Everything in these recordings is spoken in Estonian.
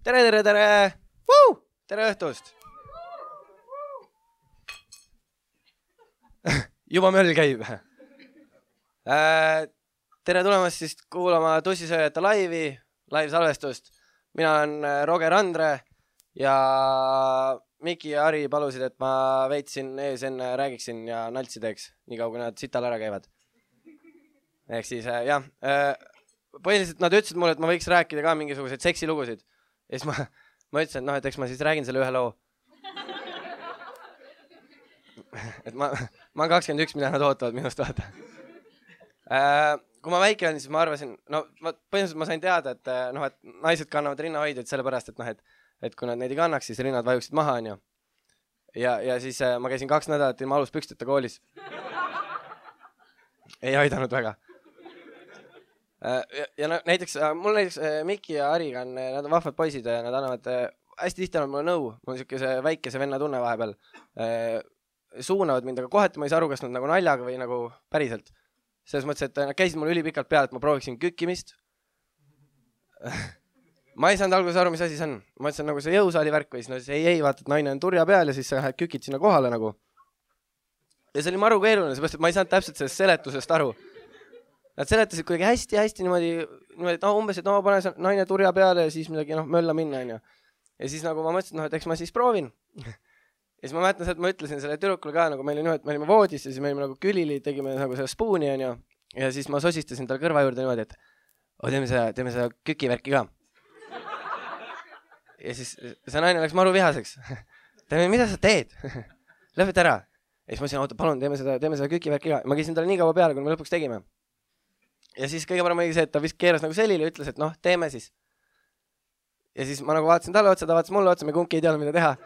Tere! Tere õhtust! Juba möll käib. Tere tulemast siis kuulama Tussisööjate live-salvestust. Mina olen Roger Andre ja Miki ja Ari palusid, et ma veitsin ees enne räägiksin ja naltsi teeks, nii kaua kui nad sital ära käivad. Ehk siis, jah. Põhiliselt nad ütlesid mulle, et ma võiks rääkida ka mingisuguseid seksilugusid. Ja siis ma ütlesin, et eks ma siis räägin selle ühe loo. Et ma olen 21, mida nad ootavad minust vaata. Kui ma väike olin, siis ma arvasin, põhimõtteliselt ma sain teada, et naised kannavad rinnahoidjaid sellepärast, et kui nad neid ei kannaks, siis rinnad vajuksid maha. Ja siis ma käisin 2 nädalat ilma aluspüksteta koolis. Ei aidanud väga. Ja näiteks Miki ja Ariga nad on vahvad poisid ja nad annavad hästi tihti annavad mulle nõu. Mul on siukese väikese venna tunne vahepeal. Suunavad mind, aga kohati ma ei saa aru, kas nad nagu naljaga või nagu päriselt. Selles mõttes, et nad käisid mulle ülipikalt peale, et ma prooviksin kükkimist. Ma ei saanud alguses aru, mis asi see on. Ma mõtlesin nagu see jõusaali värk või siis ei, vaata, et naine on turja peal ja siis sa kükid sinna kohale nagu. Ja see oli maru keeruline, seepärast, et ma ei saanud täpselt sellest seletusest aru. Nad seletasid kuidagi hästi niimoodi, et umbes, et pane naine turja peale ja siis midagi mölla minna. Ja siis nagu ma mõtlesin, et eks ma siis proovin. Ja siis ma mäletan, et ma ütlesin selle tüdrukule ka, nagu me olime voodis ja siis me olime nagu külili, tegime nagu selle spooni ja siis ma sosistasin tal kõrva juurde niimoodi, et teeme seda kükivärki ka. Ja siis see naine läks maru vihaseks. Mida sa teed? Lõpeta ära. Ja siis ma ütlesin, palun, teeme seda kükivärki ka. Ma käisin talle nii kaua peale, kui me lõpuks tegime. Ja siis kõige parem oli see, et ta vist keeras nagu selili ja ütles, et teeme siis. Ja siis ma nagu vaatasin talle otsa, ta vaatas mulle otsa, me kumbki ei teadnud, mida teha.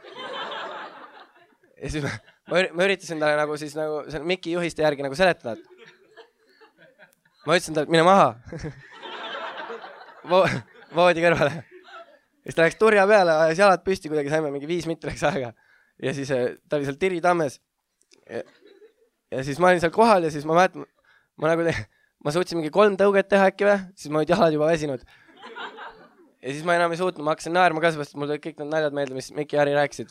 Ja siis ma üritasin talle nagu siis nagu selle Miki juhiste järgi nagu seletada. Ma ütlesin talle, et mine maha. Voodi kõrvale. Ja siis ta läks turja peale, ajas jalad püsti, kuidagi saime mingi 5 minutit läks aega. Ja siis ta oli seal Tiri tammes. Ja siis ma olin seal kohal ja siis ma mäletan, ma suutsin mingi 3 tõuget teha äkki või, siis ma olid jalad juba väsinud. Ja siis ma enam ei suutnud, ma hakkasin naerma ka, sest mul tulid kõik need naljad meelde, mis Miki ja Ari rääkisid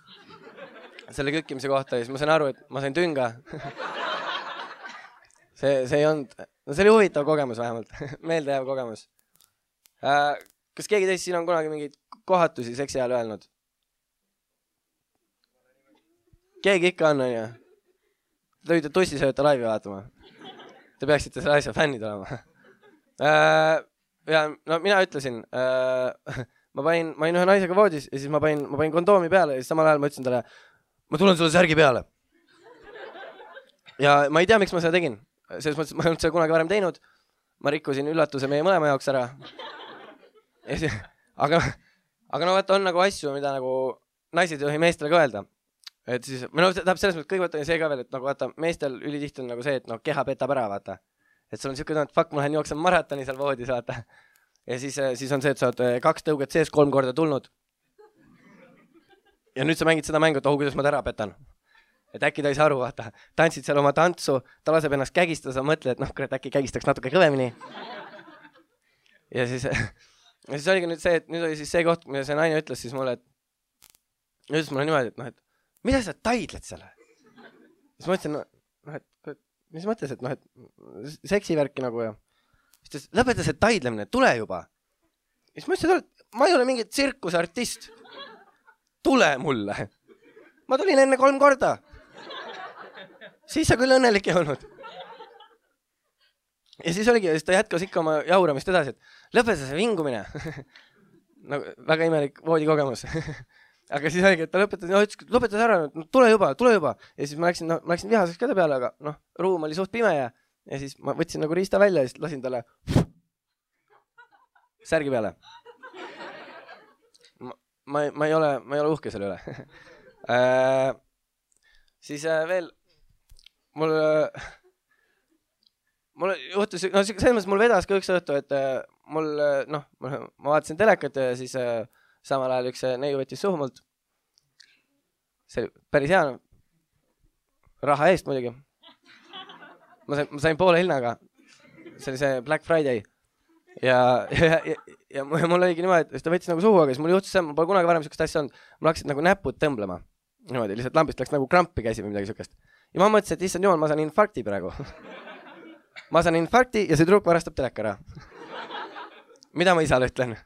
selle kükkimise kohta ja siis ma sain aru, et ma sain tünga. See ei olnud, see oli huvitav kogemus vähemalt, meeldejääv kogemus. Kas keegi teist siin on kunagi mingeid kohatusi seksi ajal öelnud? Keegi ikka on, ja? Te võite Tussisööjate laivi vaatama. Te peaksite selle asja fännid olema. Ja mina ütlesin, ma panin ühe naisega voodis ja siis ma panin kondoomi peale ja siis samal ajal ma ütlesin talle, ma tulen sulle särgi peale. Ja ma ei tea, miks ma seda tegin. Selles mõttes, ma ei olnud seda kunagi varem teinud. Ma rikkusin üllatuse meie mõlema jaoks ära. Aga vaata on nagu asju, mida nagu naised ei tohi meestele ka öelda. Et siis, tahab selles mõttes kõigepealt on see ka veel, et nagu vaata, meestel ülitihti on nagu see, et keha petab ära, vaata. Et sul on siuke tunne, et fuck, ma lähen jooksen maratoni seal voodis, vaata. Ja siis on see, et sa oled 2 tõuget sees 3 korda tulnud. Ja nüüd sa mängid seda mängu, et kuidas ma ta ära petan. Et äkki ta ei saa aru, vaata. Tantsid seal oma tantsu, ta laseb ennast kägistada, sa mõtled, et kurat, äkki kägistaks natuke kõvemini. Ja siis oligi nüüd see, et nüüd oli siis see koht, mida see naine ütles siis mulle, et ütles mulle niimoodi, et mida sa taidled selle? Siis ma ütlesin, et mis mõttes, et seksivärki nagu ja. Siis ta lõpeta see taidlemine, tule juba. Siis ma ütlesin, et ma ei ole mingi tsirkusartist. Tule mulle. Ma tulin enne 3 korda. Siis sa küll õnnelik ei olnud. Ja siis oligi, ja siis ta jätkas ikka oma jauramist edasi, et lõpeta see vingumine. Väga imelik voodikogemus. Aga siis oligi, et ta lõpetas ära, tule juba. Ja siis ma läksin vihaseks käde peale, aga ruum oli suht pime ja siis ma võtsin nagu riista välja ja siis lasin talle särgi peale. Ma ei ole uhke selle üle. Siis veel mul juhtus, selles mõttes mul vedas ka üks õhtu, et ma vaatasin telekat ja siis samal ajal üks neiu võttis suhu mult. See oli päris hea. Raha eest muidugi. Ma sain poole hinnaga. See oli see Black Friday. ja mul oligi niimoodi, et ta võttis nagu suhu, aga siis mul juhtus see, mul pole kunagi varem sellist asja olnud, mul hakkasid nagu näpud tõmblema. Niimoodi, lihtsalt lambist läks nagu krampi käsi või midagi sellist. Ja ma mõtlesin, et issand jumal, ma saan infarkti praegu. Ma saan infarkti ja see tüdruk varastab teleka ära. Mida ma isale ütlen?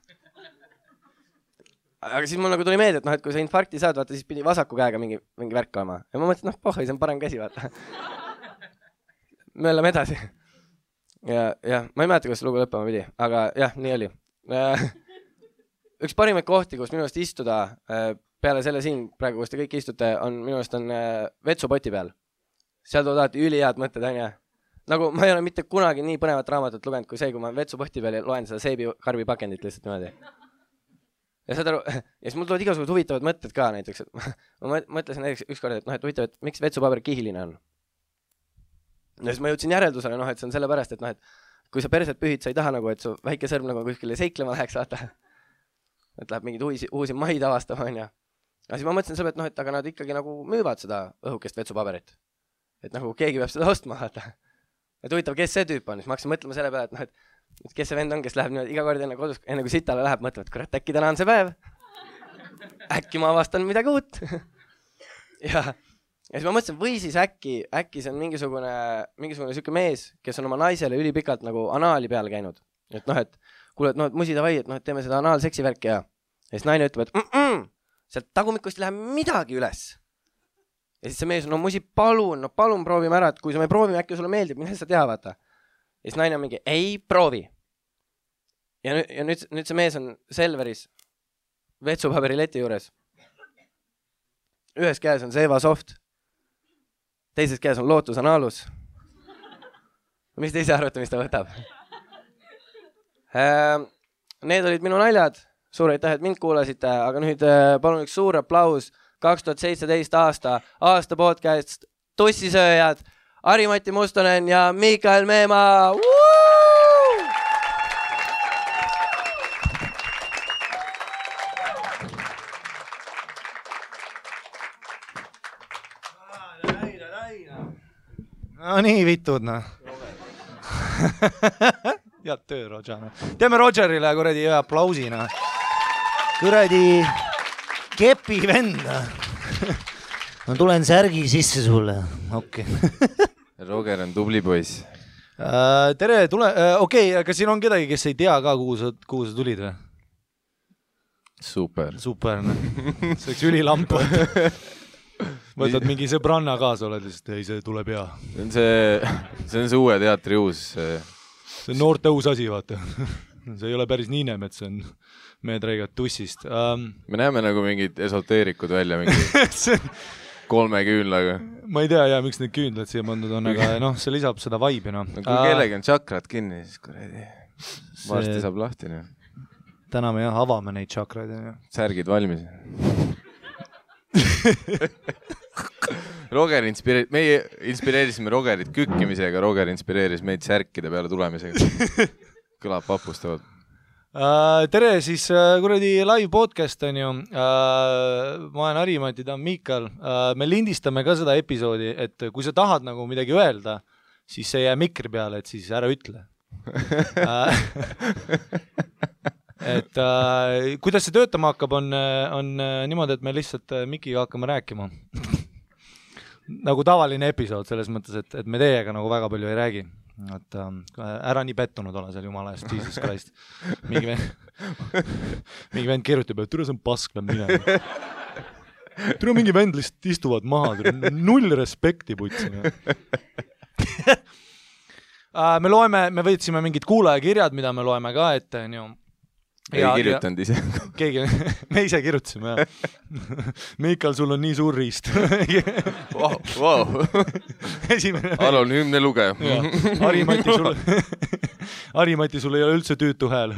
Aga siis mul nagu tuli meelde, et kui sa infarkti saad, vaata, siis pidi vasaku käega mingi värk olema. Ja ma mõtlesin, pohhoi, see on parem käsi, vaata. Me oleme edasi. Ja ma ei mäleta, kuidas lugu lõppema pidi, aga jah, nii oli. Üks parimaid kohti, kus minu eest istuda peale selle siin, praegu, kus te kõik istute, on minu eest on vetsupoti peal. Seal toodavad ülihead mõtted, on ja. Nagu ma ei ole mitte kunagi nii põnevat raamatut lugenud kui see, kui ma vetsupoti peal loen seda seebikarbi pakendit lihtsalt niimoodi. Ja siis mul tulevad igasugused huvitavad mõtted ka näiteks. Ma mõtlesin näiteks ükskord, et huvitav, et miks vetsupaber kihiline on. Ja siis ma jõudsin järeldusele, et see on sellepärast, et kui sa perset pühid, sa ei taha nagu, et su väike sõrm nagu kuskile seiklema läheks, vaata. Et läheb mingid uusi maid avastama, on ja. Ja siis ma mõtlesin selle, et aga nad ikkagi nagu müüvad seda õhukest vetsupaberit. Et nagu keegi peab seda ostma, vaata. Et huvitav, kes see tüüp on, siis ma hakkasin mõtlema selle peale, et kes see vend on, kes läheb niimoodi iga kord enne kodus, enne kui sitale läheb, mõtleb, et kurat, äkki täna on see päev. Äkki ma avastan midagi uut. Ja siis ma mõtlesin, või siis äkki see on mingisugune süke mees, kes on oma naisele ülipikalt nagu anaali peal käinud. Et kuule, et musi davai, et teeme seda anaalseksi värki ja siis naine ütleb, et sealt tagumikust ei lähe midagi üles. Ja siis see mees on, musi, palun proovime ära, et kui me proovime, äkki sulle meeldib, mine sa tea, vaata. Ja siis naine on mingi, ei proovi. Ja nüüd see mees on Selveris vetsupaberileti juures. Ühes käes on Seva Soft. Teises käes on Lootus Analus. Mis te ise arvate, mis ta võtab? Need olid minu naljad. Suur aitäh, et mind kuulasite, aga nüüd palun üks suur aplaus 2017 aasta podcast Tussisööjad, Ari-Mati Mustonen ja Mikael Meemaa. No nii vitud, Head töö, Roger. Teeme Rogerile kuradi aplausina. Kuradi kepi vend. Ma tulen särgi sisse sulle. Okei. Roger on tubli poiss. Tere, okei, aga siin on kedagi, kes ei tea ka, kuhu sa tulid või? Super. See oleks ülilamp. Võtad mingi sõbranna kaasa, oled lihtsalt, ei, see tuleb hea. See on see uue teatri uus. See on noorte uus asi, vaata. See ei ole päris Niinemet, see on meetreigat tussist. Me näeme nagu mingid esoteerikud välja, mingi 3 küünlaga. Ma ei tea, miks need küünlad siia pandud on, aga see lisab seda vibe'i. Kui kellegi on tšakrad kinni, siis kuradi varsti saab lahti. Täna me avame neid tšakraid. Särgid valmis. Meie inspireerisime Rogerit kükkimisega, Roger inspireeris meid särkide peale tulemisega. Kõlab papustavalt. Tere, siis kuradi live podcast on ju. Ma olen Ari-Mati, ta on Mikael. Me lindistame ka seda episoodi, et kui sa tahad nagu midagi öelda, siis see jää mikri peale, et siis ära ütle. Et kuidas see töötama hakkab, on niimoodi, et me lihtsalt mikiga hakkame rääkima. Nagu tavaline episood selles mõttes, et me teiega nagu väga palju ei räägi. Et, ära nii pettunud ole seal jumala eest, Jesus Christ. Mingi vend kirjutab, et türa see on pask, läb minema. Türa mingi vend lihtsalt istuvad maha, null respekti putsime. Me võtsime mingid kuulajakirjad, mida me loeme ka ette, ei kirjutanud ise. Me ise kirjutasime, jah. Mikael, sul on nii suur riist. Wow. Anonüümne lugeja. Ari-Mati, sul ei ole üldse tüütu hääl.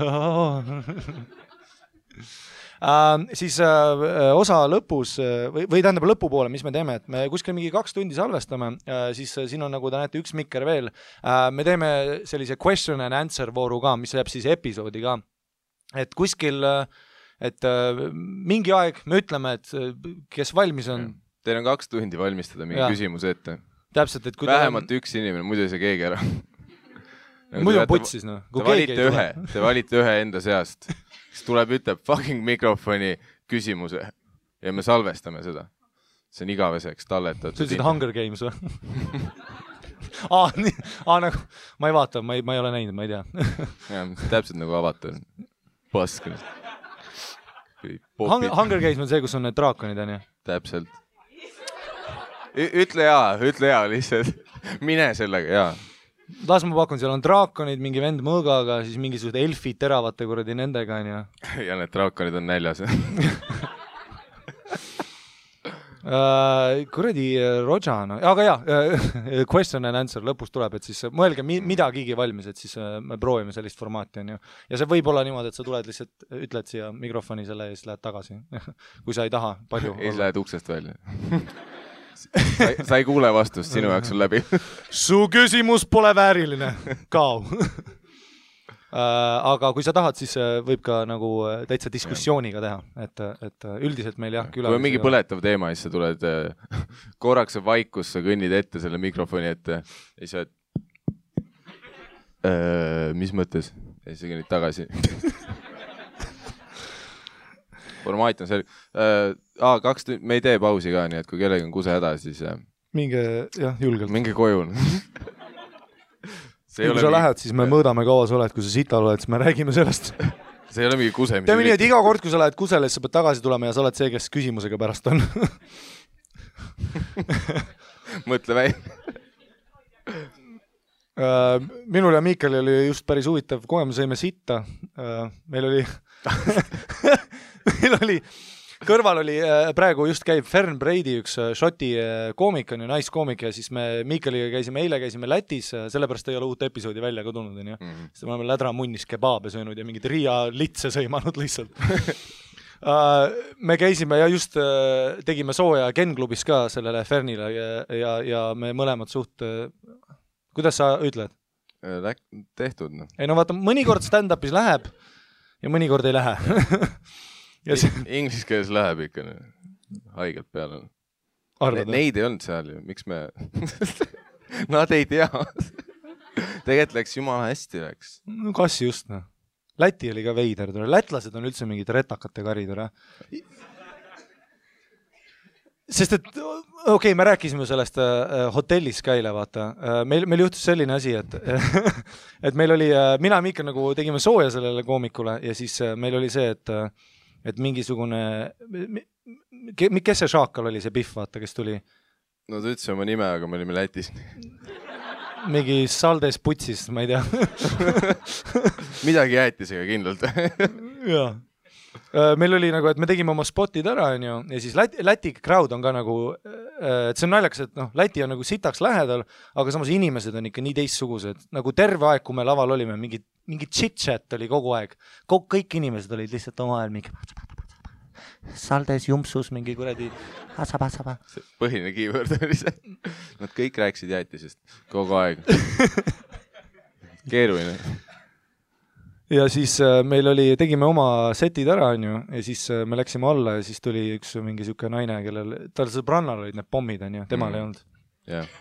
Siis osa lõpus, või tähendab lõpupoole, mis me teeme, et me kuskil mingi 2 tundi salvestame, siis siin on, nagu te näete, üks mikker veel. Me teeme sellise question and answer vooru ka, mis jääb siis episoodi ka. Et kuskil, et mingi aeg me ütleme, et kes valmis on. Teil on 2 tundi valmistada mingi küsimuse ette. Täpselt, et kui vähemalt üks inimene, muidu ei saa keegi ära. muidu on putsis, noh. Te valite ühe enda seast, kes tuleb, ütleb fucking mikrofoni küsimuse ja me salvestame seda. See on igaveseks talletatud. See ütlesid Hunger Games või? Nagu, ma ei vaata, ma ei ole näinud, ma ei tea. Ja, täpselt nagu avatud. Pask. Hunger Games on see, kus on need draakonid, on ju? Täpselt. Ütle jaa lihtsalt. Mine sellega, jaa. Las ma pakun, seal on draakonid, mingi vend mõõgaga, siis mingisugused elfid teravate kuradi nendega, on ju. Ja need draakonid on näljas. Kuradi Roja, no. Aga jaa, question and answer lõpus tuleb, et siis mõelge midagigi valmis, et siis me proovime sellist formaati, on ju. Ja see võib olla niimoodi, et sa tuled lihtsalt, ütled siia mikrofoni selle ja siis lähed tagasi. Kui sa ei taha palju. Ei lähed uksest välja. Sa ei kuule vastust, sinu jaoks on läbi. Su küsimus pole vääriline. Kao. Aga kui sa tahad, siis võib ka nagu täitsa diskussiooniga teha, et üldiselt meil jah küla. Kui on mingi põletav teema, siis sa tuled korraks vaikus, sa kõnnid ette selle mikrofoni ette ja siis mis mõttes? Ja siis sa kõnnid tagasi. Formaat on selge. 2 tundi, me ei tee pausi ka, nii et kui kellegi on kuse häda, siis minge, jah, julgelt. Minge koju. Kui sa lähed, siis me mõõdame kaua sa oled, kui sa sital oled, siis me räägime sellest. See ei ole mingi kuse. Teeme nii, et iga kord, kui sa lähed kusele, siis sa pead tagasi tulema ja sa oled see, kes küsimusega pärast on. Mõtle väi. Minul ja Miikali oli just päris huvitav kogemus, sõime sitta. Meil oli kõrval oli, praegu just käib Fern Brady, üks šoti koomik on ju, naiskoomik ja siis me Miikaliga eile käisime Lätis, sellepärast ei ole uut episoodi välja ka tulnud, on ju. Siis me oleme lädramunnis kebaabe söönud ja mingid Riia litse sõimanud lihtsalt. Me käisime ja just tegime sooja Ken-klubis ka sellele Fernile ja me mõlemad suht, kuidas sa ütled? Tehtud, no. Ei no vaata, mõnikord stand-upis läheb ja mõnikord ei lähe. Inglis keeles läheb ikka haigelt peale. Neid ei olnud seal ju, miks me... Nad ei tea. Tegelikult läks jumala hästi läks. No kas just, no. Läti oli ka veider. Lätlased on üldse mingid retakate karid. Sest et, okei, me rääkisime sellest hotellis käile, vaata. Meil juhtus selline asi, et meil oli, mina ja Miika nagu tegime sooja sellele koomikule ja siis meil oli see, et mingisugune, kes see šaakal oli, see Pihv, vaata, kes tuli? No ta ütles oma nime, aga me olime Lätis. Mingi Saldes putsis, ma ei tea. Midagi jäätisega kindlalt. Jaa. Meil oli nagu, et me tegime oma spotid ära, on ju, ja siis Läti crowd on ka nagu, et see on naljakas, et Läti on nagu sitaks lähedal, aga samas inimesed on ikka nii teistsugused. Nagu terve aeg, kui me laval olime, mingi chit-chat oli kogu aeg. Kõik inimesed olid lihtsalt oma ajal mingi Saldes, jumpsus, mingi kuradi saba. Põhiline keyword oli see. Nad kõik rääkisid jäätisest kogu aeg. Keeruline. Ja siis meil tegime oma setid ära, on ju, ja siis me läksime alla ja siis tuli üks mingi siuke naine, kellel, tal sõbrannal olid need pommid, on ju, temal ei olnud. Yeah.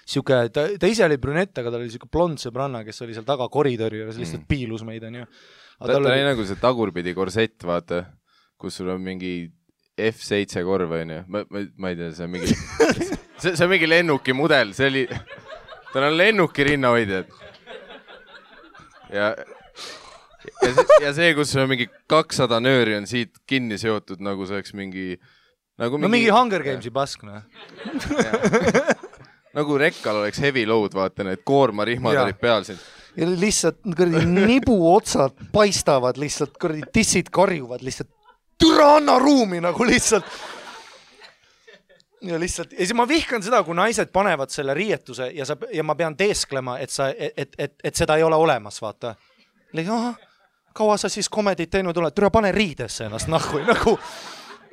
Siuke, ta ise oli brünett, aga tal oli siuke blond sõbranna, kes oli seal taga koridori ja lihtsalt piilus meid, on ju. Ta oli nagu see tagurpidi korsett, vaata, kus sul on mingi F7 korv, on ju. Ma ei tea, see on mingi see on mingi lennuki mudel, see oli, tal on lennuki rinnahoidjad. Ja see, kus on mingi 200 nööri on siit kinni seotud, nagu see oleks mingi... Nagu mingi Hunger Gamesi pask, no. Nagu rekkal oleks heavy load, vaata, need koormarihmad olid peal siin. Ja lihtsalt nibu otsad paistavad, lihtsalt tissid karjuvad, lihtsalt türa anna ruumi nagu lihtsalt. Ja siis ma vihkan seda, kui naised panevad selle riietuse ja ma pean teesklema, et seda ei ole olemas, vaata. Kaua sa siis komedit teinud oled? Türa pane riidesse ennast nahku. Nagu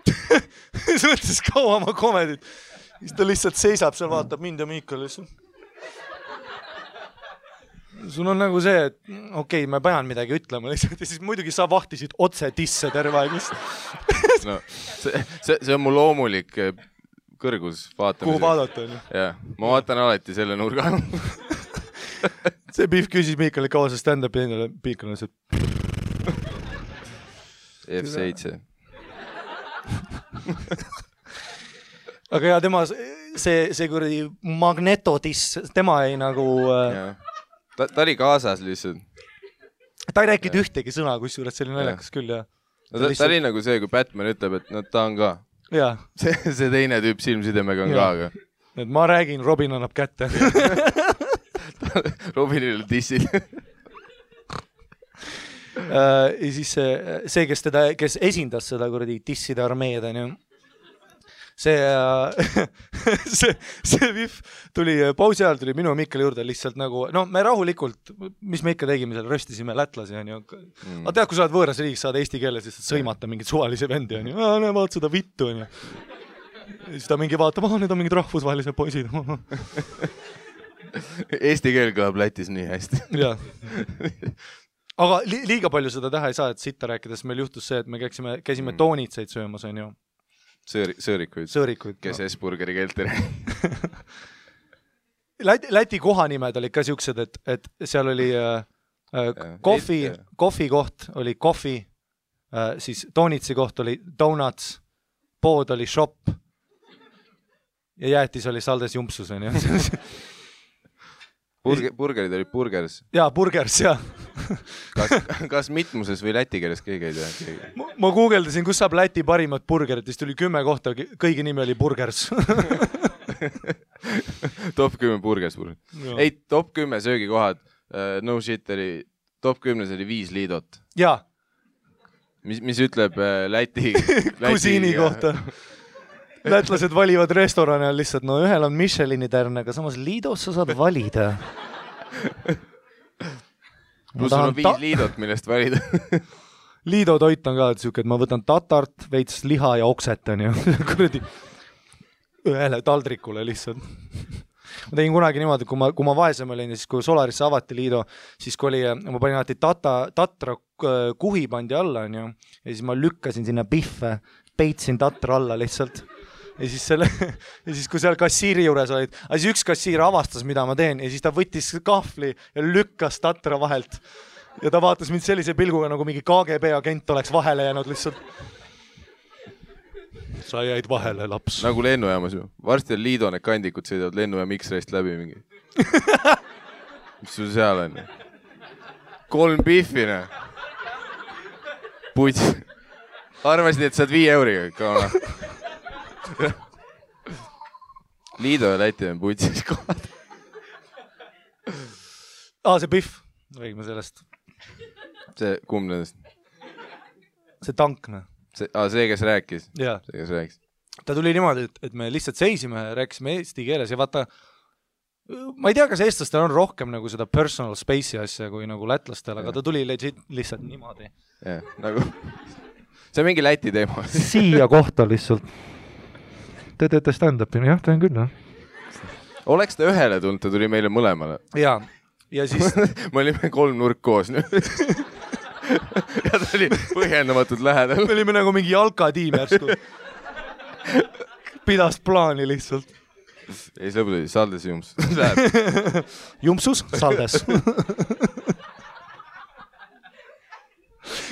siis mõtles kaua ma komedit. Siis ta lihtsalt seisab seal, vaatab mind ja Miikal lihtsalt. Sul on nagu see, et okei, ma pean midagi ütlema lihtsalt ja siis muidugi sa vahtisid otse tisse terve aeg lihtsalt. No, see on mu loomulik kõrgus vaatamisel. Kuhu vaadata, on ju? Jah, ma vaatan alati selle nurga. see Pihv küsis Miikali kaua see stand-up ja endale Miikal on see F7. aga ja tema see kuradi magnetotis, tema ei nagu Ta oli kaasas lihtsalt. Ta ei rääkinud ühtegi sõna, kusjuures see oli naljakas küll ja ta oli nagu see, kui Batman ütleb, et no ta on ka. Ja. See teine tüüp silmsidemega on ka, aga. Et ma räägin, Robin annab kätte. Robinil dissid. Ja siis see, kes esindas seda kuradi disside armeed, on ju. See Pihv tuli pausi ajal, tuli minu ja Mikkeli juurde lihtsalt nagu, no me rahulikult, mis me ikka tegime seal, röstisime lätlasi, on ju. Aga tead, kui sa oled võõras riigis, saad eesti keeles lihtsalt sõimata mingit suvalise vendi, on ju. Vaat seda vittu, on ju. Siis ta mingi vaatab, need on mingid rahvusvahelised poisid. Eesti keel kõlab Lätis nii hästi. Jaa. Aga liiga palju seda teha ei saa, et sitta rääkides meil juhtus see, et me käisime toonitseid söömas, on ju. Sõõrikuid, kes S-burgeri keelt ei räägi. Läti kohanimed olid ka siuksed, et seal oli kohvi koht oli kohvi, siis toonitsi koht oli donuts, pood oli shop ja jäätis oli saldes jumpsus, on ju. Burgerid olid burgers. Jaa, burgers, jah. Kas mitmuses või läti keeles keegi ei tea? Ma guugeldasin, kus saab Läti parimat burgerit, siis tuli 10 kohta, kõigi nimi oli burgers. Top 10 burgers. Ei, top 10 söögikohad, no shit oli, top 10 oli 5 liidot. Jaa. Mis ütleb Läti kusiini kohta. Lätlased valivad restorane lihtsalt, no ühel on Michelini tärn, aga samas Liidos sa saad valida. Plus on 5 liidot, millest valida. Liido toit on ka siuke, et ma võtan tatart, veits liha ja okset, on ju. Kuradi ühele taldrikule lihtsalt. Ma tegin kunagi niimoodi, kui ma vaesem olin ja siis kui Solarisse avati Liido, siis kui oli, ma panin alati tatra kuhi pandi alla, on ju, ja siis ma lükkasin sinna Pihve, peitsin tatra alla lihtsalt. Ja siis kui seal kassiiri juures olid, siis üks kassiir avastas, mida ma teen ja siis ta võttis kahvli ja lükkas tatra vahelt. Ja ta vaatas mind sellise pilguga, nagu mingi KGB agent oleks vahele jäänud lihtsalt. Sa jäid vahele, laps. Nagu lennujaamas ju. Varsti on Liido need kandikud sõidavad lennujaam X-rayst läbi mingi. Mis sul seal on? 3 Pihvine. Puts. Arvasid, et saad 5 euriga. Kauna. Liido ja Läti on putsis kohad. See Pihv. Räägime sellest. See kumb nendest? See tankne. See, kes rääkis? Jaa. See, kes rääkis. Ta tuli niimoodi, et me lihtsalt seisime ja rääkisime eesti keeles ja vaata, ma ei tea, kas eestlastel on rohkem nagu seda personal space'i asja kui nagu lätlastel, aga ta tuli lihtsalt niimoodi. Jah, nagu see on mingi Läti teema. Siia kohta lihtsalt. Te teete stand-upini, jah, teen küll, jah. Oleks ta ühele tulnud, ta tuli meile mõlemale. Jaa, ja siis me olime 3 nurk koos nüüd. Ja ta oli põhjendamatult lähedal. Me olime nagu mingi jalkatiim järsku. Pidas plaani lihtsalt. Ei, see lõpuks oli saldes jumps. Jumpsus, saldes.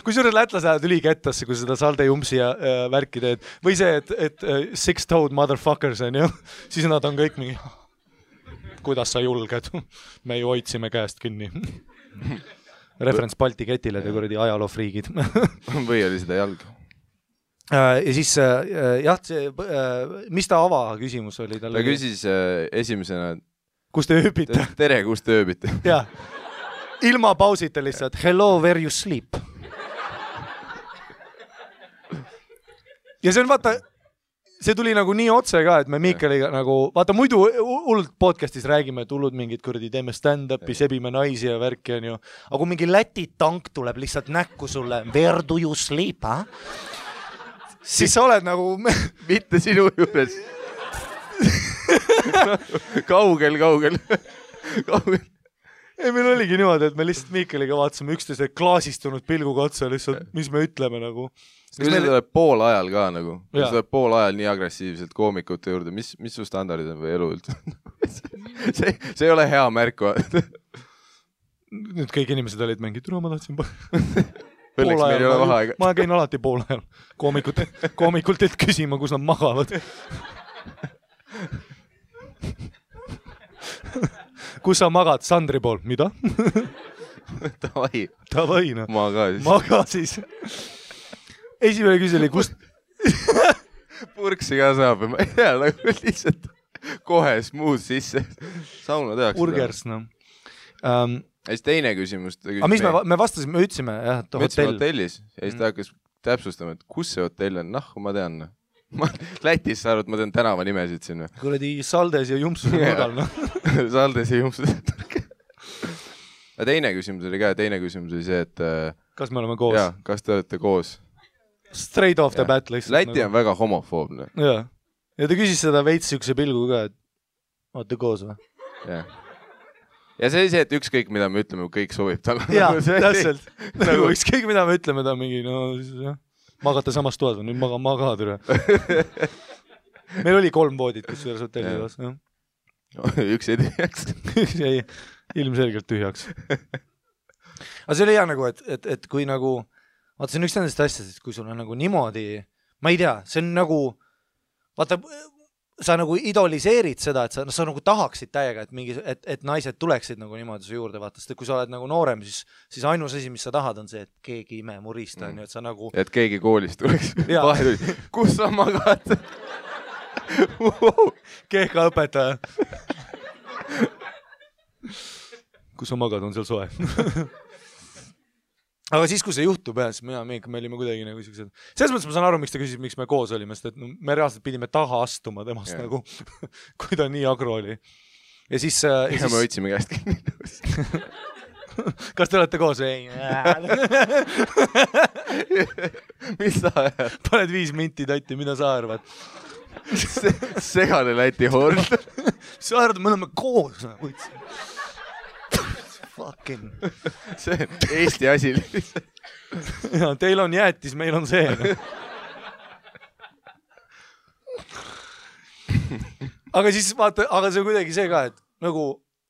Kui suures lätlas ajad ülikettasse, kui seda salde jumpsi ja värki teed. Või see, et six-toed motherfuckers on ju. Siis nad on kõik mingi, kuidas sa julged? Me ju hoidsime käest kinni. Referents Balti ketile, te kuradi ajaloofriigid. Või oli seda jalg? Ja siis, jah, mis ta ava küsimus oli? Ta küsis esimesena, kus te ööbite? Tere, kus te ööbite? Jah, ilma pausita lihtsalt, hello, where you sleep? Ja see on, vaata, see tuli nagu nii otse ka, et me Miikaliga nagu, vaata, muidu hullult podcastis räägime, et hullud mingid kuradi, teeme stand-upi, sebime naisi ja värki on ju. Aga kui mingi Läti tank tuleb lihtsalt näkku sulle, where do you sleep, ha? Siis sa oled nagu... Mitte sinu juures. Kaugel. Ei, meil oligi niimoodi, et me lihtsalt Miikaliga vaatasime üksteise klaasistunud pilguga otsa lihtsalt, mis me ütleme nagu. Kui see tuleb pool ajal ka nagu, kui see tuleb pool ajal nii agressiivselt koomikute juurde, mis su standardid on või elu üldse? See ei ole hea märk. nüüd kõik inimesed olid mingi, tule ma tahtsin Õnneks meil ei ole vaheaega. Ma käin alati pool ajal koomikult et küsima, kus nad magavad. Kus sa magad? Sandri pool. Mida? Tavai, no. Maga siis. Esimene küsili, kust... Purksi ka saab. Ma ei tea, nagu lihtsalt kohe smuud sisse. Sauna tehakse. Burgers, no. Ja siis teine küsimus. Mis me vastasime, me ütlesime, jah, et hotell. Hotellis. Ja siis ta hakkas täpsustama, et kus see hotell on. Ma tean. Lätis sa arvad, ma tean tänava nimesid sinna. Kuradi Saldes ja Jumpsus nurgal, no. Saldes ja Jumpsus. Ja teine küsimus oli ka. Teine küsimus oli see, et... Kas me oleme koos? Jaa, kas te olete koos? Straight off the bat lihtsalt. Läti on väga homofoobne. Jaa. Ja ta küsis seda veits sükse pilgu ka, et olete koos või? Jah. Ja see oli see, et ükskõik mida me ütleme, kõik sobib talle. Jaa, täpselt. Nagu ükskõik mida me ütleme, ta mingi, no jah, magate samas toas või, nüüd maga türa. Meil oli 3 voodit, kus selles hotelli toas. Üks jäi tühjaks. Üks jäi ilmselgelt tühjaks. Aga see oli hea nagu, et kui nagu, vaata, see on üks nendest asjadest, kui sul on nagu niimoodi, ma ei tea, see on nagu, vaata, sa nagu idoliseerid seda, et sa nagu tahaksid täiega, et naised tuleksid nagu niimoodi su juurde, vaata, sest kui sa oled nagu noorem, siis ainus asi, mis sa tahad, on see, et keegi ime murista, et sa nagu... Et keegi koolist tuleks. Kus sa magad? Kehka õpetaja. Kus sa magad, on seal soe. Aga siis, kui see juhtub, siis me olime kuidagi nagu siuksed. Selles mõttes ma saan aru, miks ta küsis, miks me koos olime, sest et me reaalselt pidime taha astuma temast nagu, kui ta nii agro oli. Ja siis... Ja me võtsime käest. Kas te olete koos? Ei. Mis sa ajad? Paned 5 minti tatti, mida sa arvad? Segane Läti hord. Sa arvad, me oleme koos. Fucking. See on Eesti asi. Ja, teil on jäätis, meil on see. Aga siis vaata, aga see on kuidagi see ka, et nagu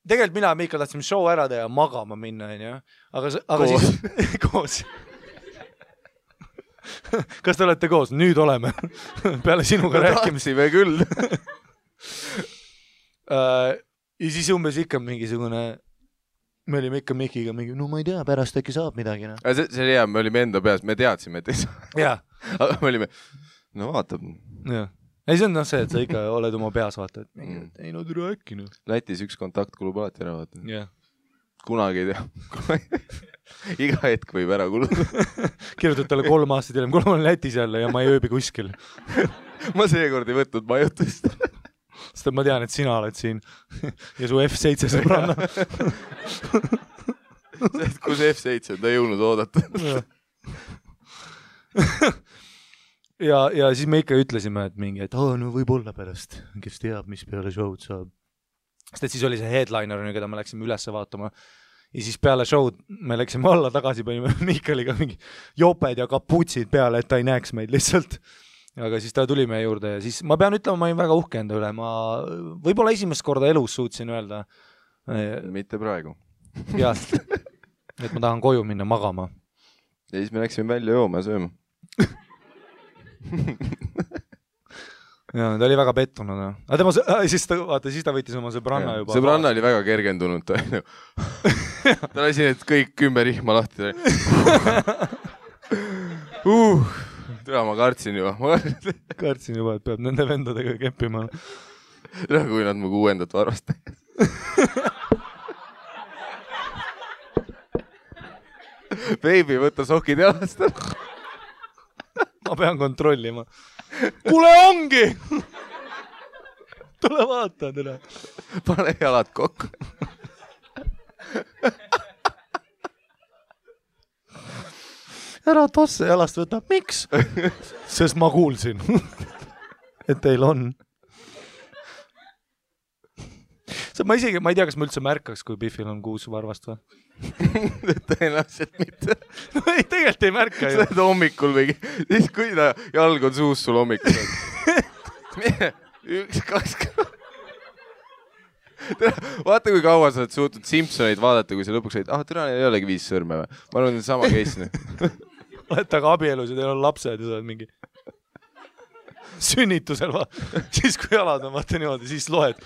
tegelikult mina ja Miikal tahtsime show ära teha ja magama minna, ja? Aga koos. Siis koos. Kas te olete koos? Nüüd oleme. Peale sinuga rääkimisi. Tahtsime küll. Ja siis umbes ikka mingisugune... Me olime ikka Mikiga mingi, no ma ei tea, pärast äkki saab midagi. No. See oli hea, me olime enda peas, me teadsime, et ei saa. Jaa. Aga me olime, no vaatab. Jaa. Ei, see on see, et sa ikka oled oma peas, vaata, et ei no türa äkki. No. Lätis üks kontakt kulub alati ära, vaata. Jaa. Kunagi ei tea. Iga hetk võib ära kuluda. Kirjutad talle 3 aastat hiljem, kui ma olen Lätis jälle ja ma ei ööbi kuskil. Ma seekord ei võtnud majutust. Sest ma tean, et sina oled siin ja su F7 sõbranna. Kus F7 ta ei jõudnud oodata. Ja siis me ikka ütlesime, et mingi, et no võib olla pärast, kes teab, mis peale show'd saab. Sest et siis oli see headliner, keda me läksime üles vaatama. Ja siis peale show'd me läksime alla tagasi, panime Miikaliga mingi joped ja kaputsid peale, et ta ei näeks meid lihtsalt. Aga siis ta tuli meie juurde ja siis ma pean ütlema, ma olin väga uhke enda üle. Ma võib-olla esimest korda elus suutsin öelda. Mitte praegu. Jah, et ma tahan koju minna magama. Ja siis me läksime välja jooma ja sööma. Ja, ta oli väga pettunud. Aga tema, siis ta võttis oma sõbranna juba. Sõbranna oli väga kergendunud. Ta lasi need kõik 10 rihma lahti. Ma kartsin juba. Kartsin juba, et peab nende vendadega keppima. Kui nad mu 6. varvast. Baby, võtta sokid jalast. Ma pean kontrollima. Kule ongi! Tule vaata, tule. Pane jalad kokku. Ära tosse jalast võtab. Miks? Sest ma kuulsin, et teil on. Ma ei tea, kas ma üldse märkaks, kui Biffil on 6 varvast või? Tõenäoliselt mitte. No ei, tegelikult ei märka ju. Sa oled hommikul või? Siis kui ta jalg on suus sul hommikul. 1, 2, Vaata, kui kaua sa oled suutnud Simpsoneid vaadata, kui sa lõpuks olid, türa, neil ei olegi 5 sõrme või? Ma arvan, et sama case. Olete aga abielus ja teil on lapsed ja sa oled mingi sünnitusel siis kui jalad on, vaata niimoodi, siis loed.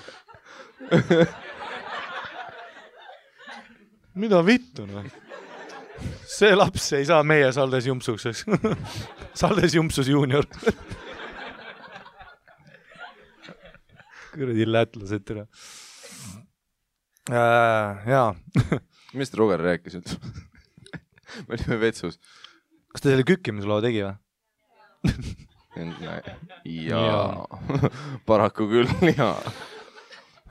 Mida vittu, no? See laps ei saa meie Saldes Jumpsuks, eks? Saldes Jumpsus juunior. Kõrdi lätlased türa. Jaa. Mis Roger rääkis? Me olime vetsus. Kas ta selle kükkimusloo tegi või? Jaa. Paraku küll, jaa.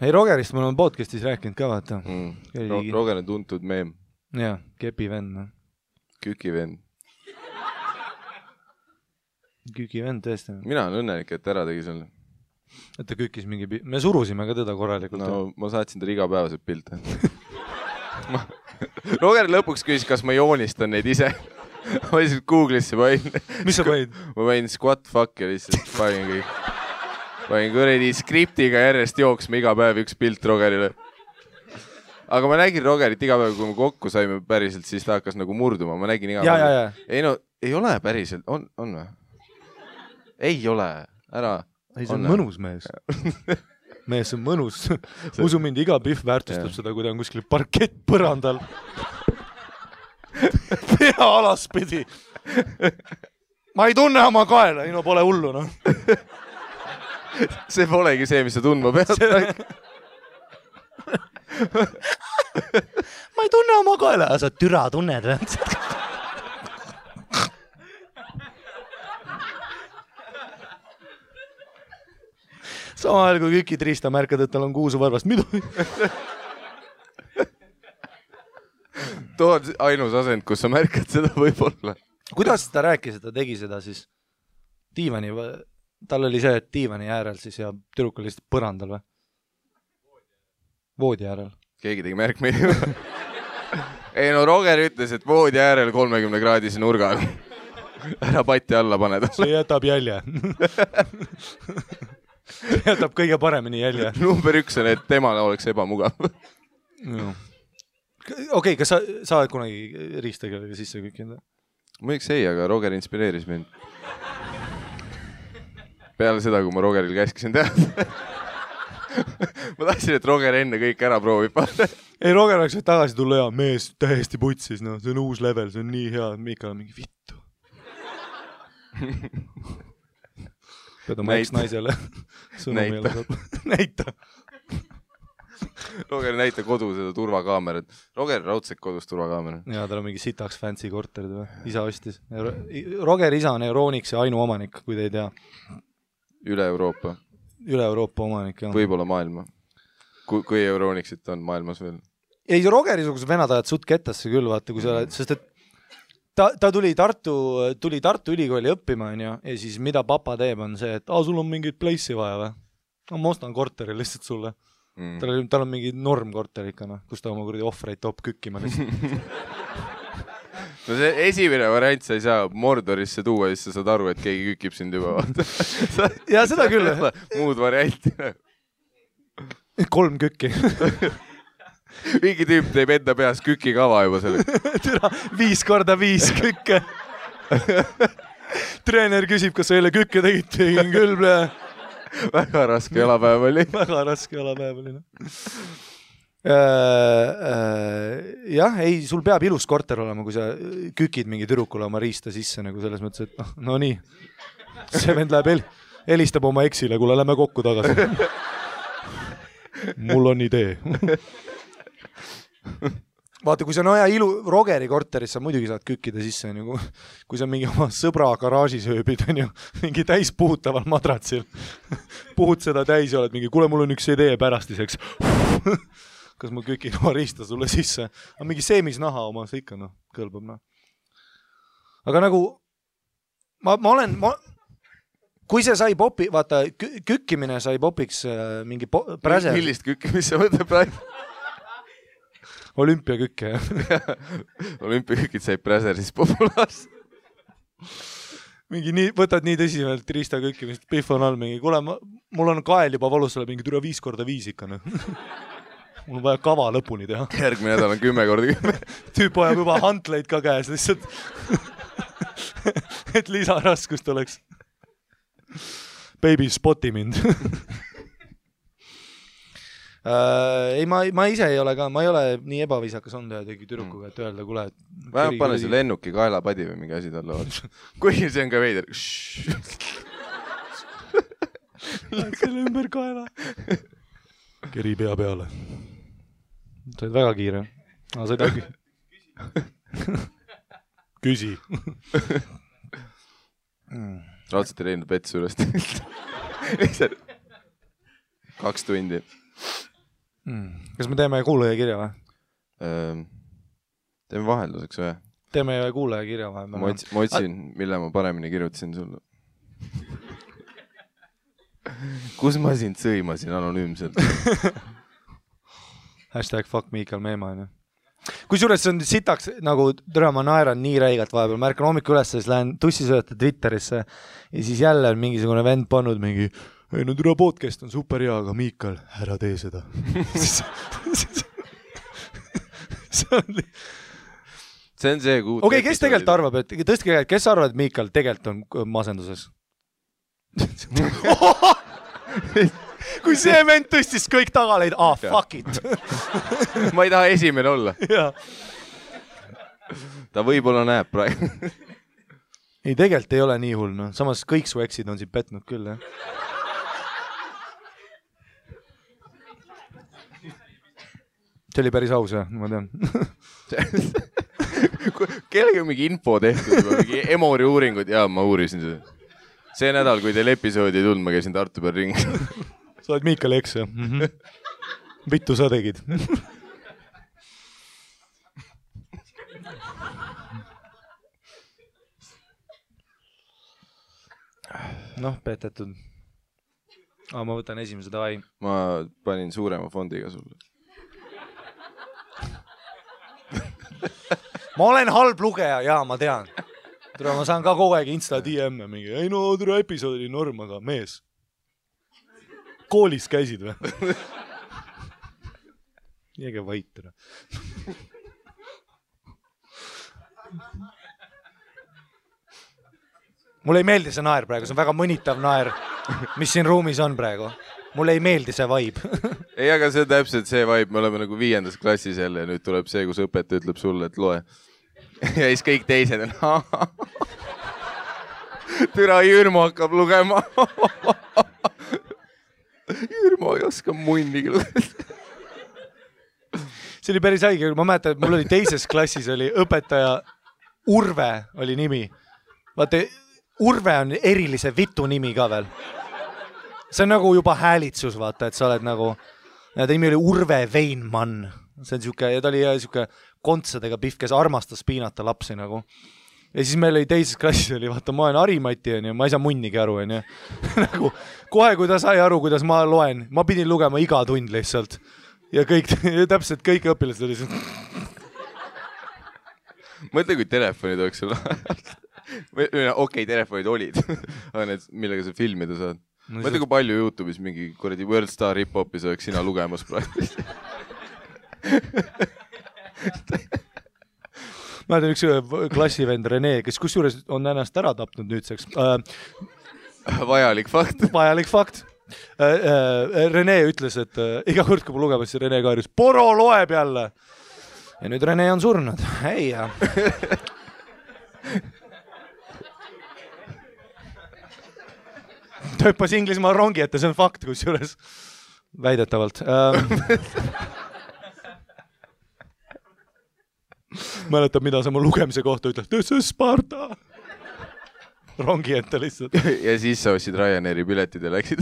Ei, Rogerist me oleme podcastis rääkinud ka, vaata. Roger on tuntud meem. Jaa, kepi vend. No. Küki vend. Küki vend, tõesti. Mina olen õnnelik, et ära tegi selle. Et ta kükkis mingi... Me surusime ka teda korralikult. No, ma saatsin ta igapäevaselt pilte. Roger lõpuks küsis, kas ma joonistan neid ise. Ma lihtsalt Google'isse panin. Mis sa panin? Ma panin squat fuck ja lihtsalt panin kõik. Panin kõredi skriptiga järjest jooksma iga päev üks pilt Rogerile. Aga ma nägin Rogerit iga päev, kui me kokku saime päriselt, siis ta hakkas nagu murduma. Ma nägin iga päev. Ja. Ei no, ei ole päriselt. On või? Ei ole. Ära. Ei, see on mõnus mees. Mees on mõnus. Usu mind, iga pihv väärtustab seda, kui ta on kuskil parkett põrandal. Pea alaspidi. Ma ei tunne oma kaela, ei no pole hullu, no. See polegi see, mis sa tundma pead. Ma ei tunne oma kaela. Sa türa tunned või? Sama ajal, kui Küki Triista märkad, et tal on kuusu varvast. Mida? Too on ainus asend, kus sa märkad seda võib-olla. Kuidas ta rääkis, et ta tegi seda siis diivani? Tal oli see, et diivani äärel siis ja tüdruk oli lihtsalt põrandal või? Voodi äärel. Keegi tegi märkmeid. Ei no Roger ütles, et voodi äärel 30-kraadise nurga. Ära patti alla paneda. See jätab jälje. Jätab kõige paremini jälje. Number 1 on, et temale oleks ebamugav. Okei, kas sa oled kunagi riistegelega sisse kükinud? Muiduks ei, aga Roger inspireeris mind. Peale seda, kui ma Rogeril käskisin teha. Ma tahtsin, et Roger enne kõik ära proovib. Ei, Roger oleks võid tagasi tulla ja mees täiesti putsis, no see on uus level, see on nii hea, Mikal on mingi vittu. Pead oma eks-naisele Näita. Roger näita kodu seda turvakaamerat. Roger raudselt kodus turvakaamera. Jaa, tal on mingi sitaks fancy korterid või? Isa ostis. Roger isa on Euronixi ainuomanik, kui te ei tea. Üle Euroopa omanik, jah. Võib-olla maailma. Kui Euronixit on maailmas veel. Ei, Rogeri-sugused venad ajad suht kettasse küll, vaata, kui sa oled, sest et ta tuli Tartu ülikooli õppima, ja siis mida papa teeb on see, et sul on mingit place'i vaja või? No, ma ostan korteri lihtsalt sulle. Tal on mingi normkorter ikka, kus ta oma kuradi ohvreid toob kükkima lihtsalt. No see esimene variant sa ei saa Mordorisse tuua, siis sa saad aru, et keegi kükib sind juba. Ja seda küll. Muud varianti. 3 kükki. Mingi tüüp teeb enda peas kükikava juba selle. 5x5 kükke. Treener küsib, kas sa eile kükke tegid? Tegin küll. Väga raske jalapäev oli. Jah, ei, sul peab ilus korter olema, kui sa kükid mingi tüdrukule oma riista sisse, nagu selles mõttes, et no nii. See vend läheb helistab oma eksile, kuule, lähme kokku tagasi. Mul on idee. Vaata, kui sa on aja Rogeri korteris, sa muidugi saad kükkida sisse, kui sa mingi oma sõbra garaažis ööbid, mingi täis puhutaval madratsil. Puhud seda täis ja oled mingi, kuule, mul on üks idee pärastiseks. Kas ma kükin oma riista sulle sisse? Aga mingi seemisnaha oma, see ikka kõlbab. Aga nagu, kui see sai popi, vaata, kükkimine sai popiks mingi präser. Millist kükkimist sa mõtled praegu? Olümpiakükke, jah. Olümpiakükid sai präseris populaarselt. Võtad nii tõsiselt riista kükkimist, pihv on all mingi, kuule, mul on kael juba valus, sulle mingi türa 5x5 ikka. mul on vaja kava lõpuni teha. Järgmine nädal on 10 korda 10. Tüüp ajab juba hantleid ka käes lihtsalt. Et lisaraskust oleks. Baby, spoti mind. Ei, ma ise ei ole ka, ma ei ole nii ebaviisakas olnud tegi tüdrukuga, et öelda, kuule, et vähemalt pane see lennuki kaelapadi või mingi asi talle. Kuigi see on ka veider. Lähed selle ümber kaela. Keri pea peale. Said väga kiire. Said äkki. Küsi. Raudselt ei leidnud vett suurest. 2 tundi. Kas me teeme kuulaja kirja või? Teeme vahelduseks või? Teeme kuulaja kirja või? Ma otsin, mille ma paremini kirjutasin sulle. Kus ma sind sõimasin anonüümselt? #fuck Miikal Meema. Kusjuures see on sitaks, nagu türa ma naeran nii räigalt vahepeal. Ma ärkan hommikul üles, siis lähen tussisööta Twitterisse ja siis jälle on mingisugune vend pannud mingi ei, no türa podcast on super hea, aga Miikal, ära tee seda. See on see kuud. Okei, kes tegelikult arvab, et tõstke käed, kes arvab, et Miikal tegelikult on masenduses? Kui see vend tõstis kõik tagaleid, fuck it. Ma ei taha esimene olla. Ta võib-olla näeb praegu. Ei, tegelikult ei ole nii hull, no. Samas kõik su eksid on siin petnud küll, jah. See oli päris aus, jah, ma tean. Kellega mingi info tehtud, mingi Emori uuringud, jaa, ma uurisin seda. See nädal, kui teil episoodi ei tulnud, ma käisin Tartu peal ringi. Sa oled Miikal eks, jah? Vittu sa tegid. Noh, petetud. Ma võtan esimese davai. Ma panin suurema fondiga sulle. Ma olen halb lugeja, jaa, ma tean. Ma saan ka kogu aeg Insta DM-e mingi. Ei no, türa episood oli norm, aga mees. Koolis käisid või? Jääge vait. Mulle ei meeldi see naer praegu, see on väga mõnitav naer, mis siin ruumis on praegu. Mulle ei meeldi see vibe. Ei, aga see on täpselt see vibe, me oleme nagu 5. klassis jälle ja nüüd tuleb see, kus õpetaja ütleb sulle, et loe. Ja siis kõik teised on türa Jürmo hakkab lugema. Jürmo ei oska munnigi lugeda. See oli päris haige, ma mäletan, et mul oli 2. klassis oli õpetaja Urve oli nimi. Vaata, Urve on erilise vitu nimi ka veel. See on nagu juba häälitsus, vaata, et sa oled nagu, ja ta nimi oli Urve Veinmann. See on siuke, ja ta oli siuke kontsadega pihv, kes armastas piinata lapsi nagu. Ja siis meil oli 2. klassis oli, vaata, ma olen Harimati, ma ei saa munnigi aru, nagu, kohe, kui ta sai aru, kuidas ma loen, ma pidin lugema iga tund lihtsalt. Ja kõik, täpselt kõik õpilased oli see. Mõtle, kui telefonid oleks sul. Okei, telefonid olid, aga need, millega sa filmida saad. Mõtle, kui palju YouTube'is mingi kuradi World Star Hip-Hopis oleks sina lugemas praegu. Ma tean üks klassivend Rene, kes kusjuures on ennast ära tapnud nüüdseks. Vajalik fakt. Vajalik fakt. Rene ütles, et iga kord, kui ma lugemas, siis Rene kaeris, Poro loeb jälle. Ja nüüd Rene on surnud. Ei, jah. Ta hüppas Inglismaa rongi ette, see on fakt, kusjuures väidetavalt. Mäletab, mida sa mu lugemise kohta ütled. See on Sparta. Rongi ette lihtsalt. Ja siis sa ostsid Ryanairi piletid ja läksid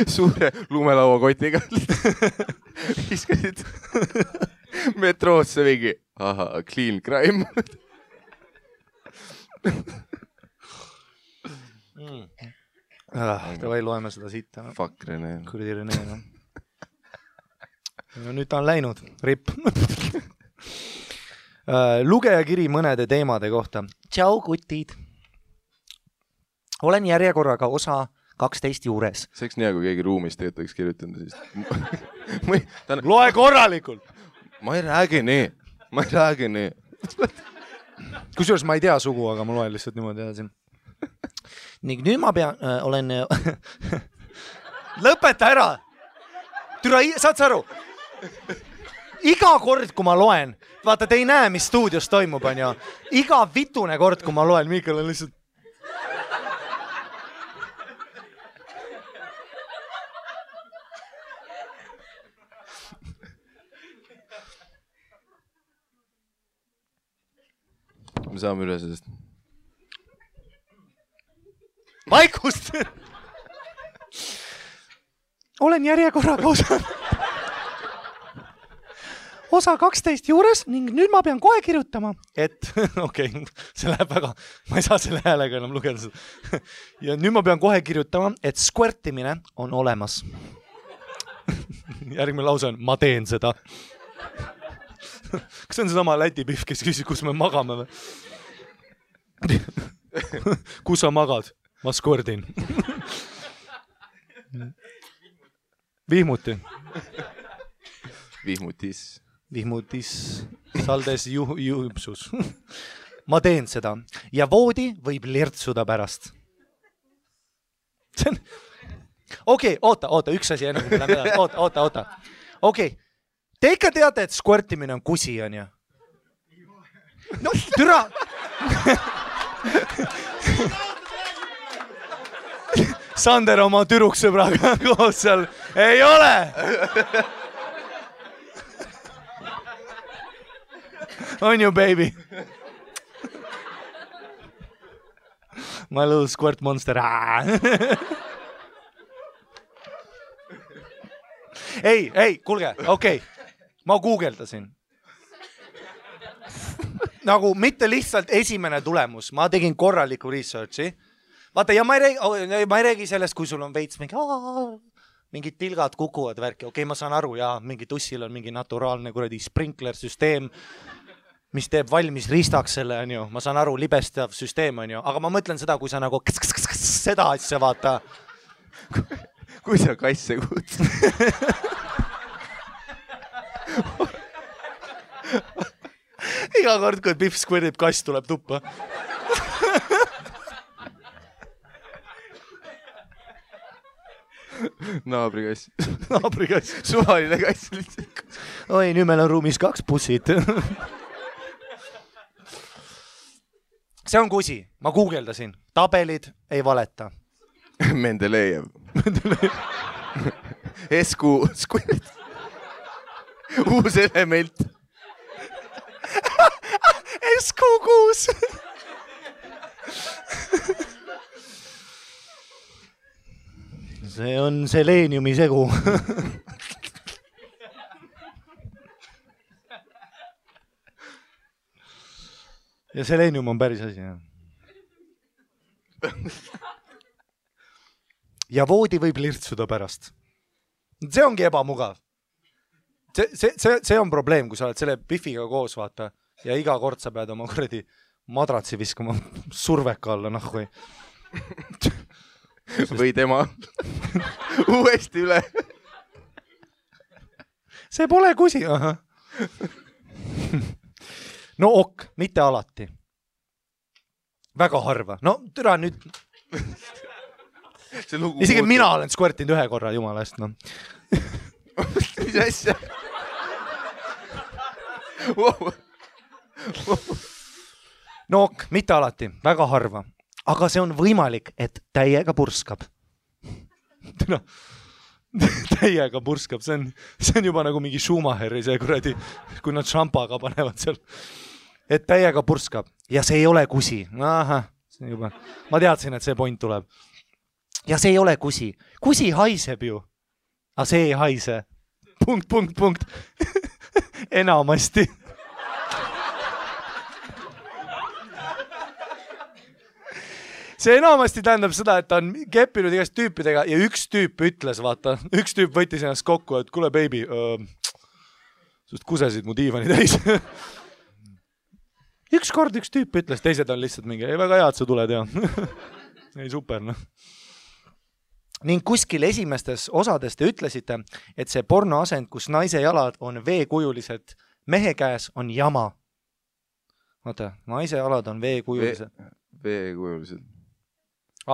suure lumelaua kotiga. Viskasid metroosse mingi. Aha, clean crime. Davai, loeme seda siit. Fuck Rene. Kurdi Rene. No, nüüd ta on läinud. Rip. Lugejakiri mõnede teemade kohta. Tšau, kutid. Olen järjekorraga osa 12 juures. See oleks nii, kui keegi ruumis tegelikult oleks kirjutanud. Loe korralikult! Ma ei räägi nii. Kusjuures ma ei tea sugu, aga ma loen lihtsalt niimoodi edasi. Ning nüüd ma olen... Lõpeta ära! Türa, saad sa aru? Iga kord, kui ma loen, vaata, te ei näe, mis stuudios toimub, on ju. Iga vitune kord, kui ma loen, Miikal on lihtsalt... Me saame üle sellest. Vaikust! Olen järjekorraga osa 12 juures ning nüüd ma pean kohe kirjutama, et okei, see läheb väga, ma ei saa selle häälega enam lugeda seda. Ja nüüd ma pean kohe kirjutama, et squirtimine on olemas. Järgmine lause on, ma teen seda. Kas see on seesama Läti pihv, kes küsis, kus me magame või? Kus sa magad? Ma squirtin. Vihmuti. Vihmutis saldes juhipsus. Ma teen seda ja voodi võib lirtsuda pärast. Okei, oota, üks asi enne, kui me läheme edasi. Oota. Okei, te ikka teate, et squirtimine on kusi, on ju? No, türa! Sander oma türuksõbraga koos seal. Ei ole! On you, baby? My little squirt monster. Ei, kuulge, okei. Ma guugeldasin. Nagu mitte lihtsalt esimene tulemus. Ma tegin korraliku researchi. Vaata, ja ma ei räägi sellest, kui sul on veits mingid tilgad kukuvad värki. Okei, ma saan aru, ja mingi tussil on mingi naturaalne kuradi sprinkler-süsteem, mis teeb valmis ristaks selle, on ju. Ma saan aru, libestav süsteem, on ju. Aga ma mõtlen seda, kui sa nagu seda asja vaata. Kui sa kasse kuud. Iga kord, kui Pihv squirtib, kass tuleb tuppa. Naabrikass. Suvaline kass lihtsalt. Oi, nüüd meil on ruumis 2 bussid. See on kusi. Ma guugeldasin. Tabelid ei valeta. Mendelejev. Esku squirt. Uus element. Esku-kuus. See on seleeniumi segu. Ja seleenium on päris asi, jah. Ja voodi võib lirtsuda pärast. See ongi ebamugav. See on probleem, kui sa oled selle Pihviga koos, vaata, ja iga kord sa pead oma kuradi madratsi viskama surveka alla, nahku. Või tema uuesti üle. See pole kusi. No ok, mitte alati. Väga harva. No türa nüüd. Isegi mina olen squirtinud 1 korra, jumala eest. No. Mis asja? No ok, mitte alati. Väga harva. Aga see on võimalik, et täiega purskab. Täiega purskab. See on juba nagu mingi Schumacheri see kuradi, kui nad šampaga panevad seal. Et täiega purskab. Ja see ei ole kusi. Aha, see juba. Ma teadsin, et see point tuleb. Ja see ei ole kusi. Kusi haiseb ju. Aga see ei haise. Punkt. Enamasti. See enamasti tähendab seda, et ta on keppinud igast tüüpidega ja üks tüüp ütles, vaata, üks tüüp võttis ennast kokku, et kuule, baby, sust kusesid mu diivani täis. Üks kord üks tüüp ütles, teised on lihtsalt mingi, ei väga hea, et sa tuled, ja. Ei, super, noh. ning kuskil esimestes osades te ütlesite, et see pornoasend, kus naise jalad on veekujulised mehe käes, on jama. Vaata, naise jalad on veekujulised. Veekujulised.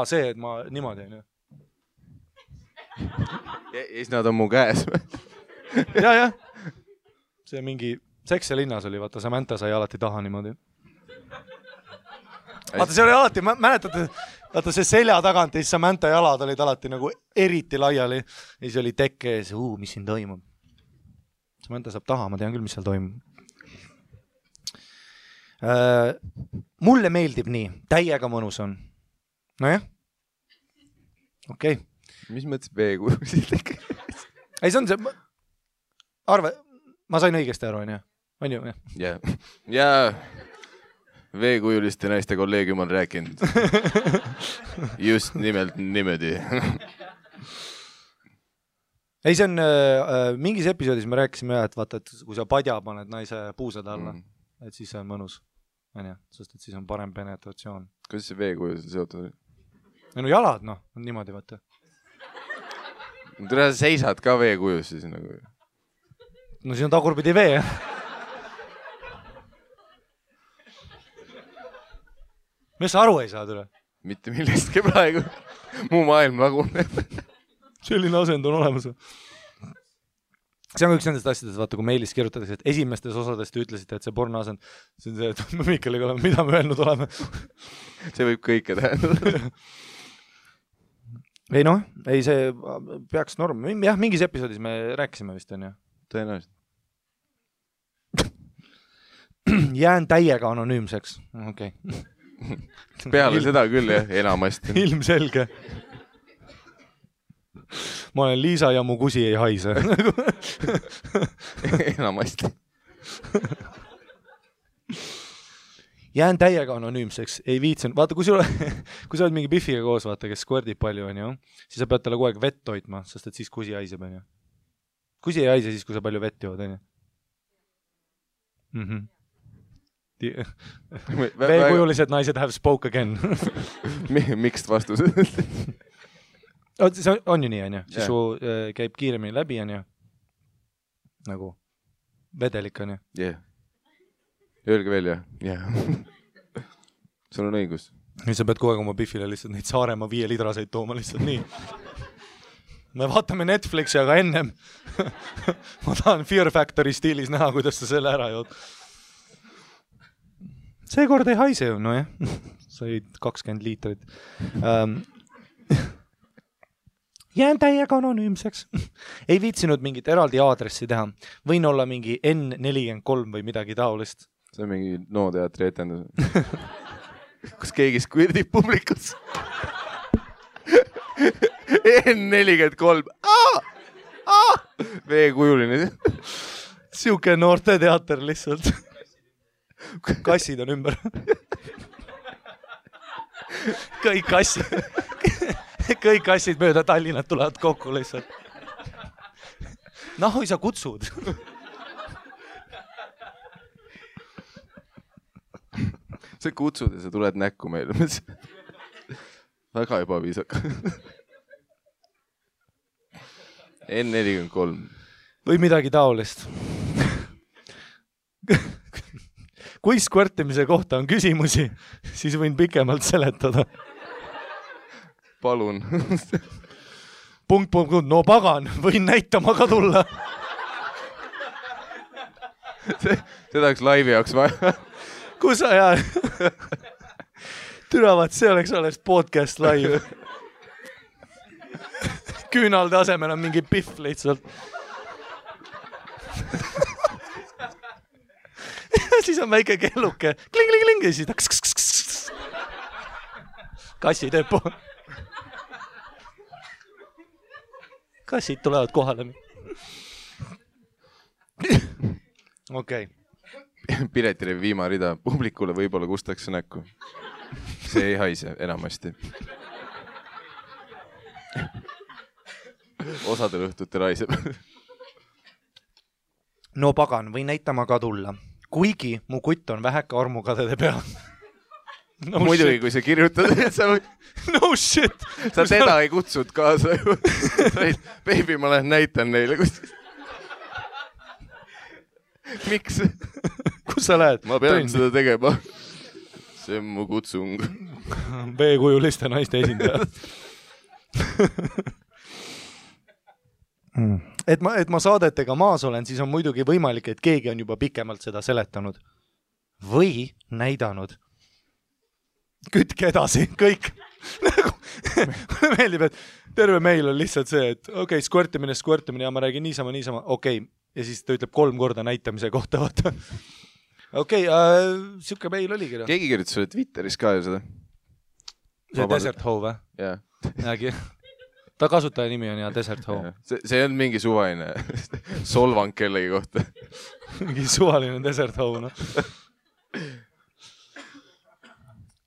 See, et ma niimoodi on ju. Ja siis nad on mu käes. Ja. See mingi Seks ja linnas oli, vaata, Samantha sai alati taha niimoodi. Vaata, see oli alati, mäletate, vaata see selja tagant ja siis Samantha jalad olid alati nagu eriti laiali. Ja siis oli tekke ees, mis siin toimub. Samantha saab taha, ma tean küll, mis seal toimub. Mulle meeldib nii, täiega mõnus on. Nojah. Okei. Mis mõttes veekujulised? Ei, see on see... Arve, ma sain õigesti aru, on ju? Ja veekujuliste naiste kolleegium on rääkinud. Just nimelt niimoodi. Ei, see on mingis episoodis me rääkisime, et vaata, et kui sa padja paned naise puusad alla, et siis see on mõnus. Sest et siis on parem penetratsioon. Kuidas see veekujulised seotud? No jalad, on niimoodi, vaata. Tule sa seisad ka veekujus siis nagu. No siin on tagurpidi vee, Mis sa aru ei saa tule? Mitte millestki praegu. Muu maailm laguneb. Selline asend on olemas. See on üks nendest asjadest, vaata, kui meilis kirjutatakse, et esimestes osadest te ütlesite, et see porno asend, see on see, et me Mikkeliga oleme, mida me öelnud oleme. See võib kõike tähendada. Ei ei see peaks norm. Jah, mingis episoodis me rääkisime vist, on ju? Tõenäoliselt. Jään täiega anonüümseks. Okei. Peale seda küll, jah, enamasti. Ilmselge. Ma olen Liisa ja mu kusi ei haise. Enamasti. Jään täiega anonüümseks. Ei viitsen. Vaata, kui sa oled mingi Biffiga koos, vaata, kes squirtib palju, on ju, siis sa pead talle kogu aeg vett toitma, sest et siis kusi haiseb, on ju. Kusi ei haise siis, kui sa palju vett jood, on ju. Veekujulised naised have spoke again. Mixed vastused. See on ju nii, on ju. Siis su käib kiiremini läbi, on ju. Nagu vedelik, on ju. Jah. Öelge veel, jah. Sul on õigus. Nüüd sa pead kogu aeg oma Biffile lihtsalt neid Saaremaa 5 litraseid tooma lihtsalt nii. Me vaatame Netflixi, aga ennem ma tahan Fear Factory stiilis näha, kuidas sa selle ära jood. Seekord ei haise ju, jah. Said 20 liitrit. Jään täiega anonüümseks. Ei viitsinud mingit eraldi aadressi teha. Võin olla mingi N43 või midagi taolist. See on mingi nooteatri etendus. Kus keegi squirdib publikus. N43. Veekujuline. Siuke noorte teater lihtsalt. Kassid on ümber. Kõik kassid mööda Tallinnat tulevad kokku lihtsalt. Nahui sa kutsud. Sa kutsud ja sa tuled näkku meile. Väga ebaviisaka. N43. Või midagi taolist. Kui squirtimise kohta on küsimusi, siis võin pikemalt seletada. Palun. Punkt. No pagan, võin näitama ka tulla. Seda oleks laivi jaoks vaja. Kus sa jää? Türavad, see oleks podcast live. Küünalde asemel on mingi Biff lihtsalt. Siis on väike kelluke. Kling. Ja siis ta kassi teeb pool. Kassid tulevad kohale. Okei. Piletile viimarida publikule võib-olla kustakse näkku. See ei haise enamasti. Osadel õhtutel haiseb. No pagan, või näitama ka tulla. Kuigi mu kutt on väheka armukadede peal. No muidugi, kui sa kirjutad, sa no shit! Sa teda ei kutsud kaasa ju. Baby, ma lähen näitan neile. Miks? Kus sa lähed? Ma pean seda tegema. See on mu kutsung. B-kujuliste naiste esindaja. et ma saadetega maas olen, siis on muidugi võimalik, et keegi on juba pikemalt seda seletanud. Või näidanud. Kütke edasi, kõik. Mulle meeldib, et terve meil on lihtsalt see, et okei, skvõrtimine ja ma räägin niisama, okei. Ja siis ta ütleb 3 korda näitamise kohta, vaata. Okei, siuke meil oligi. Keegi kirjutas sulle Twitteris ka ju seda? See Desert Hove, jah? Jäägi. Ta kasutaja nimi on ja Desert Hove. See on mingi suvaline solvang kellegi kohta. Mingi suvaline Desert Hove, noh.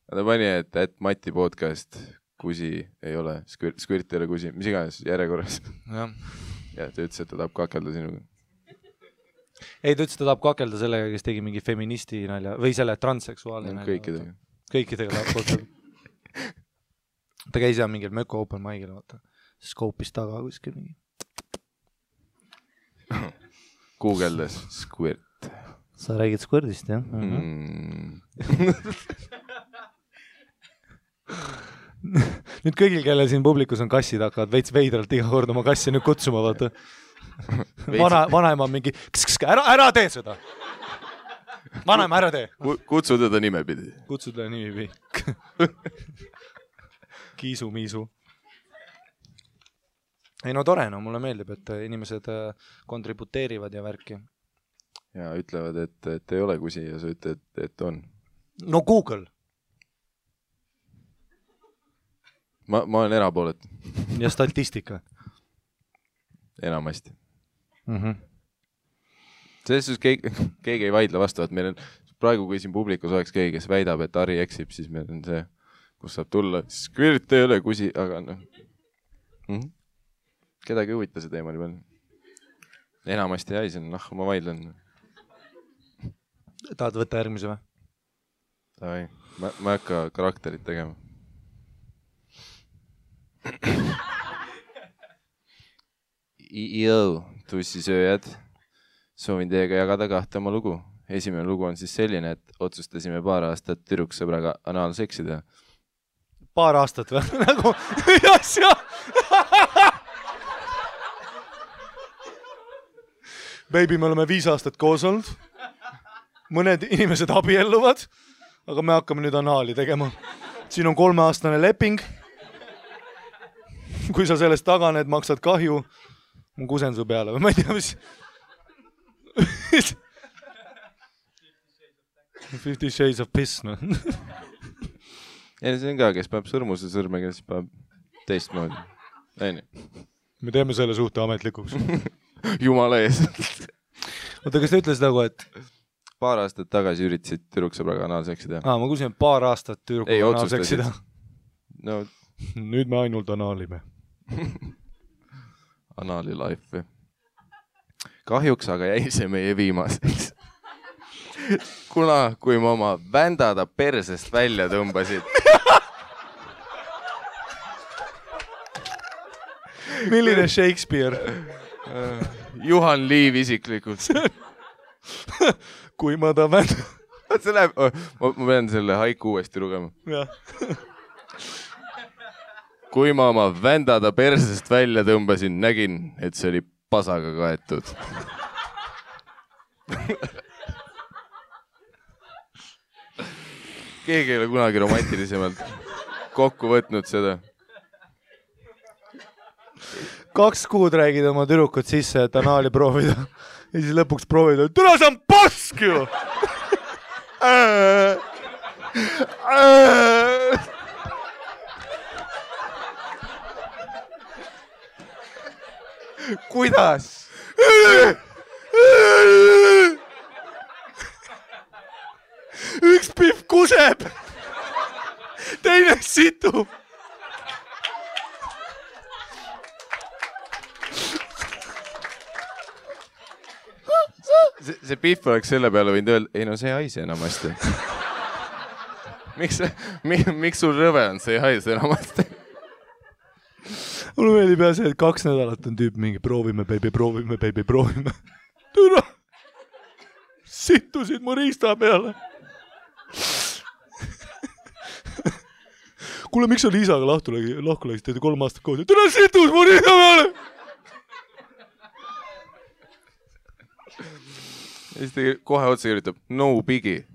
Ta pani, et Mati podcast kusi ei ole, skvirt ei ole kusi, mis iganes järjekorras. Ja ta ütles, et ta tahab kakelda sinuga. Ei, ta ütles, et ta tahab kakelda sellega, kes tegi mingi feministi nalja või selle transseksuaalne nalja. Kõikidega tahab kakelda. Ta käis jah mingil Möko Open Mic'il, vaata. Skoopis taga kuskil mingi. Google'des skvirt. Sa räägid skvõrdist, jah? Nüüd kõigil, kelle siin publikus on kassid, hakkavad veits veidralt iga kord oma kassi nüüd kutsuma, vaata. Vanaema on mingi, ära tee seda. Vanaema, ära tee. Kutsu teda nimepidi. Kutsu teda nimepidi. Kiisu-miisu. Ei no tore, no mulle meeldib, et inimesed kontributeerivad ja värki. Ja ütlevad, et ei ole kusi ja sa ütled, et on. No Google. Ma olen erapoolet. Ja statistika. Enamasti. Selles suhtes keegi ei vaidle vastu, et meil on praegu, kui siin publikus oleks keegi, kes väidab, et Ari eksib, siis meil on see, kus saab tulla. Skvirt ei ole kusi, aga noh. Kedagi huvita see teema nii palju. Enamasti jäi siin, ma vaidlen. Tahad võtta järgmise või? Davai, ma ei hakka karakterit tegema. Yo, tussisööjad. Soovin teiega jagada 2 oma lugu. Esimene lugu on siis selline, et otsustasime paar aastat tüdruksõbraga anaalseksida. Paar aastat või? Nagu, asja! Baby, me oleme 5 aastat koos olnud. Mõned inimesed abielluvad, aga me hakkame nüüd anaali tegema. Siin on 3-aastane leping. Kui sa sellest taganed, maksad kahju. Ma kusen su peale või ma ei tea, mis... 50 Shades of Piss, no. Ja see on ka, kes peab sõrmuse sõrmega, kes peab teistmoodi. Me teeme selle suhte ametlikuks. Jumala ees. Oota, kas ta ütles nagu, et... Paar aastat tagasi üritasid tüdruksõbraga anaalseksida. Ma kusin, paar aastat tüdruksõbraga anaalseksida. No. Nüüd me ainult anaalime. Anaali life. Kahjuks aga jäi see meie viimaseks. Kuna, kui ma oma vändada persest välja tõmbasid. Milline Shakespeare? Juhan Liiv isiklikult. Kui ma ta vändada. Ma pean selle haiku uuesti lugema. Jah. Kui ma oma vändada persest välja tõmbasin, nägin, et see oli pasaga kaetud. Keegi ei ole kunagi romantilisemalt kokku võtnud seda. 2 kuud räägid oma tüdrukut sisse, et anaali proovida. Ja siis lõpuks proovida, et tule see on pask ju! Kuidas? Üks pihv kuseb, teine situb. See pihv oleks selle peale võinud öelda, ei no see haise enamasti. miks sul rõve on, see ei haise enamasti? Mulle meeldib jah see, et 2 nädalat on tüüp mingi proovime, proovime. Türa! Sittusid mu riista peale. Kuule, miks sa Liisaga lahku läksid, teete 3 aastat koos? Türa situs mu riista peale! Ja siis ta kohe otsa kirjutab, no biggie.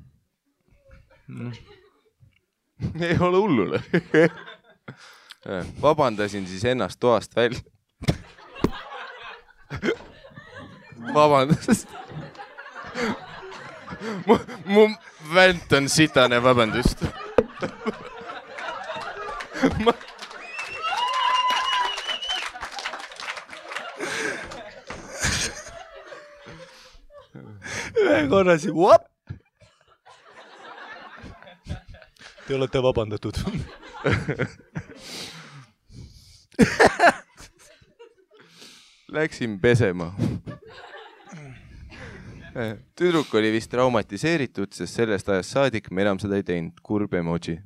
Ei ole hullule. Vabandasin siis ennast toast välja. Vabandust. Mu vänt on sitane, vabandust. Ühe korra siin, whoop! Te olete vabandatud. Läksin pesema. Tüdruk oli vist traumatiseeritud, sest sellest ajast saadik me enam seda ei teinud. Kurb emoji.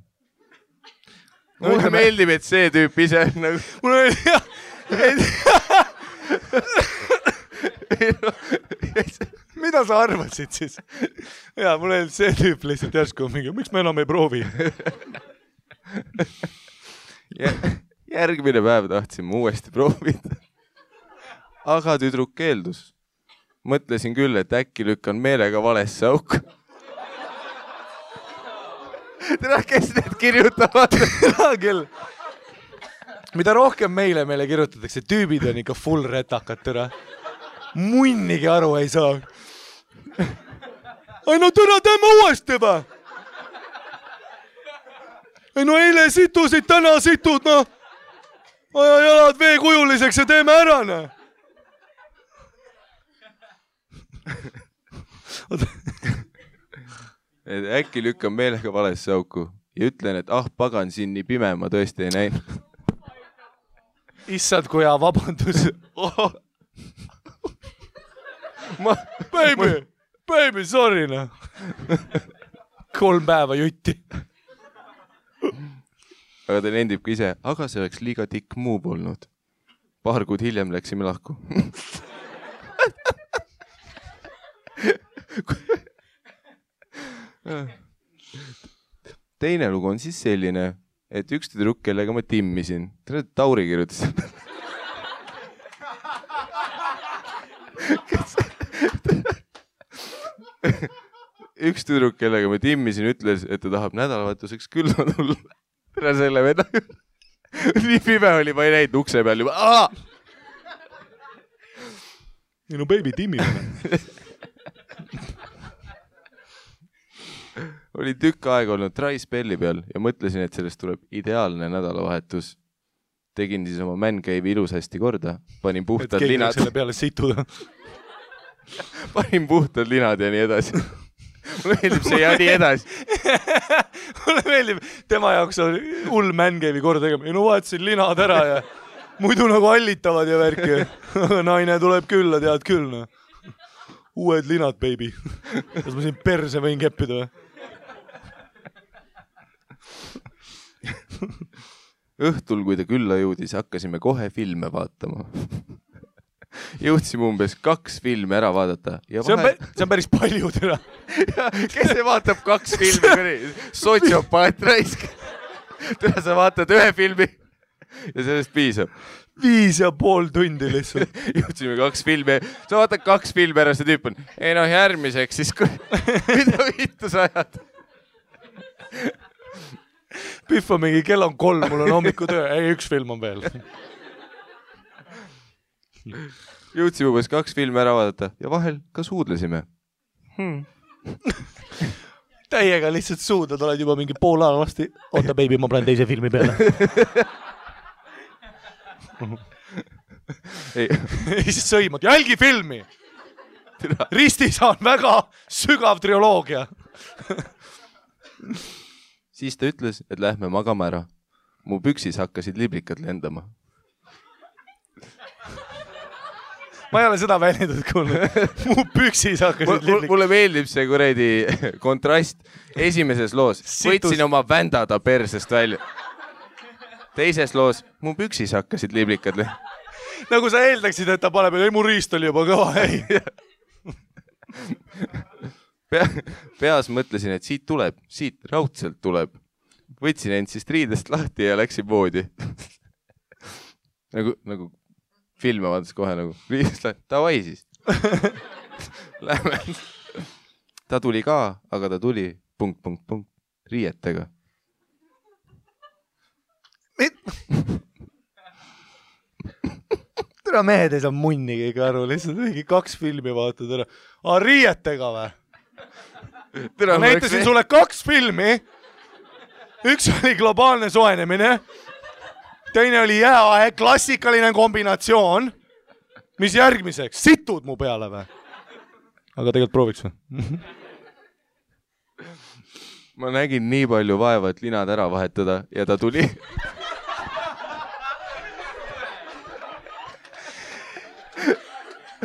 Mulle meeldib, et see tüüp ise nagu... Mulle meeldib, jah. Mida sa arvasid siis? Jaa, mulle meeldib see tüüp lihtsalt järsku mingi, miks me enam ei proovi? Järgmine päev tahtsime uuesti proovida. Aga tüdruk keeldus. Mõtlesin küll, et äkki lükkan meelega valesse auku. Tere, kes need kirjutavad? Küll. Mida rohkem meile kirjutatakse, tüübid on ikka full retakad, tere. Munnigi aru ei saa. Ai no tere, teeme uuesti või? Ei no eile situsid, täna situd, no. Aja jalad veekujuliseks ja teeme ära, no. Äkki lükkan meelega valesse auku ja ütlen, et pagan siin nii pime, ma tõesti ei näinud. Issad, kui hea vabandus. Baby, sorry, no. 3 päeva jutti. Aga ta nendib ka ise, aga see oleks liiga tikk move olnud. 2 kuud hiljem läksime lahku. Teine lugu on siis selline, et üks tüdruk, kellega ma timmisin. Tauri kirjutas. Üks tüdruk, kellega ma timmisin, ütles, et ta tahab nädalavahetuseks külma tulla. Tere selle veda. Nii pime oli, ma ei näinud ukse peal juba. Minu baby timmimine. Oli tükk aega olnud Try Spelli peal ja mõtlesin, et sellest tuleb ideaalne nädalavahetus. Tegin siis oma man-cave'i ilusasti korda. Panin puhtad linad. Selle peale situda. Panin puhtad linad ja nii edasi. Mulle meeldib see ja nii edasi. Mulle meeldib, tema jaoks on hull man-cave'i korda tegema. No vaatasin linad ära ja muidu nagu allitavad ja värki. Naine tuleb külla, tead küll. No. Uued linad, baby. Kas ma siin perse võin keppida või? Õhtul, kui ta külla jõudis, hakkasime kohe filme vaatama. Jõudsime umbes 2 filmi ära vaadata. Ja see on päris palju täna. Kes see vaatab 2 filmi? Sotsiopaat raisk. Täna sa vaatad 1 filmi ja sellest piisab. 5,5 tundi lihtsalt. Jõudsime 2 filmi. Sa vaatad 2 filmi ära, see tüüp on. Ei noh, järgmiseks siis mida vittu sa ajad? Pihv on mingi, kell on 3, mul on hommikutöö. Ei, 1 film on veel. Jõudsime umbes 2 filmi ära vaadata ja vahel ka suudlesime. Täiega lihtsalt suudad, oled juba mingi pool aega vasti. Oota, baby, ma panen teise filmi peale. Ei, siis sõimad. Jälgi filmi! Ristis on väga sügav trioloogia. Siis ta ütles, et lähme magama ära. Mu püksis hakkasid liblikad lendama. ma ei ole seda väljendust kuulnud. Mu püksis hakkasid liblikud. Mulle meeldib see kuredi kontrast esimeses loos. Võtsin oma vändada persest välja. Teises loos mu püksis hakkasid liblikad. Nagu sa eeldaksid, et ta paneb, ei mu riist oli juba kõva, ei. Peas mõtlesin, et siit raudselt tuleb. Võtsin end siis riidest lahti ja läksin voodi. nagu filme vaadates kohe nagu riidest lahti. Tavai siis. Lähme. Ta tuli ka, aga ta tuli ... riietega. Tere mehed ei saa munni keegi aru, lihtsalt mingi 2 filmi vaatad ära. Riietega või? Ma näitasin sulle 2 filmi. Üks oli globaalne soojenemine. Teine oli jääaeg, klassikaline kombinatsioon. Mis järgmiseks? Situd mu peale või? Aga tegelikult prooviks või? Ma nägin nii palju vaeva, et linad ära vahetada ja ta tuli.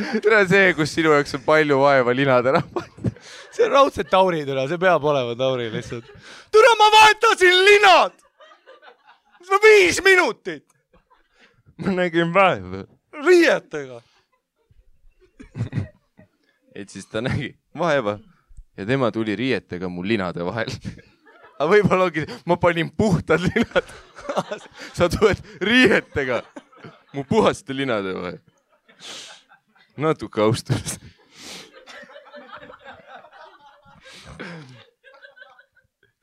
Tere see, kus sinu jaoks on palju vaeva linad ära vahetada. See on raudselt Tauri türa, see peab olema Tauri lihtsalt. Türa, ma vahetasin linad! 5 minutit! Ma nägin vaeva. Riietega! Et siis ta nägi vaeva ja tema tuli riietega mu linade vahel. Aga võib-olla ongi, ma panin puhtad linad. Sa tuled riietega mu puhaste linade vahel. Natuke austus.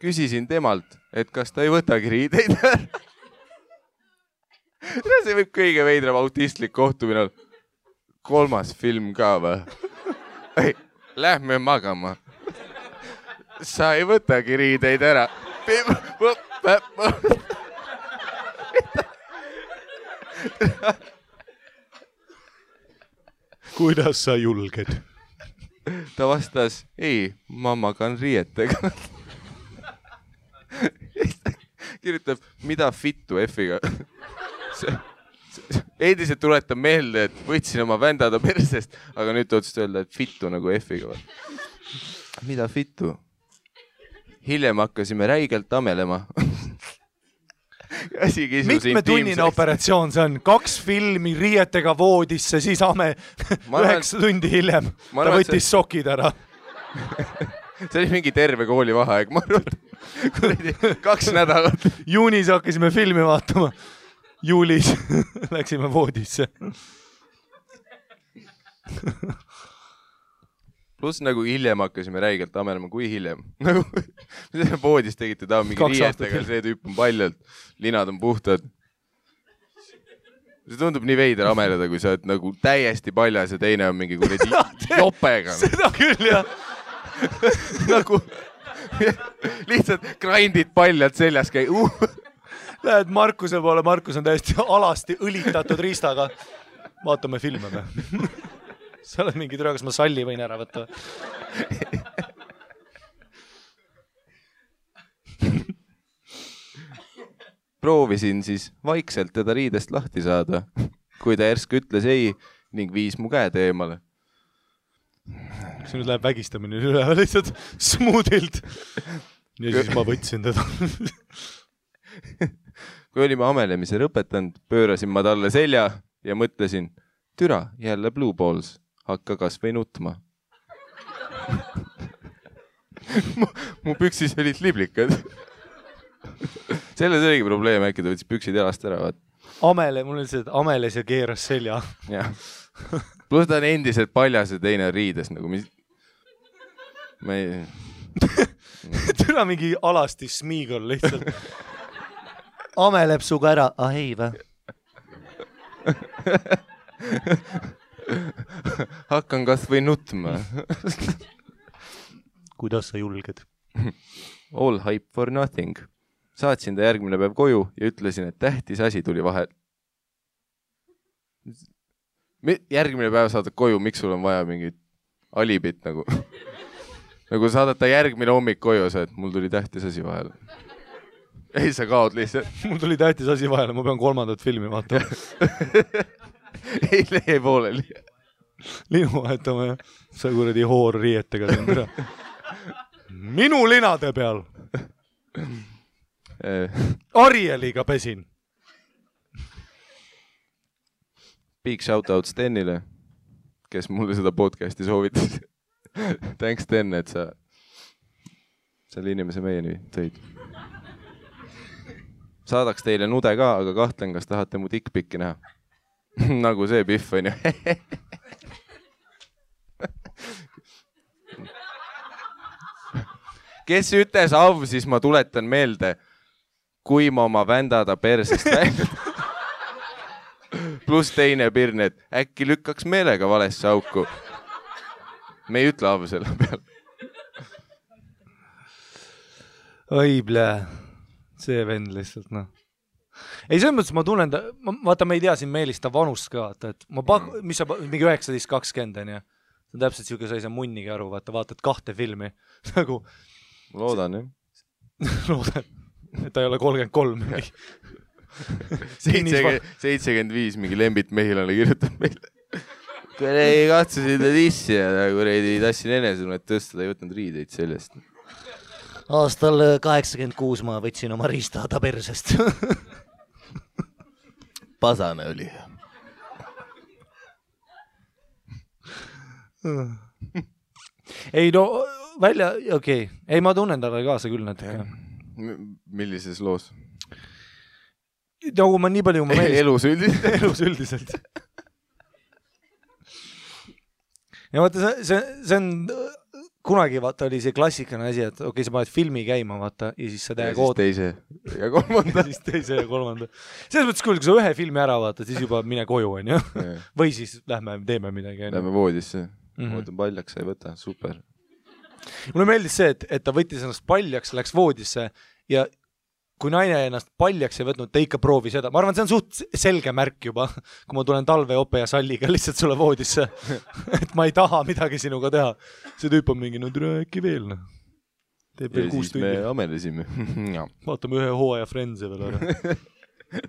Küsisin temalt, et kas ta ei võtagi riideid. See võib kõige veidram autistlik kohtumine. 3. film ka või? Lähme magama. Sa ei võtagi riideid ära. Kuidas sa julged? Ta vastas, ei, ma magan riietega. Kirjutab, mida fittu F-iga. Endiselt tuletab meelde, et võtsin oma vändada persest, aga nüüd otsust öelda, et fittu nagu F-iga. Mida fittu? Hiljem hakkasime räigelt amelema. Mitmetunnine operatsioon see on? 2 filmi riietega voodisse, siis 9 tundi hiljem. Ta võttis sokid ära. See oli mingi terve kooli vaheaeg, ma arvan. 2 nädalat. Juunis hakkasime filmi vaatama. Juulis läksime voodisse. Pluss nagu hiljem hakkasime räigelt amelema, kui hiljem. Voodis tegite ta mingi riietega, see tüüp on paljalt, linad on puhtad. See tundub nii veider ameleda, kui sa oled nagu täiesti paljas ja teine on mingi kuradi jopega. Seda küll, jah. Nagu lihtsalt grindid paljalt seljas käi. Lähed Markuse poole, Markus on täiesti alasti õlitatud riistaga. Vaatame filme või? Sa oled mingi türa, kas ma salli võin ära võtta? Proovisin siis vaikselt teda riidest lahti saada, kui ta järsku ütles ei ning viis mu käed eemale. Kas nüüd läheb vägistamine üle lihtsalt smoothilt? Ja siis ma võtsin teda. Kui olime amelemise lõpetanud, pöörasin ma talle selja ja mõtlesin, türa, jälle Blue Balls. Hakka kas või nutma. mu püksis olid liblikad. Selles oligi probleem, äkki ta võttis püksid jalast ära. Amele, mul on see, et ameles ja keeras selja. Plus ta on endiselt paljas ja teine riides. Nagu ma ei... Türa mingi alasti smiigol lihtsalt. Ameleb suga ära. Ah ei või? Hakkan kas või nutma. Kuidas sa julged? All hype for nothing. Saatsin ta järgmine päev koju ja ütlesin, et tähtis asi tuli vahel. Järgmine päev saadad koju, miks sul on vaja mingit alibit nagu? Nagu saadad ta järgmine hommik koju, et mul tuli tähtis asi vahel. Ei, sa kaod lihtsalt. Mul tuli tähtis asi vahele, ma pean 3. filmi vaatama. Ei lehe pooleli. linu vahetama ja sa kuradi hoorriietega siin. Minu linade peal. Arieliga pesin. Big shoutout Stenile, kes mulle seda podcasti soovitas. Thanks Sten, et sa selle inimese meieni tõid. Saadaks teile nude ka, aga kahtlen, kas tahate mu dickpicki näha. Nagu see Pihv on ju. Kes ütles av, siis ma tuletan meelde, kui ma oma vändada persest välja. Plus teine pirn, et äkki lükkaks meelega valesse auku. Me ei ütle av selle peal. Oi, blää. See vend lihtsalt, noh. Ei, selles mõttes ma tunnen, vaata, ma ei tea siin Meelista vanust ka, et ma mis sa, mingi 19-20 on ja see on täpselt siuke, sa ei saa munnigi aru, vaatad 2 filmi. Nagu... Loodan, jah. Loodan, et ta ei ole 33. 75 mingi Lembit Mehilane kirjutab meile. Kui ei katsusid dissi ja kui ei tassin enesunnet tõsta, ta ei võtnud riideid sellest. Aastal 86 ma võtsin oma riistada persest. Pasane oli. Ei no, välja, okei. Ei, ma tunnen talle kaasa küll natuke. Millises loos? Nagu ma nii palju... Elus üldiselt. Elus üldiselt. Ja vaata, see on... Kunagi vaata oli see klassikane asi, et okei, sa paned filmi käima, vaata, ja siis sa täiega oot... Ja siis teise ja kolmanda. Siis teise ja kolmanda. Selles mõttes, kui sa ühe filmi ära vaata, siis juba mine koju, on ju? Või siis lähme, teeme midagi. Lähme voodisse. Ootan paljaks, sa ei võta. Super. Mulle meeldis see, et ta võttis ennast paljaks, läks voodisse ja kui naine ennast paljaks ei võtnud, ta ikka proovi seda. Ma arvan, see on suht selge märk juba, kui ma tulen Talve, Ope ja Salliga lihtsalt sulle voodisse. Et ma ei taha midagi sinuga teha. See tüüp on mingi, no türa äkki veel. Teeb veel 6 tundi. Ja siis me amelesime. Vaatame ühe hooaja Friendse veel ära.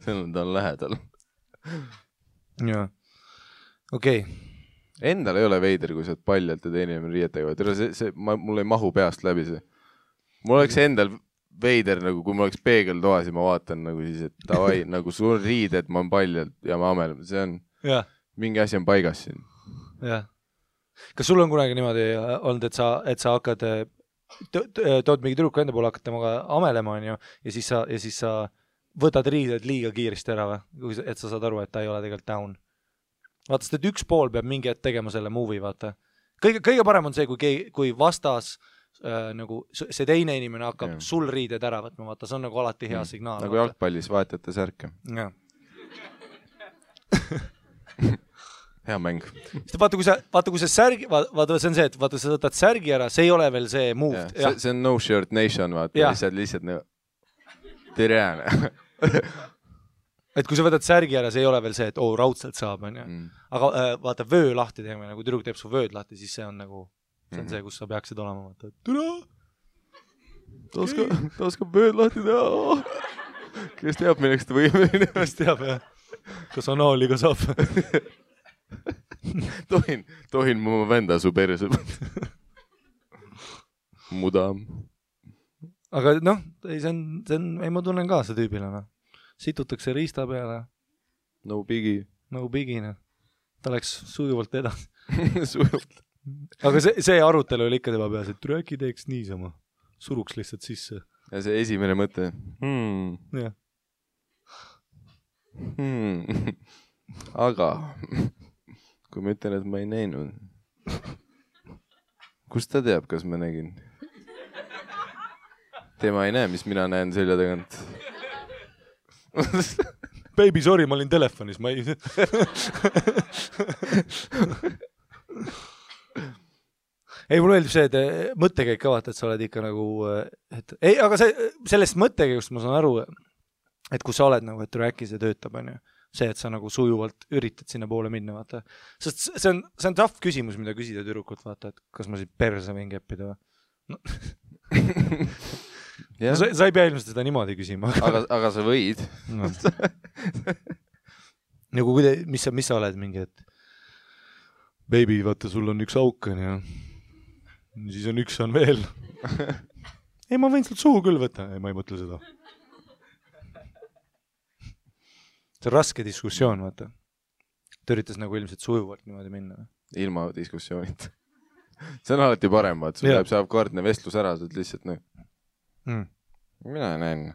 Ta on lähedal. Jaa. Okei. Endal ei ole veider, kui sa oled paljalt ja teine riietega. Mul ei mahu peast läbi see. Mul oleks endal veider, nagu kui ma oleks peegeltoas ja ma vaatan nagu siis, et tavai, nagu sul riided, ma on paljalt ja ma amelem. See on, mingi asi on paigas siin. Jah. Kas sul on kunagi niimoodi olnud, et sa hakkad, tood mingi tüdruku enda poole, hakkad temaga amelema, on ju, ja siis sa võtad riided liiga kiiresti ära või, et sa saad aru, et ta ei ole tegelikult down. Vaata, sest et üks pool peab mingi hetk tegema selle movie, vaata. Kõige parem on see, kui vastas nagu see teine inimene hakkab sul riided ära võtma, vaata, see on nagu alati hea signaal. Nagu jalgpallis vahetate särke. Jah. Hea mäng. Vaata, kui see särgi, vaata, see on see, et vaata, sa võtad särgi ära, see ei ole veel see move. See on no shirt nation, vaata, lihtsalt nagu tere. Et kui sa võtad särgi ära, see ei ole veel see, et raudselt saab, on ju. Aga vaata, vöö lahti teeme, nagu tüdruk teeb su vööd lahti, siis see on nagu, see on see, kus sa peaksid olema, vaata, et türa! Ta oskab vööd lahti teha. Kes teab, milleks ta võimeline? Kes teab, jah. Kas anaaliga saab? Tohin mu venda su perse. Muda. Aga noh, ei ma tunnen ka see tüübile. Situtakse riista peale. No biggie. No biggie, noh. Ta läks sujuvalt edasi. Sujuvalt. Aga see arutelu oli ikka tema peas, et äkki teeks niisama. Suruks lihtsalt sisse. Ja see esimene mõte. Jah. Aga kui ma ütlen, et ma ei näinud, kust ta teab, kas ma nägin? Tema ei näe, mis mina näen selja tagant. Baby, sorry, ma olin telefonis, ma ei... Ei, mulle meeldib see, et mõttekäik ka vaata, et sa oled ikka nagu... Ei, aga sellest mõttekäigust ma saan aru, et kui sa oled nagu, et rääki see töötab, on ju. See, et sa nagu sujuvalt üritad sinna poole minna, vaata. Sest see on tough küsimus, mida küsida tüdrukult, vaata, et kas ma siit perse võin keppida või? No. Sa ei pea ilmselt seda niimoodi küsima. Aga sa võid. No. Nagu mis sa oled mingi, et Baby, vaata, sul on üks auk on ja siis on üks on veel. Ei, ma võin sult suhu küll võtta. Ei, ma ei mõtle seda. See on raske diskussioon, vaata. Ta üritas nagu ilmselt sujuvalt niimoodi minna. Ilma diskussioonid. See on alati parem, vaat. Sul saab kordne vestlus ära, sa lihtsalt Mina näen.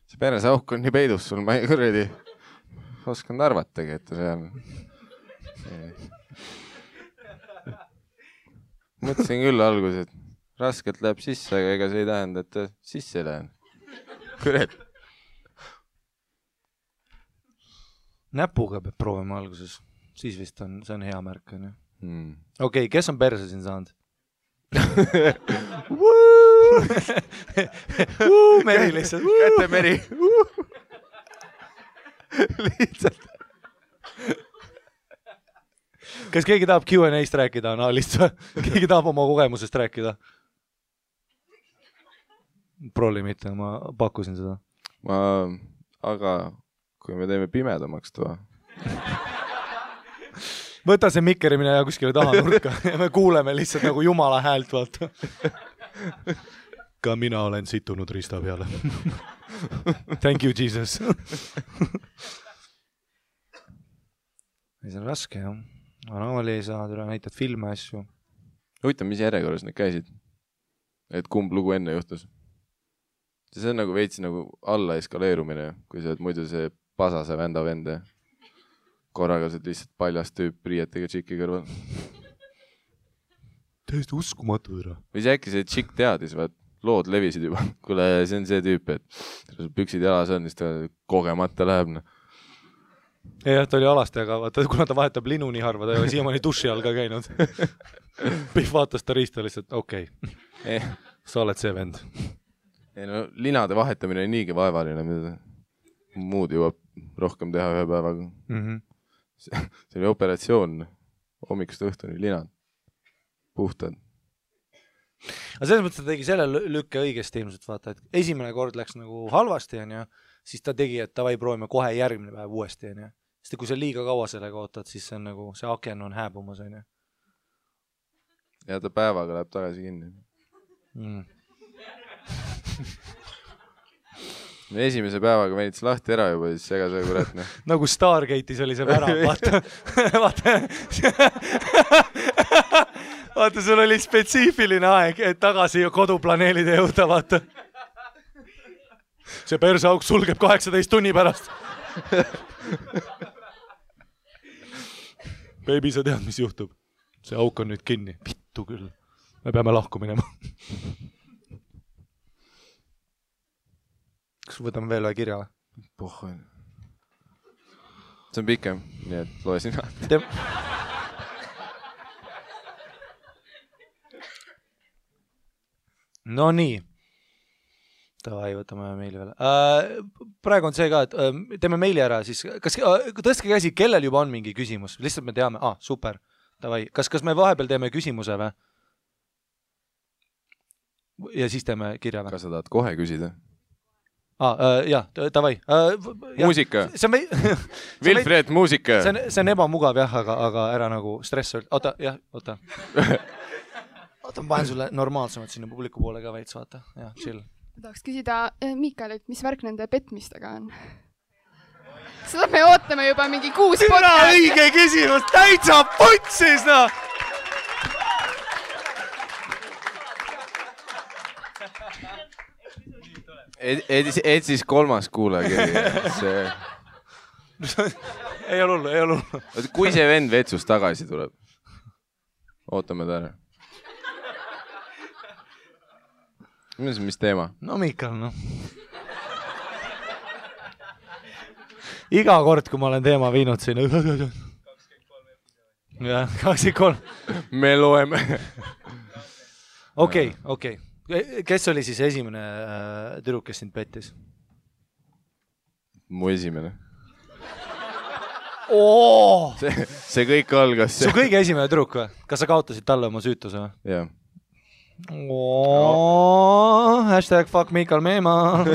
See peres auk on nii peidus sul, ma ei kuredi oskan arvatagi, et see on. Mõtlesin küll alguses, et raskelt läheb sisse, aga ega see ei tähenda, et ta sisse lähen. Kuret. Näpuga peab proovima alguses. Siis vist on, see on hea märk. Okei, kes on perse siin saanud? Meri lihtsalt. Käte Meri. Lihtsalt. Kas keegi tahab Q&A'st rääkida analist? Keegi tahab oma kogemusest rääkida? Prolli mitte, ma pakkusin seda. Aga kui me teeme pimedamaks toa. Võta see mikkerimine ja kuskile taha nurka ja me kuuleme lihtsalt nagu jumala häält, vaata. Ka mina olen situnud rista peale. Thank you, Jesus. See on raske, jah. Anali ei saa, näitad filme asju. Huvitav, mis järjekorras need käisid? Et kumb lugu enne juhtus? See on nagu veits nagu alla eskaleerumine, kui sa oled muidu see pasase vända vende. Korraga sa lihtsalt paljast tüüp riietega tšiki kõrval. Täiesti uskumatu ära. Või see äkki see tšik teadis, vaat lood levisid juba. Kuule, see on see tüüp, et püksid jalas on, siis ta kogemata läheb. Jah, ta oli alasti, aga vaata, kuna ta vahetab linu nii harva, ta ei ole siiamaani duši all ka käinud. Pihv vaatas ta riista lihtsalt, okei. Sa oled see vend. No, linade vahetamine on niigi vaevaline, mida muud jõuab rohkem teha ühe päevaga. See oli operatsioon, hommikust õhtuni linad, puhtad. Aga selles mõttes ta tegi selle lükke õigesti ilmselt, vaata, et esimene kord läks nagu halvasti, ja siis ta tegi, et tavai proovime kohe järgmine päev uuesti, ja sest kui sa liiga kaua sellega ootad, siis see on nagu, see aken on hääbumas, ja. Ja ta päevaga läheb tagasi kinni. Me esimese päevaga venits lahti ära juba, siis ega see kurat. Nagu Stargate'is oli see värav, vaata. Vaata, sul oli spetsiifiline aeg, et tagasi koduplaneelide jõuda, vaata. See persauk sulgeb 18 tunni pärast. Baby, sa tead, mis juhtub? See auk on nüüd kinni. Vittu küll. Me peame lahku minema. Kas võtame veel ühe kirja? Pohhoin. See on pikem, nii et loe sina. No nii. Tavai, võtame meili veel. Praegu on see ka, et teeme meili ära, siis kas tõstke käsi, kellel juba on mingi küsimus? Lihtsalt me teame, super. Tavai. Kas me vahepeal teeme küsimuse või? Ja siis teeme kirja või? Kas sa tahad kohe küsida? Jah, tavai. Muusika. Wilfred, muusika. See on ebamugav, jah, aga ära nagu stress. Oota. Oota, ma panen sulle normaalsemalt sinna publiku poole ka veits, vaata. Jah, chill. Tahaks küsida Miikalilt, mis värk nende petmistega on? Seda me ootame juba mingi 6 podcast. Õige küsimus, täitsa putsis, no! Et siis 3. kuulaja. Ei ole hullu. Kui see vend vetsust tagasi tuleb? Ootame ta ära. Mis teema? No Miikal, noh. Iga kord, kui ma olen teema viinud sinna. 23. Jah, 23. Me loeme. Okei. Kes oli siis esimene tüdruk, kes sind pettis? Mu esimene. Oo! See kõik algas. Su kõige esimene tüdruk või? Kas sa kaotasid talle oma süütuse või? Jah. Hashtag fuck Miikal Meema.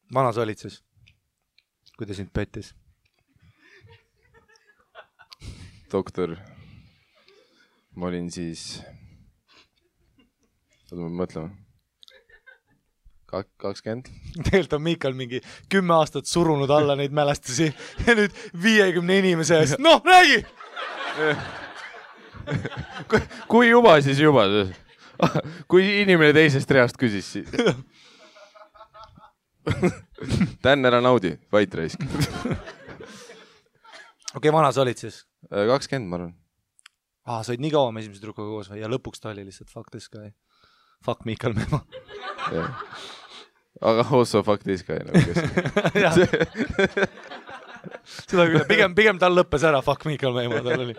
Vana sa olid siis, kui ta sind pettis? Doktor, ma olin siis, oota ma mõtlema, 20. Tegelikult on Miikal mingi 10 aastat surunud alla neid mälestusi ja nüüd 50 inimese eest, noh, räägi! Kui juba, siis juba. Kui inimene teisest reast küsis siis. Tän ära naudi, vait raisk. Okei, vana sa olid siis? 20, ma arvan. Sa olid nii kaua me esimese tüdrukuga koos ja lõpuks ta oli lihtsalt fuck this guy. Fuck Miikal Meemo. Aga also fuck this guy. Seda küll, pigem tal lõppes ära fuck Miikal Meemo, tal oli.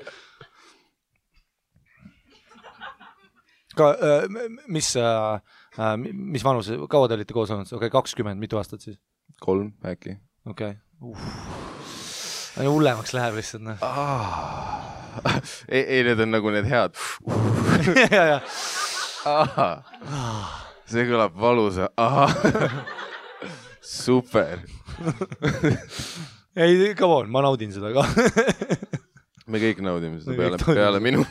Mis vanus, kaua te olite koos olnud? Okei, 20, mitu aastat siis? 3 äkki. Okei. Hullemaks läheb lihtsalt. Ei, need on nagu need head. See kõlab valusa. Super. Ei, come on, ma naudin seda ka. Me kõik naudime seda peale minu.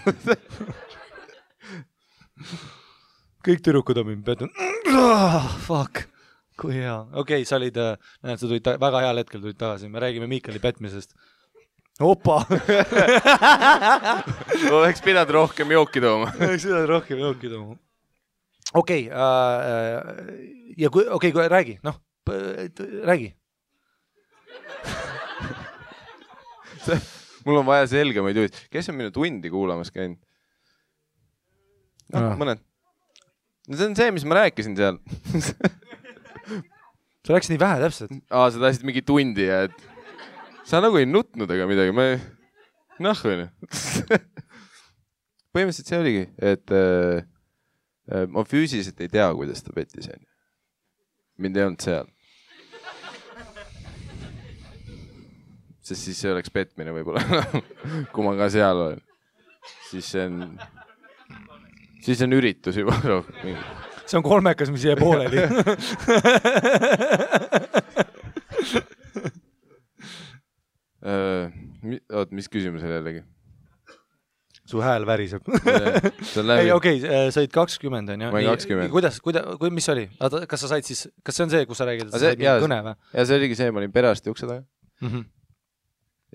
Kõik tüdrukud on mind petnud. Fuck. Kui hea. Okei, sa olid, näed, sa tulid väga heal hetkel tulid tagasi. Me räägime Miikali petmisest. Opa! Oleks pidanud rohkem jooki tooma. Okei, räägi, noh, räägi. Mul on vaja selgemaid juhid. Kes on minu tundi kuulamas käinud? No, mõned. See on see, mis ma rääkisin seal. Sa rääkisid nii vähe täpselt. Sa tahtsid mingi tundi ja et sa nagu ei nutnud ega midagi. Noh, või? Põhimõtteliselt see oligi, et ma füüsiliselt ei tea, kuidas ta pettis. Mind ei olnud seal. Sest siis see oleks petmine võib-olla. Kui ma ka seal olen. Siis on üritus juba. See on kolmekas, mis jäi pooleli. Mis küsimus oli jällegi? Su hääl väriseb. Ei, okei, sa olid 20, on ju? Ma olin 20. Mis oli? Kas sa said siis, kas see on see, kus sa räägid, et sa said mingi kõne või? Ja see oligi see, ma olin perearsti ukse taga.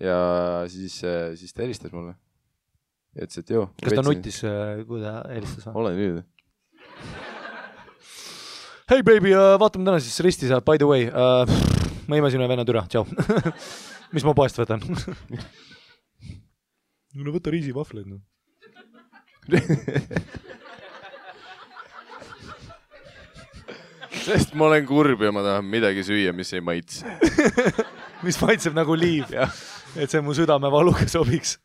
Ja siis ta helistas mulle. Ja ütles, et joo. Kas ta nutis, kui ta helistas? Olen nüüd. Hei baby, vaatame täna siis risti saab, by the way. Ma imasin ühe venna türa, tšau. Mis ma poest võtan? No võta riisivahvleid. No. Sest ma olen kurb ja ma tahan midagi süüa, mis ei maitse. Mis maitseb nagu liiv. Et see mu südamevaluga sobiks.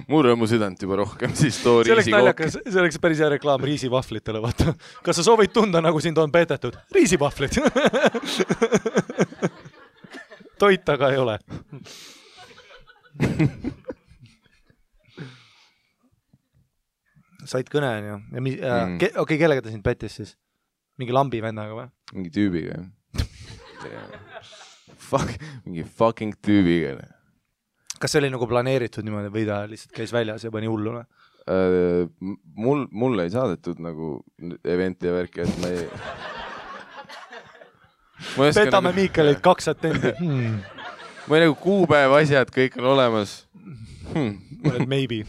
Mul on mu südant juba rohkem, siis too riisikooki. See oleks päris hea reklaam riisivahvlitele, vaata. Kas sa soovid tunda, nagu sind on peetetud? Riisivahvlid. Toit aga ei ole. Said kõne, on ju. Okei, kellega ta sind pettis siis? Mingi lambi vennaga või? Mingi tüübiga. Mingi fucking tüübiga. Kas see oli nagu planeeritud niimoodi või ta lihtsalt käis väljas ja pani hulluna? Mul ei saadetud nagu eventi ja värki, et ma ei... Petame nagu... Miikalit 2 attendi. Ma ei nagu kuupäev asjad, kõik on olemas. Maybe.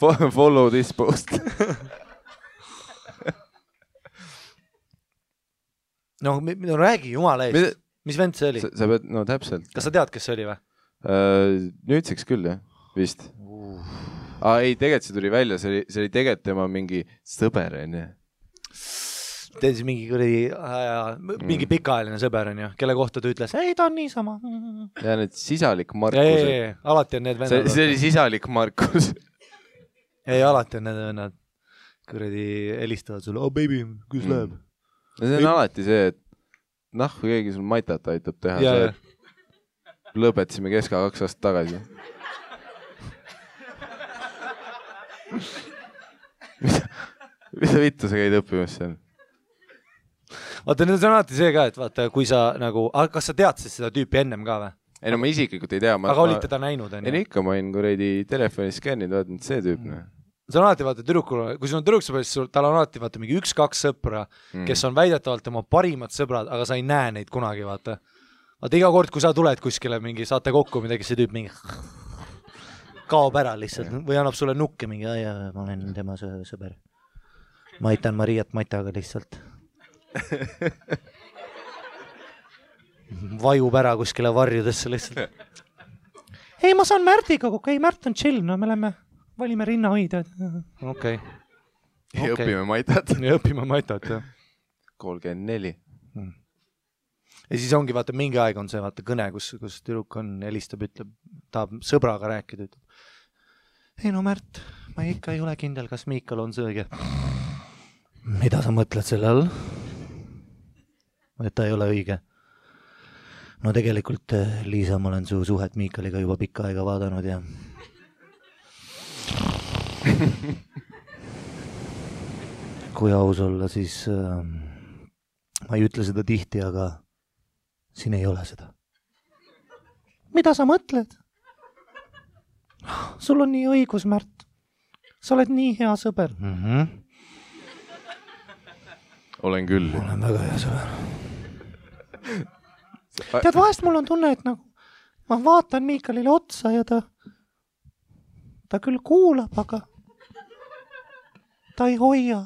Follow this post. No räägi jumala eest. Mis vend see oli? Sa pead, no täpselt. Kas sa tead, kes see oli või? Nüüdseks küll, jah, vist. Ei, tegelikult see tuli välja, see oli tegelikult tema mingi sõber, on ju. Tead siis mingi pikaajaline sõber, on ju, kelle kohta ta ütles, ei, ta on niisama. Ja need sisalik Markus. Alati on need vennad. See oli sisalik Markus. Ei, alati on need vennad. Kuradi helistavad sulle, baby, kus läheb? See on alati see, et kui keegi sul maitat aitab teha, see lõpetasime Keska 2 aastat tagasi. Mida vittu sa käid õppimas seal? vaata, nüüd on alati see ka, et vaata, kui sa nagu, kas sa tead siis seda tüüpi ennem ka või? ei no ma isiklikult ei tea. Aga olid teda näinud? Ei ikka, ma olin kuradi telefonis skänninud, vaatanud see tüüp. See on alati, vaata, tüdrukul, kui sul on tüdruksõber, siis tal on alati, vaata, mingi 1-2 sõpra, kes on väidetavalt tema parimad sõbrad, aga sa ei näe neid kunagi, vaata. Vaata, iga kord, kui sa tuled kuskile mingi, saate kokku midagi, see tüüp mingi kaob ära lihtsalt või annab sulle nukke mingi, ma olen tema sõber. Ma aitan Mariat Mataga lihtsalt. Vajub ära kuskile varjudesse lihtsalt. Ei, ma saan Märdiga kokku. Ei, Märt on chill. No me valime rinnahoidjad. Okei. Ja õpime Matat. Ja õpime Matat, jah. 34. Ja siis ongi, vaata, mingi aeg on see, vaata, kõne, kus tüdruk on, helistab, ütleb, tahab sõbraga rääkida, ütleb. Ei no Märt, ma ikka ei ole kindel, kas Miikal on see õige. Mida sa mõtled selle all? Et ta ei ole õige. No tegelikult, Liisa, ma olen su suhet Miikaliga juba pikka aega vaadanud ja kui aus olla, siis ma ei ütle seda tihti, aga siin ei ole seda. Mida sa mõtled? Sul on nii õigus, Märt. Sa oled nii hea sõber. Olen küll. Olen väga hea sõber. Tead, vahest mul on tunne, et nagu ma vaatan Miikalile otsa ja ta küll kuulab, aga ta ei hoia.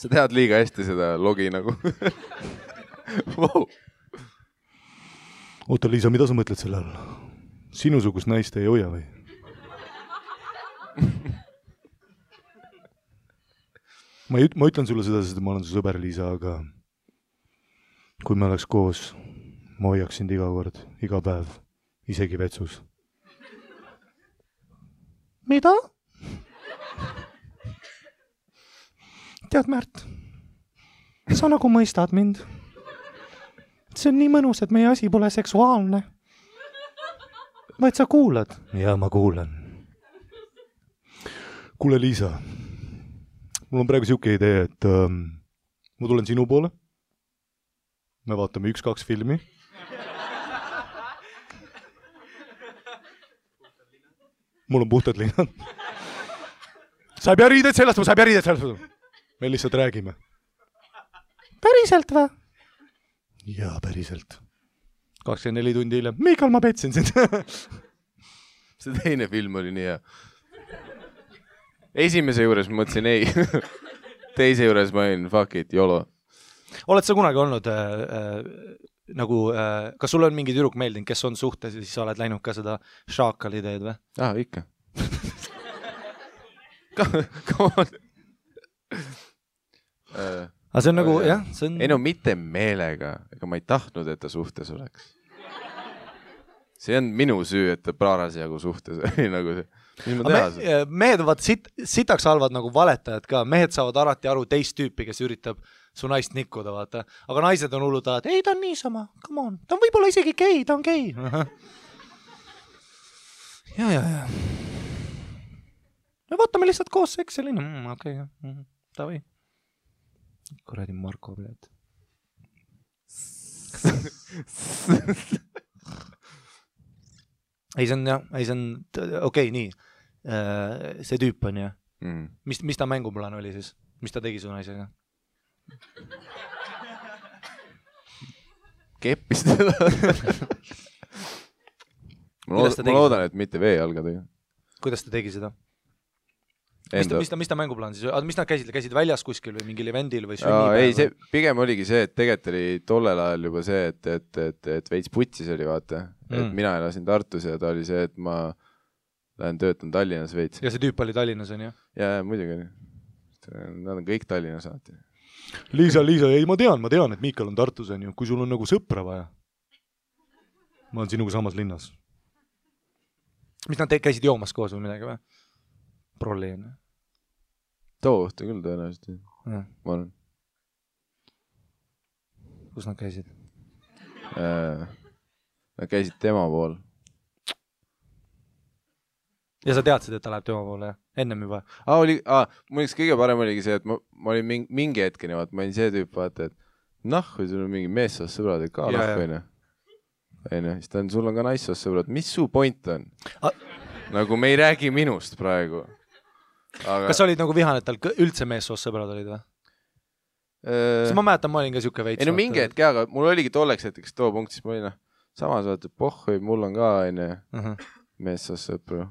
Sa tead liiga hästi seda logi nagu. Wow. Oota, Liisa, mida sa mõtled selle all? Sinusugust naist ei hoia või? Ma ütlen sulle seda, sest ma olen su sõber, Liisa, aga kui me oleks koos, ma hoiaks sind iga kord, iga päev, isegi vetsus. Mida? Tead, Märt, sa nagu mõistad mind. See on nii mõnus, et meie asi pole seksuaalne. Vaid sa kuulad. Ja ma kuulan. Kuule, Liisa, mul on praegu siuke idee, et ma tulen sinu poole. Me vaatame 1-2 filmi. Mul on puhtad linnad. Sa ei pea riided sellest. Me lihtsalt räägime. Päriselt või? Jaa, päriselt. 24 tundi hiljem. Miikal, ma petsin sind. See teine film oli nii hea. Esimese juures ma mõtlesin ei. Teise juures ma olin fuck it, YOLO. Oled sa kunagi olnud kas sul on mingi tüdruk meeldinud, kes on suhtes ja siis sa oled läinud ka seda šaakali teed või? Ikka. Come on. Aga see on nagu, jah, see on... Ei no mitte meelega, ega ma ei tahtnud, et ta suhtes oleks. See on minu süü, et ta praarasjagu suhtes oli nagu see. Mis ma teha seda? Mehed on sitaks halvad nagu valetajad ka. Mehed saavad alati aru teist tüüpi, kes üritab su naist nikkuda, vaata. Aga naised on hullud alati, ei, ta on niisama, come on. Ta on võib-olla isegi gei, ta on gei. Ja. Me vaatame lihtsalt koos Excelini. Okei, davai. Kuradi Marko, bled. Ei, see on, okei, nii. See tüüp on, jah. Mis ta mänguplaan oli siis? Mis ta tegi su naisega? Keppis teda. Ma loodan, et mitte veejalgadega. Kuidas ta tegi seda? Mis ta mänguplaan siis? Mis nad käisid väljas kuskil või mingil evendil või sünnipäev? Ei, see pigem oligi see, et tegelikult oli tollel ajal juba see, et veits putsis oli, vaata. Et mina elasin Tartus ja ta oli see, et ma lähen töötan Tallinnas veits. Ja see tüüp oli Tallinnas, on ju? Ja, muidugi oli. Nad on kõik Tallinnas alati. Liisa, ei, ma tean, et Miikal on Tartus, on ju. Kui sul on nagu sõpra vaja. Ma olen sinuga samas linnas. Mis nad käisid joomas koos või midagi või? Prolli on. Too õhtu küll tõenäoliselt. Ma olen. Kus nad käisid? Nad käisid tema pool. ja sa teadsid, et ta läheb tema poole, ennem juba? Mul üks kõige parem oligi see, et ma olin mingi hetkeni, vaata, ma olin see tüüp, vaata, et kui sul on mingi meessoost sõbrad, et ka nahku, siis ta on, sul on ka naissoost sõbrad, mis su point on? Nagu me ei räägi minust praegu. Kas sa olid nagu vihane, et tal üldse meessoost sõbrad olid või? Siis ma mäletan, ma olin ka siuke veits. Ei no mingi hetk, aga mul oligi tolleks hetkeks too punkt, siis ma olin samas vaata, et mul on ka meessoost sõpru.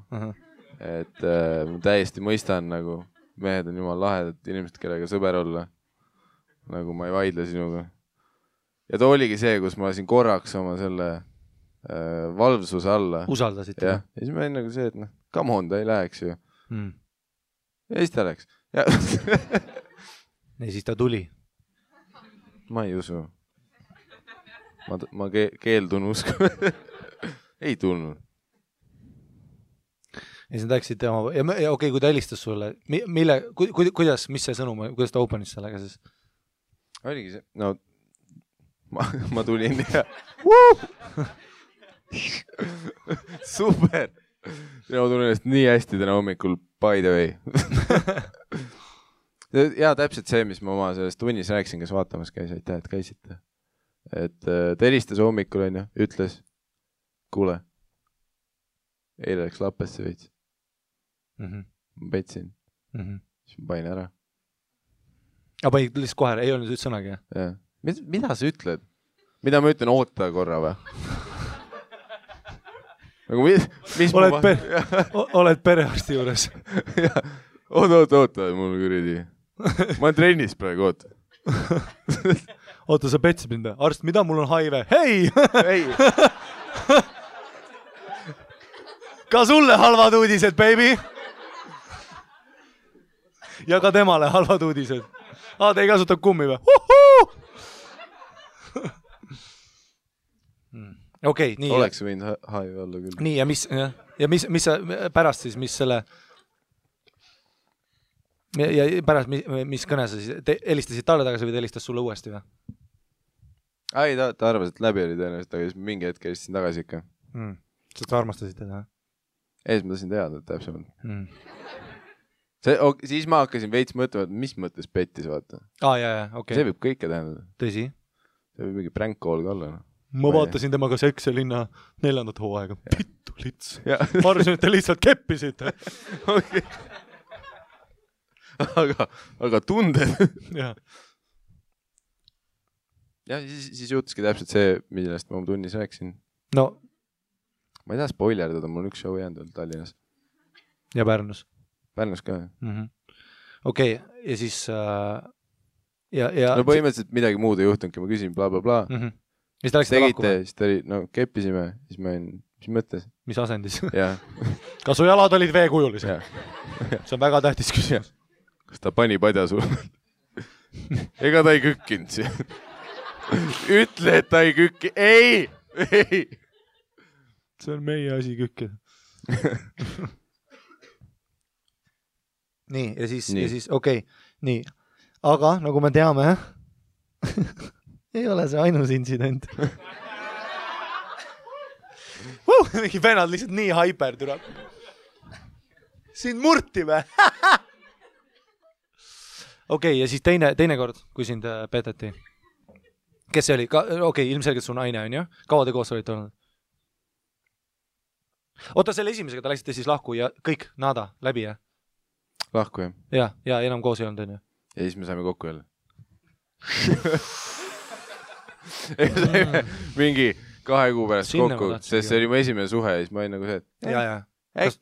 Et ma täiesti mõistan, nagu mehed on jumal lahedad inimesed, kellega sõber olla. Nagu ma ei vaidle sinuga. Ja too oligi see, kus ma lasin korraks oma selle valvsuse alla. Usaldasid? Ja siis ma olin nagu see, et come on, ta ei läheks ju. Ja siis ta läks. Ja siis ta tuli. Ma ei usu. Ma keeldun usku. Ei tulnud. Ja siis nad läksid tema... Ja okei, kui ta helistas sulle, kuidas, mis see sõnum, kuidas ta openis sellega siis? Oligi see, no ma tulin ja super. Ma tunnen ennast nii hästi täna hommikul, by the way. Ja täpselt see, mis ma oma sellest tunnis rääksin, kes vaatamas käis, aitäh, et käisite. Et ta helistas hommikul, ütles, kuule, eile läks lappesse veits. Ma petsin. Siis ma pain ära. Aga panid lihtsalt kohe, ei olnud üldse sõnagi? Jah. Mida sa ütled? Mida ma ütlen, oota korra või? Nagu mis oled perearsti juures? Oota, mul kuridi. Ma olen trennis praegu, oota. Oota, sa petsid mind. Arst, mida mul on HIV? Hei! Ka sulle halvad uudised, baby! Ja ka temale halvad uudised. Te ei kasuta kummi või? Okei, nii. Oleks võinud HIV olla küll. Nii, ja mis sa pärast siis, mis selle... Ja pärast, mis kõne sa siis... Helistasid talle tagasi või ta helistas sulle uuesti või? Ei, ta arvas, et läbi oli tõenäoliselt, aga siis mingi hetk helistasin tagasi ikka. Sa armastasid teda? Ees ma tasin teada täpsemalt. Siis ma hakkasin veits mõtlema, et mis mõttes pettis, vaata. Okay. See võib kõike tähendada. Tõsi? See võib mingi prank call ka olla. Ma vaatasin temaga Seksi linna 4. hooaega. Pittu lits. Ma arvasin, et te lihtsalt keppisite. Okay. Aga tunded. Ja siis juhtuski täpselt see, millest ma tunnis rääksin. No. Ma ei taha spoilerdada, mul on üks show jäänud Tallinnas. Ja Pärnus? Pärnus ka. Okei, ja siis... No põhimõtteliselt midagi muud ei juhtunudki, ma küsin bla bla bla. Siis ta läks seda lahku? Siis ta oli, no keppisime, siis ma olin, mis mõttes? Mis asendis? Jah. Kas su jalad olid veekujulised? See on väga tähtis küsimus. Kas ta pani padja sul? Ega ta ei kükkinud siia. Ütle, et ta ei kükki. Ei! See on meie asi kükkida. Nii, ja siis okei. Nii, aga nagu me teame, ei ole see ainus intsident. Mingi vennad lihtsalt nii hyper tuleb. Sind murti või? Okei, ja siis teine kord, kui sind peteti. Kes see oli? Okei, ilmselgelt su naine on ju? Kaua te koos olite olnud? Oota, selle esimesega ta läksite siis lahku ja kõik nada läbi, jah? Lahku, jah. Ja enam koos ei olnud, on ju? Ja siis me saime kokku jälle. Mingi 2 kuu pärast kokku, sest see oli mu esimene suhe ja siis ma olin nagu see, et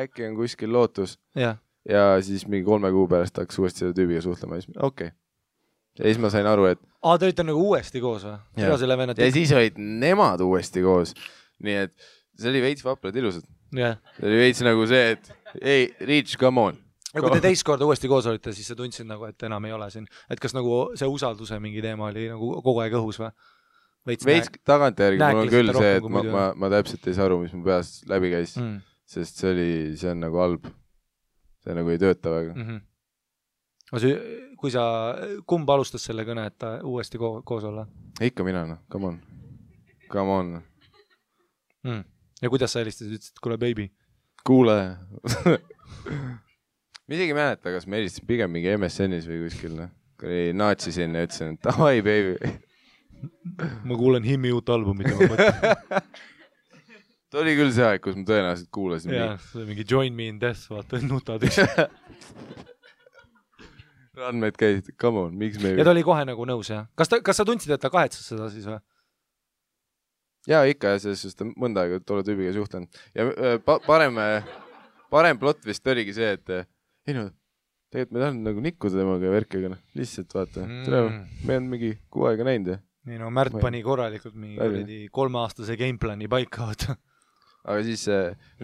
äkki on kuskil lootus. Ja siis mingi 3 kuu pärast hakkas uuesti selle tüübiga suhtlema ja siis okei. Ja siis ma sain aru, et... Te olite nagu uuesti koos või? Ja siis olid nemad uuesti koos. Nii et see oli veits vaprad ilusad. See oli veits nagu see, et ei, Reach, come on. Ja kui te teist korda uuesti koos olite, siis sa tundsid nagu, et enam ei ole siin. Et kas nagu see usalduse mingi teema oli nagu kogu aeg õhus või? Veits tagantjärgi mul on küll see, et ma täpselt ei saa aru, mis mu peas läbi käis. Sest see on nagu halb. See nagu ei tööta väga. Kui sa, kumb alustas selle kõne, et ta uuesti koos olla? Ikka mina, no, come on. Ja kuidas sa helistasid, ütlesid, kuule baby? kuule . ma isegi ei mäleta , kas ma helistasin pigem mingi MSN-is või kuskil , noh . Naatsisin ja ütlesin , et davai , baby . ma kuulen Himmi uut albumit ja ma mõtlen . ta oli küll see aeg , kus ma tõenäoliselt kuulasin . jaa , see mingi Join Me in Death , vaata , nutad üks . Randmed käisid , come on , miks me ja ta oli kohe nagu nõus , jah ? kas sa tundsid , et ta kahetsas seda siis või ? jaa , ikka , selles suhtes mõnda aega tolle tüübiga suhtlenud . ja parem plott vist oligi see , et ei no , tegelikult me tahan nagu nikkuda temaga ja värkiga , noh , lihtsalt vaata . me on mingi 6 aega näinud ja . nii no Märt pani korralikult mingi 3-aastase gameplani paika , vaata . aga siis ,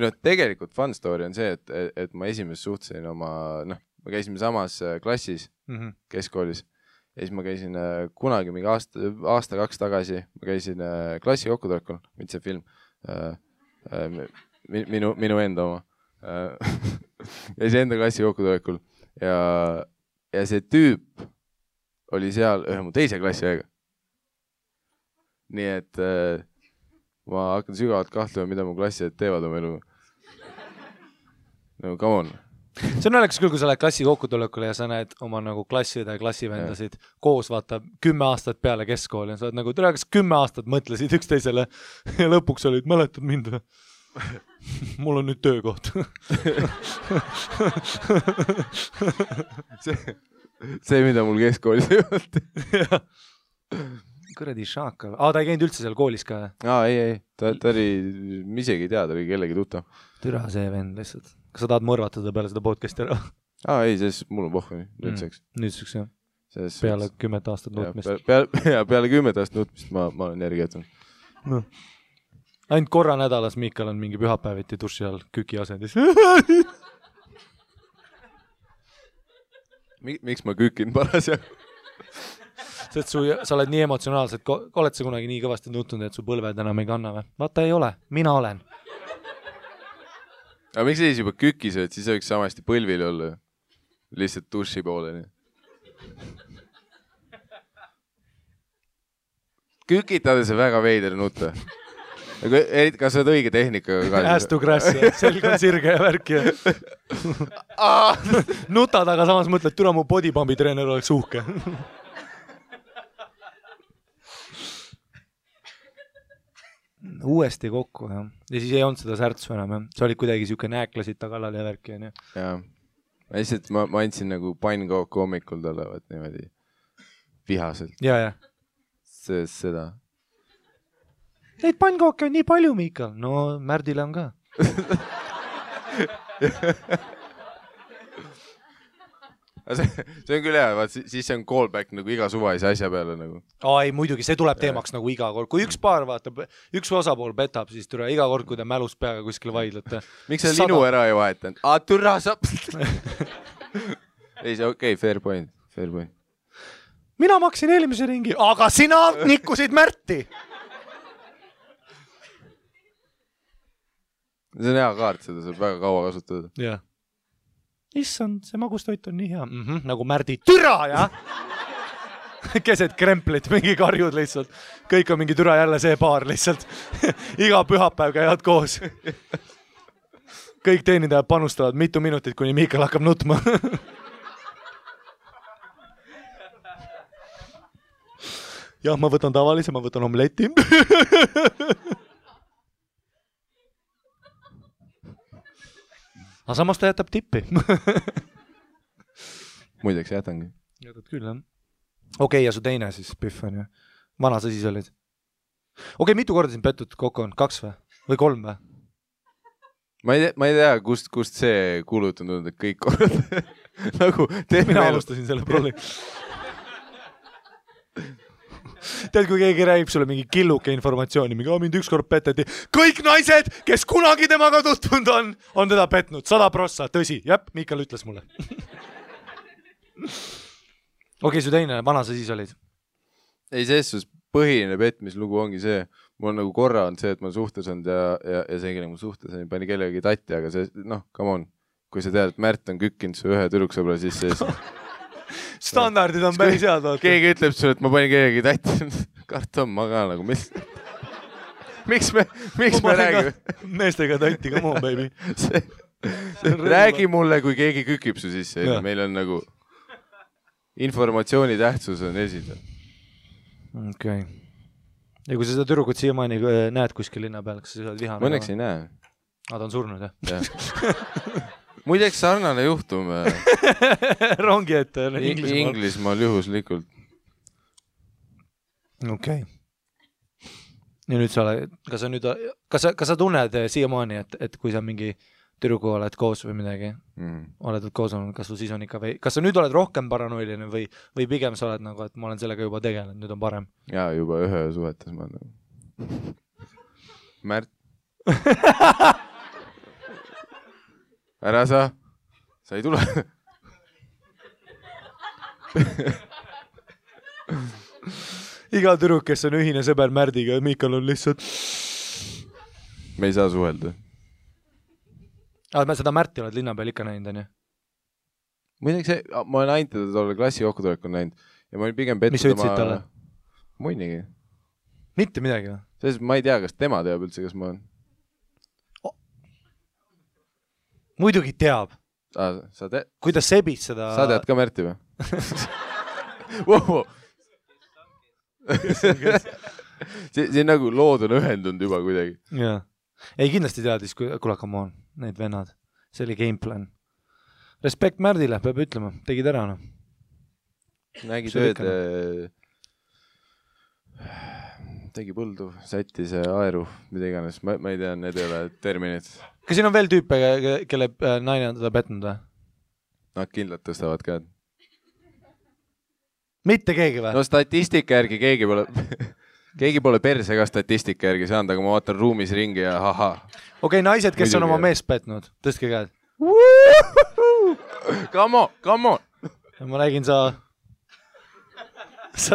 no tegelikult fun story on see , et ma esimest suhtlesin oma , noh , me käisime samas klassis keskkoolis ja siis ma käisin kunagi mingi aasta-2 tagasi , ma käisin klassi kokkutulekul , mitte see film , minu enda oma , käisin enda klassi kokkutulekul ja see tüüp oli seal ühe mu teise klassi aega . nii et ma hakkan sügavalt kahtlema , mida mu klassiõed teevad oma elu . no come on . see on naljakas küll , kui sa lähed klassi kokkutulekule ja sa näed oma nagu klassiõde ja klassivendasid koos , vaata 10 aastat peale keskkooli ja sa oled nagu , tere , kas 10 aastat mõtlesid üksteisele ja lõpuks olid , mäletad mind või ? mul on nüüd töökoht . see , mida mul keskkoolis ei olnud . kuradi šaakal . ta ei käinud üldse seal koolis ka ? ei , ta oli , ma isegi ei tea , ta oli kellegi tuttav . türa see vend lihtsalt . kas sa tahad mõrvatada peale seda podcast'i ära ? ei , selles mul on pohhu nüüdseks . nüüdseks jah . peale 10 aastat nutmist . peale 10 aastat nutmist ma olen järgi jätnud . no. ainult korra nädalas Miikal on mingi pühapäeviti duši all küki asendis . miks ma kükin parasjagu ? sest sa oled nii emotsionaalselt , oled sa kunagi nii kõvasti nutnud , et su põlved enam ei kanna või ? vaata ei ole , mina olen . aga miks sa siis juba küki sööd , siis võiks samasti põlvil olla . lihtsalt duši pooleni . kükitades on väga veider nutta . kas sa oled õige tehnikaga ka ? Ass to grass ja selg on sirge ja värk ja nutad , aga samas mõtled , türa mu bodypumpi treener oleks uhke . uuesti kokku jah , ja siis ei olnud seda särtsu enam jah , sa olid kuidagi siuke nääklasid ta kallal ja värki onju . jaa , lihtsalt ma andsin nagu pannkooku hommikul talle , vaat niimoodi vihaselt . ja . seda . Neid pannkooke on nii palju , Miikal . no Märdile on ka . see on küll hea , vaat siis see on callback nagu iga suvalise asja peale nagu . ei muidugi , see tuleb teemaks nagu iga kord , kui üks paar vaatab , üks osapool petab , siis türa iga kord , kui te mälus peaga kuskil vaidlete . miks sa linu ära ei vahetanud ? türa sa . ei , see okei , fair point . mina maksin eelmise ringi , aga sina nikkusid Märti . see on hea kaart , seda saab väga kaua kasutada . jah . issand , see magustoit on nii hea . nagu Märdi türa , jah . keset kremplit , mingi karjud lihtsalt . kõik on mingi türa jälle see paar lihtsalt . iga pühapäev käivad koos . kõik teenindajad panustavad mitu minutit , kuni Miikal hakkab nutma . jah , ma võtan tavalise , ma võtan omleti . aga samas ta jätab tippi . muideks jätangi . jätad küll jah . okei , ja su teine siis Pihv on ju . vana sa siis olid ? okei , mitu korda sind pettud kokku on ? 2 või ? või 3 või ? ma ei tea , kust see kuulut on tulnud , et kõik korrad nagu mina alustasin selle prolli . tead , kui keegi räägib sulle mingi killuke informatsiooni , mingi mind ükskord peteti , kõik naised , kes kunagi temaga tutvunud on teda petnud , 100%, tõsi , jep , Miikal ütles mulle . okei , su teine , vana sa siis olid ? ei , selles suhtes põhiline petmislugu ongi see , mul on nagu korra on see , et ma suhtes olnud ja see , kellega ma suhtes olin , pani kellegi tatti , aga see , noh , come on , kui sa tead , et Märt on kükkinud su ühe tüdruksõbra sisse , siis standardid on päris head , vaata . keegi ütleb sulle , et ma panin kellegi tatti , karta on ma ka nagu , mis . miks me räägime? Meestega tanti, come on, baby. Räägi mulle, kui keegi kükib su sisse. Meil on nagu informatsiooni tähtsus on esindav. Okei. Ja kui sa seda tüdrukut siiamaani näed kuskil linna peal, kas sa oled vihane? Ma õnneks ei näe. Ta on surnud, jah? Muideks sarnane juhtum. Rongi ette Inglismaal juhuslikult. Okei. Ja nüüd kas sa tunned siiamaani, et kui sa mingi tüdruku oled koos või midagi, oled koos olnud, kas sul siis on ikka kas sa nüüd oled rohkem paranoiline või pigem sa oled nagu, et ma olen sellega juba tegelenud, nüüd on parem? Jaa, juba ühe suhetes ma olen. Märt. Ära sa ei tule. Iga tüdruk, kes on ühine sõber Märdiga, Miikal on lihtsalt... Me ei saa suhelda. Seda Märti oled linna peal ikka näinud, on ju? Muideks ma olen ainult teda tolle klassi kokkutulekul näinud ja ma olin pigem pettud mis sa ütlesid talle? Muinigi. Mitte midagi või? Selles ma ei tea, kas tema teab üldse, kas ma olen. Muidugi teab. Kuidas sebid seda... Sa tead ka Märti või? Wow. See on nagu lood on ühendunud juba kuidagi. Jaa. Ei, kindlasti teadis, kuule, come on, need vennad. See oli gameplan. Respekt Märdile, peab ütlema. Tegid ära, no. Nägi tööd, tegi põldu, sättis aeru, mida iganes. Ma ei tea, need ei ole terminid. Kas siin on veel tüüpe, kelle naine on teda petnud või? Nad kindlalt tõstavad käed. Mitte keegi või? No statistika järgi keegi pole perse ka statistika järgi saanud, aga ma vaatan ruumis ringi ja haha. Okei, naised, kes on oma meest petnud, tõstke käed. Come on. Ma räägin, sa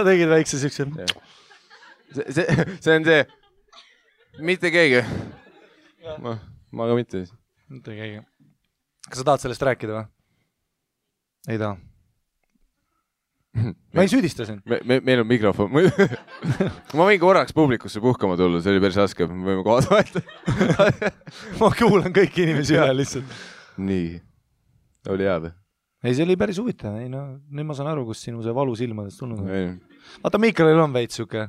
tegid väikse sükse. See on see. Mitte keegi. Ma ka mitte. Mitte keegi. Kas sa tahad sellest rääkida või? Ei taha. Ma ei süüdista sind. Meil on mikrofon. Ma võin korraks publikusse puhkama tulla, see oli päris raske. Me võime kohad vahetada. Ma kuulan kõiki inimesi üle lihtsalt. Nii. Oli hea või? Ei, see oli päris huvitav. Ei, no, nüüd ma saan aru, kus sinu see valu silmadest tulnud. Vaata, Miikalil on veits siuke.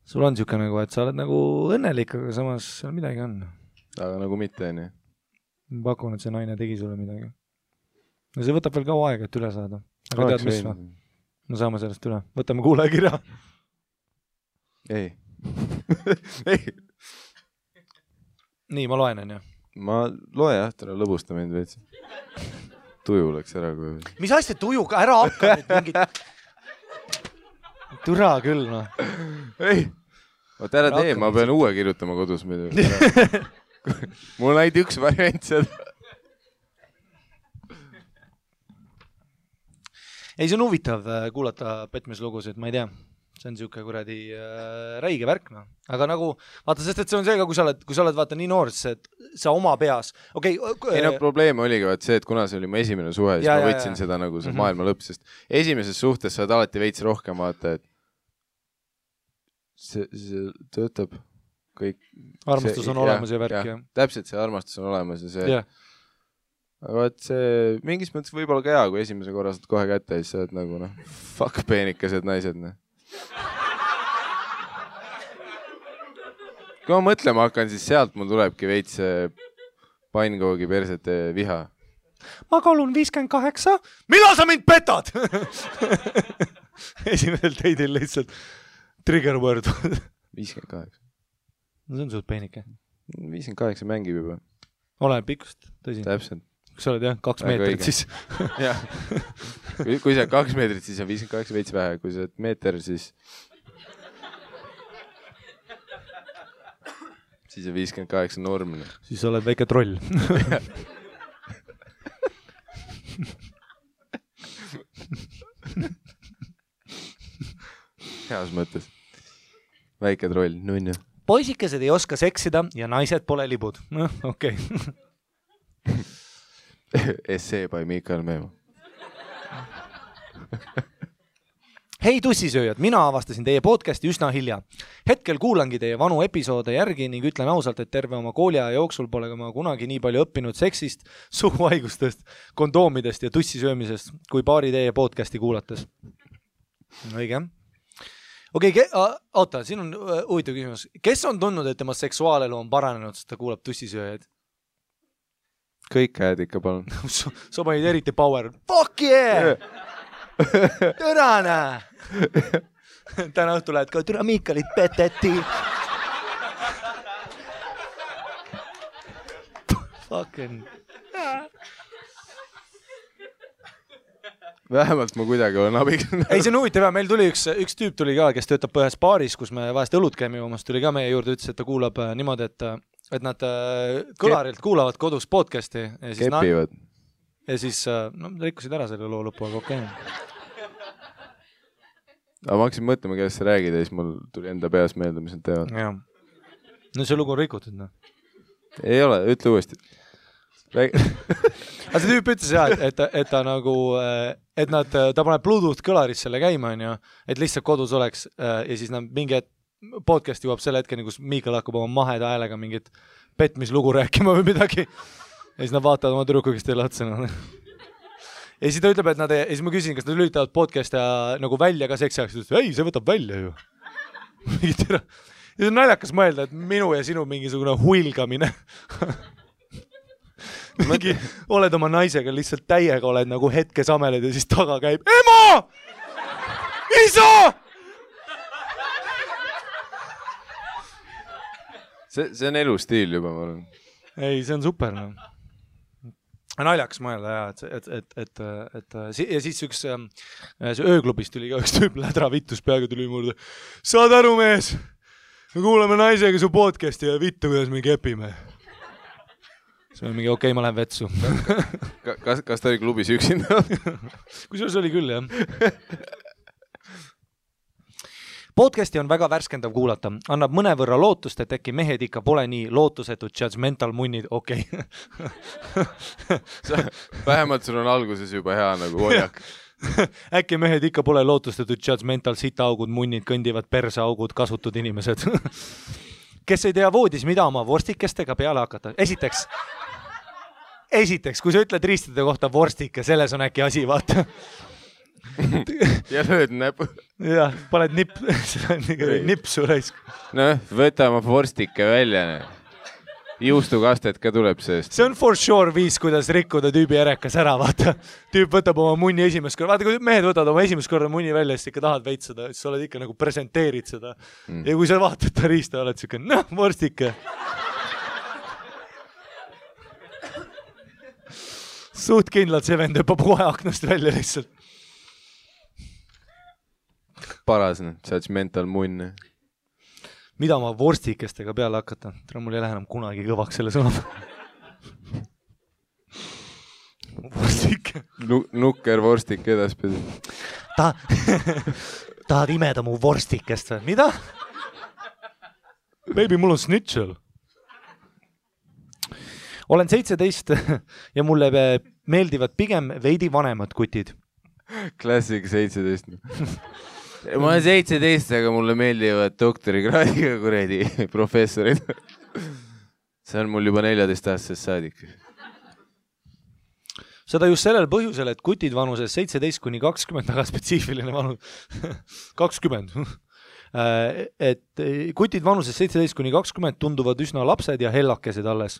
Sul on siuke nagu, et sa oled nagu õnnelik, aga samas seal midagi on. Aga nagu mitte, nii. Ma pakun, et see naine tegi sulle midagi. Ja see võtab veel kaua aega, et üle saada. Aga tead, mis või? No saame sellest üle. Võtame kuulajakirja. Ei. Nii, ma loen, on ju? Ma loe jah, täna lõbusta mind veits. Tuju läks ära. Mis asja tujuga? Ära hakka nüüd mingit... Türa küll, noh. Ei. Vaat ära tee, ma pean uue kirjutama kodus. Mul on ainult üks variant seda. Ei, see on huvitav kuulata petmislugusid, ma ei tea. See on siuke kuradi räige värk, no. Aga nagu, vaata, sest et see on see ka, kui sa oled vaata nii noor, et sa oma peas... Ei no probleem oligi vaat see, et kuna see oli mu esimene suhe, siis ma võtsin seda nagu see maailma lõpp, sest esimeses suhtes sa oled alati veits rohkem vaata, et see töötab kõik... Armastus on olemas ja värk, jah. Täpselt see armastus on olemas ja see... Aga vaat see mingis mõttes võib-olla ka hea, kui esimese korra saad kohe kätte ja siis sa oled nagu, noh, fuck peenikesed naised, noh. Kui ma mõtlema hakkan, siis sealt mul tulebki veits pannkoogi persete viha. Ma kalun 58. Millal sa mind petad? Esimesel teidil lihtsalt trigger word. 58. No see on suht peenike. 58 mängib juba. Olen pikkust, tõsi. Täpselt. Kui sa oled jah, 2 meetrit, siis... Jah. Kui sa 2 meetrit, siis on 58 veits vähe. Kui sa oled meeter, siis on 58 normne. Siis sa oled väike troll. Heas mõttes. Väike troll, nunnu. Poisikesed ei oska seksida ja naised pole libud. Noh, okei. Essee by Miikal Meemo. Hei tussisööjad, mina avastasin teie podcasti üsna hilja. Hetkel kuulangi teie vanu episoode järgi ning ütlen ausalt, et terve oma kooliaja jooksul pole ma kunagi nii palju õppinud seksist, suguhaigustest, kondoomidest ja tussisöömisest kui paari teie podcasti kuulates. Õige. Okei, oota, siin on huvitav küsimus. Kes on tundnud, et tema seksuaalelu on paranenud, sest ta kuulab tussisööjaid? Kõik käed ikka palun. Sa panid eriti power. Fuck yeah! Türane! Täna õhtu lähed ka, türa Miikalit peteti. Fucking... Vähemalt ma kuidagi olen abiks. Ei, see on huvitav ja meil tuli üks tüüp tuli ka, kes töötab ühes baaris, kus me vahest õlut käime joomas, tuli ka meie juurde, ütles, et ta kuulab niimoodi, et nad kõlarilt kuulavad kodus podcasti. Ja siis kepivad. Ja siis rikkusid ära selle loo lõpu, aga okei. Aga ma hakkasin mõtlema, kellest sa räägid ja siis mul tuli enda peas meelde, mis nad teevad. Ja. No see lugu on rikutud, no. Ei ole, ütle uuesti. Aga see tüüp ütles jah, et ta nagu, et ta paneb Bluetooth kõlaris selle käima, et lihtsalt kodus oleks ja siis mingi podcast jõuab selle hetkeni, kus Miikal hakkab oma maheda häälega mingit petmislugu rääkima või midagi. Ja siis nad vaatavad oma tüdruku, kes teile otsa. Ja siis ta ütleb, et ja siis ma küsin, kas nad lülitavad podcast nagu välja ka seksi ajaks. Ei, see võtab välja ju. Ja see on naljakas mõelda, et minu ja sinu mingisugune huilgamine. Mingi, oled oma naisega lihtsalt täiega, oled nagu hetkes ameled ja siis taga käib Ema! Isa! See on elustiil juba, ma olen. Ei, see on super. No. Naljakas mõelda, jah, ja siis üks ööklubis tuli ka üks tüüp lädra vittus peaga tuli muurde. Saad aru, mees? Me kuuleme naisega su podcasti ja vittu, kuidas me kepime. See on mingi okei, ma lähen vetsu. Kas ta oli klubis üksinda? Kusjuures oli küll, jah. Podcasti on väga värskendav kuulata. Annab mõnevõrra lootust, et äkki mehed ikka pole nii lootusetud judgmental munnid. Okei. Vähemalt sul on alguses juba hea nagu hoiak. Äkki mehed ikka pole lootustatud judgmental sitaaugud, munnid, kõndivad perseaugud, kasutud inimesed. Kes ei tea voodis, mida oma vorstikestega peale hakata. Esiteks, kui sa ütled riistide kohta vorstike, selles on äkki asi, vaata. Ja lööd näpu. Jah, paned nipsu raisk. No, võta oma vorstike välja. Juustukastet ka tuleb seest. See on for sure viis, kuidas rikkuda tüübi ärekas ära, vaata. Tüüp võtab oma munni esimest korda. Vaata, kui mehed võtavad oma esimest korda munni välja, siis ikka tahad veitsada, siis sa oled ikka nagu presenteerid seda. Ja kui sa vaatad ta riista, oled siuke, vorstike. Suht kindlalt see vend õppab kohe aknast välja lihtsalt. Paras, judgmental munn. Mida ma vorstikestega peale hakata? Mul ei lähe enam kunagi kõvaks selle sõna. Vorstike. Nukker vorstik edaspidi. Tahad imeda mu vorstikest või? Mida? Baby, mul on snitšel. Olen 17 ja mulle meeldivad pigem veidi vanemad kutid. Klassik 17. Ma olen 17, aga mulle meeldivad doktorikraadiga kuredi professorid. See on mul juba 14-aastasest saadik. Seda just sellel põhjusel, et kutid vanuses 17-20, aga spetsiifiline vanus 20. Et kutid vanuses 17-20 tunduvad üsna lapsed ja hellakesed alles.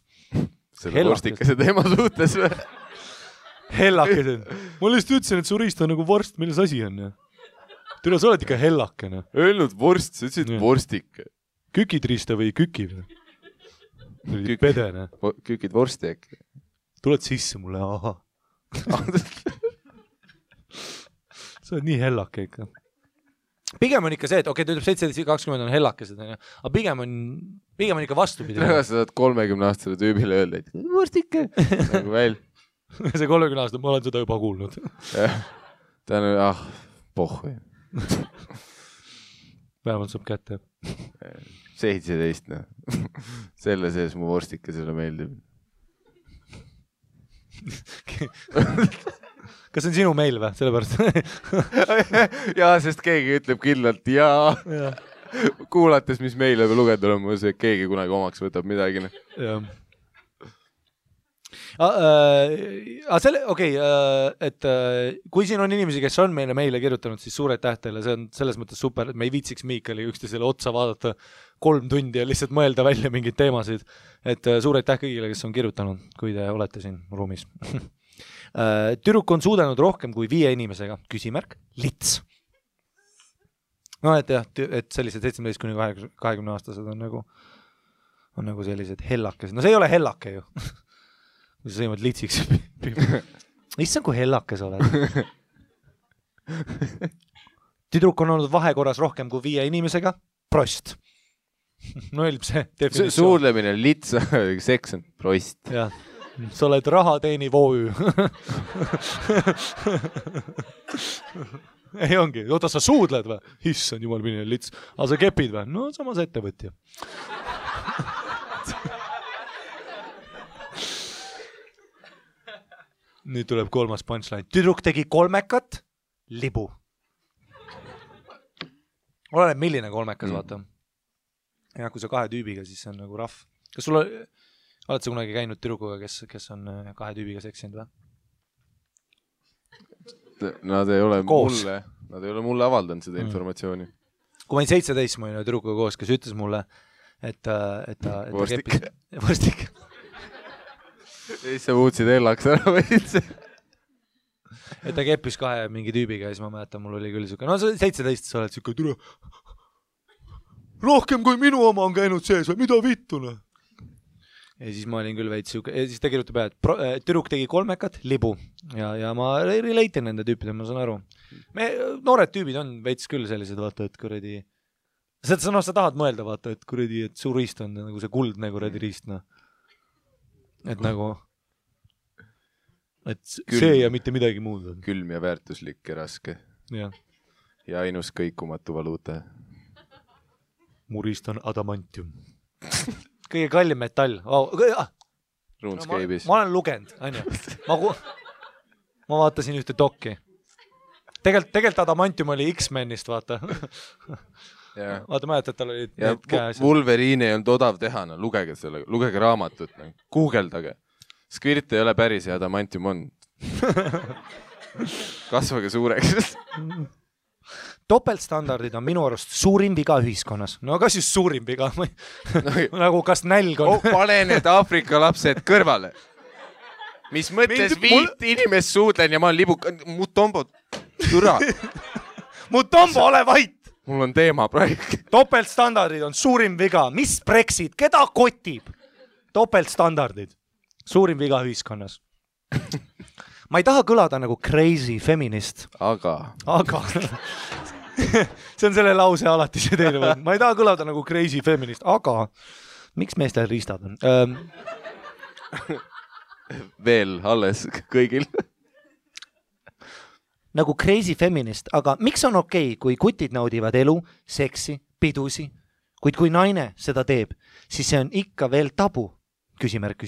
Selle vorstikese teema suhtes või? Hellakesed. Ma lihtsalt ütlesin, et su riist on nagu vorst, milles asi on. Tule, sa oled ikka hellakene. Öelnud vorst, sa ütlesid vorstike. Kükid riista või küki või? Pedene. Kükid vorsti äkki. Tuled sisse mulle, aha. Sa oled nii hellake ikka. Pigem on ikka see, et okei, ta ütleb 17-20 on hellakesed, aga pigem on ikka vastupidi. Sa saad 30-aastasele tüübile öelda, et vorstike. Nagu väl. See 30-aastane, ma olen seda juba kuulnud. Ta on, pohhu. Vähemalt saab kätte. 17, Selle sees mu vorstike selle meeldib. kas see on sinu meil või? Sellepärast. jaa, sest keegi ütleb kindlalt jaa. Kuulates, mis meile või lugeda on, ma see, keegi kunagi omaks võtab midagi. Jah. Et kui siin on inimesi, kes on meile kirjutanud, siis suur aitäh teile, see on selles mõttes super, et me ei viitsiks Miikali üksteisele otsa vaadata 3 tundi ja lihtsalt mõelda välja mingeid teemasid. Et suur aitäh kõigile, kes on kirjutanud, kui te olete siin ruumis. Tüdruk on suudanud rohkem kui 5 inimesega, küsimärk, lits. No et jah, et sellised 17–20 aastased on nagu sellised hellakesed. No see ei ole hellake ju. Kui sa sõimad litsiks. Issand, kui hellakes oled. Tüdruk on olnud vahekorras rohkem kui 5 inimesega. Prost. No eelb see definitsioon. Suudlemine, lits, seks on prost. Jah. Sa oled raha teeni VOÜ. Ei ongi. Oota, sa suudled või? Issand, jumal mine lits. Aga sa kepid või? No samas ettevõtja. Nüüd tuleb 3. punchline. Tüdruk tegi 3 libu. Oleneb milline 3, vaata. Ja kui sa 2 tüübiga, siis see on nagu rahv. Kas sul oled sa kunagi käinud tüdrukuga, kes on 2 tüübiga seksinud või? Nad ei ole mulle avaldanud seda informatsiooni. Kui ma olin 17, ma olin tüdrukuga koos, kes ütles mulle, et ta Vorstik. Siis sa muutsid hellaks ära või üldse? Et ta keppis 2 mingi tüübiga ja siis ma mäletan, mul oli küll siuke, no 17 sa oled siuke türa. Rohkem kui minu oma on käinud sees või mida vittune? Ja siis ma olin küll veits siuke, ja siis ta kirjutab peale, et tüdruk tegi 3 libu ja ma relate'in nende tüüpide, ma saan aru. Noored tüübid on veits küll sellised, vaata, et kuradi, sa tahad mõelda, vaata, et kuradi, et su riist on nagu see kuldne kuradi riist, no. Et nagu, et see ja mitte midagi muud on. Külm ja väärtuslik ja raske. Ja ainus kõikumatu valuuta. Mu riist on adamantium. Kõige kallim metall. RuneScape'is. Ma olen lugenud, onju. Ma vaatasin ühte dokki. Tegelikult adamantium oli X-Menist, vaata. Vaata, mäletad, tal oli need käes. Wolverine ei olnud odav teha, no lugege selle, lugege raamatut, Googleldage. Squirt ei ole päris ja adamantium on. Kasvage suureks. Topeltstandardid on minu arust suurim viga ühiskonnas. No kas just suurim viga? Nagu kas nälg on? Pane need Aafrika lapsed kõrvale. Mis mõtles 5 inimest suudlen ja ma olen libuk... Mutombo, türa. Mutombo, ole vait! Mul on teema praegu. Topeltstandardid on suurim viga. Mis Brexit? Keda kotib? Topeltstandardid. Suurim viga ühiskonnas. Ma ei taha kõlada nagu crazy feminist. Aga. See on selle lause alati see teine. Ma ei taha kõlada nagu crazy feminist, aga miks meestel riistad on? Veel alles kõigil. Nagu crazy feminist, aga miks on okei, kui kutid naudivad elu, seksi, pidusi, kuid kui naine seda teeb, siis see on ikka veel tabu. Küsimärk.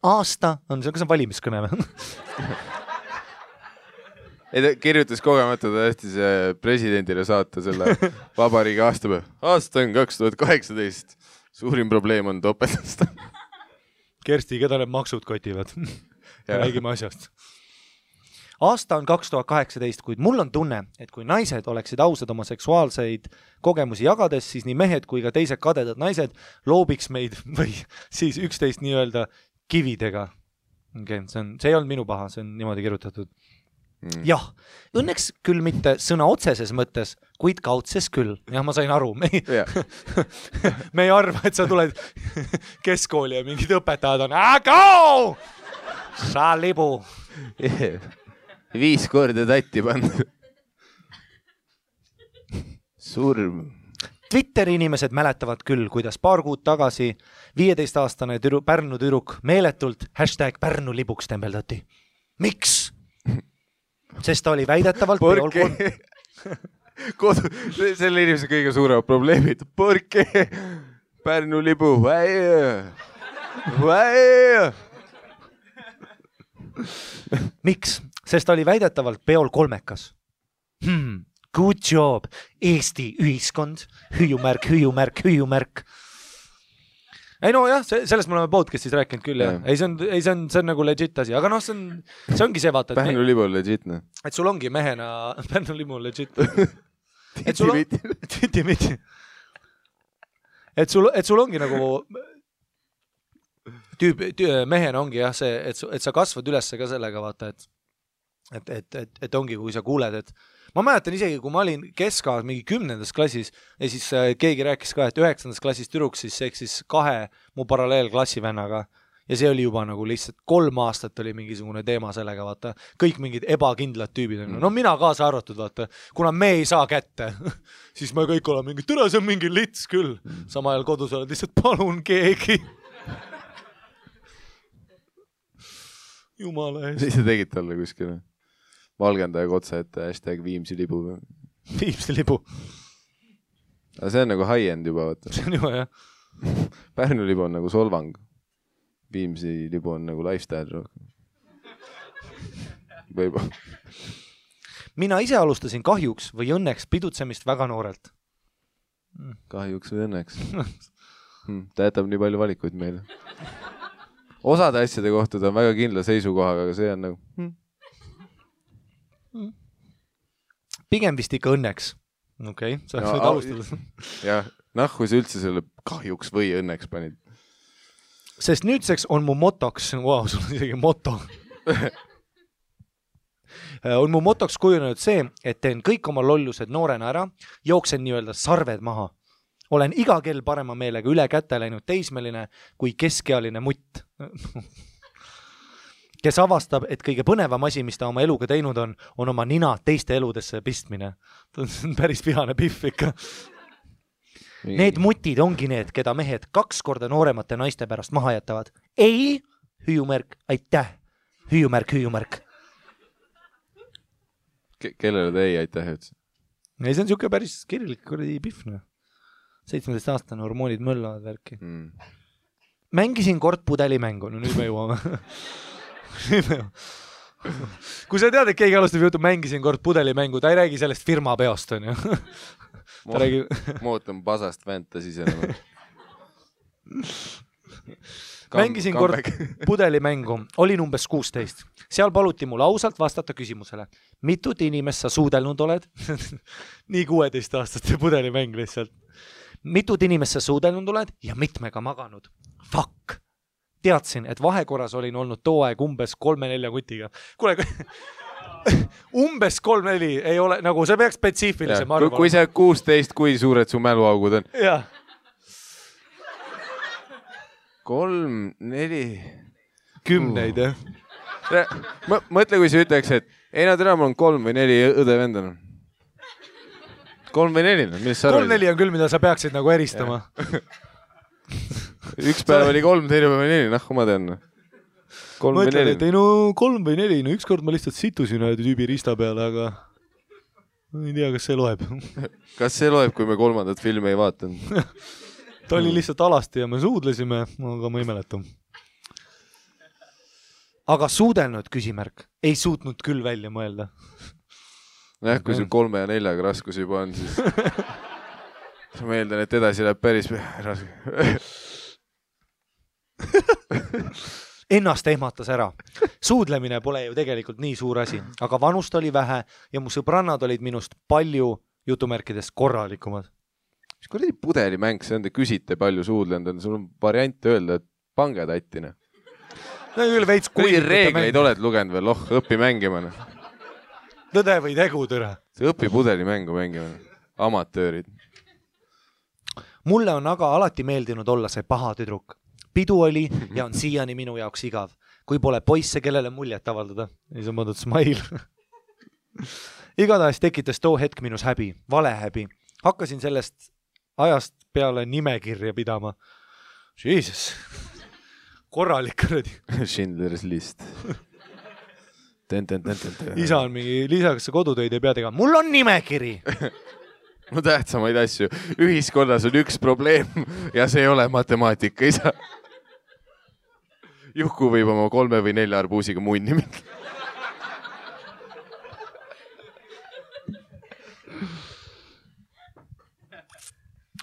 Aasta on see, kas on valimiskõne või? Ei, ta kirjutas kogemata, ta hästis presidendile saata selle vabariigi aastapäev. Aasta on 2018. Suurim probleem on topeltast. Kersti, keda need maksud kotivad? Räägime asjast. Aasta on 2018, kuid mul on tunne, et kui naised oleksid ausad oma seksuaalseid kogemusi jagades, siis nii mehed kui ka teised kadedad naised loobiks meid või siis üksteist nii-öelda kividega. Okay, see ei olnud minu paha, see on niimoodi kirjutatud. Jah, õnneks küll mitte sõna otseses mõttes, kuid kaudses küll. Jah, ma sain aru. Me ei arva, et sa tuled keskkooli ja mingid õpetajad on Go! Sa libu! 5 korda tatti pannud. Surm. Twitteri inimesed mäletavad küll, kuidas paar kuud tagasi 15-aastane Pärnu tüdruk meeletult #Pärnu libuks tembeldati. Miks? Sest ta oli väidetavalt selle inimese kõige suuremad probleemid. Porke Pärnu libu. miks? Sest ta oli väidetavalt peol kolmekas. Good job, Eesti ühiskond, hüüumärk. Ei no jah, sellest me oleme podcastis rääkinud küll jah. Ei, see on nagu legit asi, aga noh, see ongi see vaata. Pärnu libu on legit, noh. Et sul ongi mehena, Pärnu libu on legit. Titi-miti. Et sul ongi nagu mehena ongi jah see, et sa kasvad üles ka sellega vaata, et ongi, kui sa kuuled, et ma mäletan isegi, kui ma olin keskaas mingi 10. klassis ja siis keegi rääkis ka, et 9. klassis tüdruks siis eksis 2 mu paralleelklassivennaga ja see oli juba nagu lihtsalt 3 aastat oli mingisugune teema sellega, vaata. Kõik mingid ebakindlad tüübid. No mina kaasa arvatud, vaata. Kuna me ei saa kätte, siis me kõik oleme mingi, tere, see on mingi lits küll. Sama ajal kodus oled lihtsalt, palun keegi. Jumala eest. Siis sa tegid talle kuskil valgendajaga otsa ette #Viimsi libu. Viimsi libu. Aga see on nagu high-end juba, vaata. See on juba, jah. Pärnu libu on nagu solvang. Viimsi libu on nagu lifestyle. Võib-olla. Mina ise alustasin kahjuks või õnneks pidutsemist väga noorelt. Kahjuks või õnneks. Ta jätab nii palju valikuid meile. Osade asjade kohta ta on väga kindla seisukohaga, aga see on nagu... Pigem vist ikka õnneks. Okei, sa võid alustada. Jah, nahku sa üldse selle kahjuks või õnneks panid. Sest nüüdseks on mu motoks, sul on isegi moto. On mu motoks kujunenud see, et teen kõik oma lollused noorena ära, jooksen nii-öelda sarved maha. Olen iga kell parema meelega üle kätte läinud teismeline kui keskealine mutt. Kes avastab, et kõige põnevam asi, mis ta oma eluga teinud on oma nina teiste eludesse pistmine. See on päris vihane pihv ikka. Need mutid ongi need, keda mehed 2 korda nooremate naiste pärast maha jätavad. Ei, hüüumärk, aitäh. Hüüumärk. Kellele te ei aitäh üldse? Ei, see on siuke päris kirjalik pihv. 17-aastane hormoonid möllavad värki. Mängisin kord pudelimängu. No nüüd me jõuame. Kui sa tead, et keegi alustab jutu, mängisin kord pudelimängu, ta ei räägi sellest firma peost, on ju. Ma ootan pasast fantasy enam. Mängisin kord pudelimängu, olin umbes 16. Seal paluti mul ausalt vastata küsimusele. Mitut inimest sa suudelnud oled? Nii 16-aastaste pudelimäng lihtsalt. Mitut inimest sa suudelnud oled ja mitmega maganud? Fuck! Teadsin, et vahekorras olin olnud too aeg umbes 3-4 kutiga. Kuule, umbes 3-4 ei ole, nagu see peaks spetsiifilisem arvama. Kui see 16, kui suured su mäluaugud on? Jah. 3, 4... 10, jah. Mõtle, kui sa ütleks, et ei nad ära, mul on 3 või 4 õde vendan. 3 või 4, millest sa arvad? 3-4 on küll, mida sa peaksid nagu eristama. Üks päev oli 3, teine päev oli 4, nahku ma tean. 3 või 4. Ei no 3 või 4, no ükskord ma lihtsalt situsin ühe tüübi rista peale, aga ma ei tea, kas see loeb. Kas see loeb, kui me 3. filmi ei vaatanud? Ta oli lihtsalt alasti ja me suudlesime, aga ma ei mäleta. Aga suudelnud küsimärk ei suutnud küll välja mõelda. Jah, kui sul 3 ja 4 raskus juba on, siis ma eeldan, et edasi läheb päris raske. Ennast ehmatas ära. Suudlemine pole ju tegelikult nii suur asi, aga vanust oli vähe ja mu sõbrannad olid minust palju jutumärkidest korralikumad. Mis kuradi pudelimäng, see on, te küsite palju suudlenud, sul on variant öelda, et pange tattine. No, kui reegleid oled lugenud veel, õppi mängima. Tõde või tegu, tõre. See õppi pudelimängu mängima. Amatöörid. Mulle on aga alati meeldinud olla see paha tüdruk. Pidu oli ja on siiani minu jaoks igav. Kui pole poisse, kellele muljet avaldada. Ei saa mõeldud smile. Igatahes tekitas too hetk minus häbi, vale häbi. Hakkasin sellest ajast peale nimekirja pidama. Jesus. Korralik kuradi. Schindler's List. Isa on mingi, lisaks kodutöid ei pea tegema. Mul on nimekiri. No tähtsamaid asju. Ühiskonnas on üks probleem ja see ei ole matemaatika, isa. Juhku võib oma 3 või 4 arbuusiga munni minna.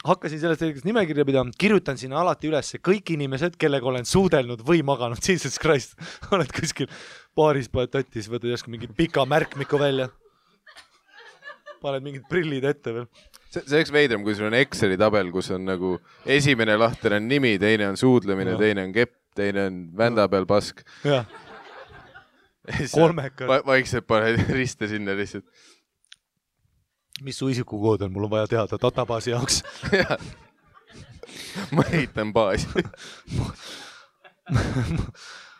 Hakkasin sellest hetkest nimekirja pidama, kirjutan sinna alati üles kõik inimesed, kellega olen suudelnud või maganud. Jesus Christ, oled kuskil baaris, paned tatis, võtad järsku mingi pika märkmiku välja. Paned mingid prillid ette veel. See oleks veidram, kui sul on Exceli tabel, kus on nagu esimene lahter on nimi, teine on suudlemine, teine on kepp, teine on vända peal pask. Jah. Kolmekad. Vaikselt paned riste sinna lihtsalt. Mis su isikukood on? Mul on vaja teada databaasi jaoks. Ma ehitan baasi.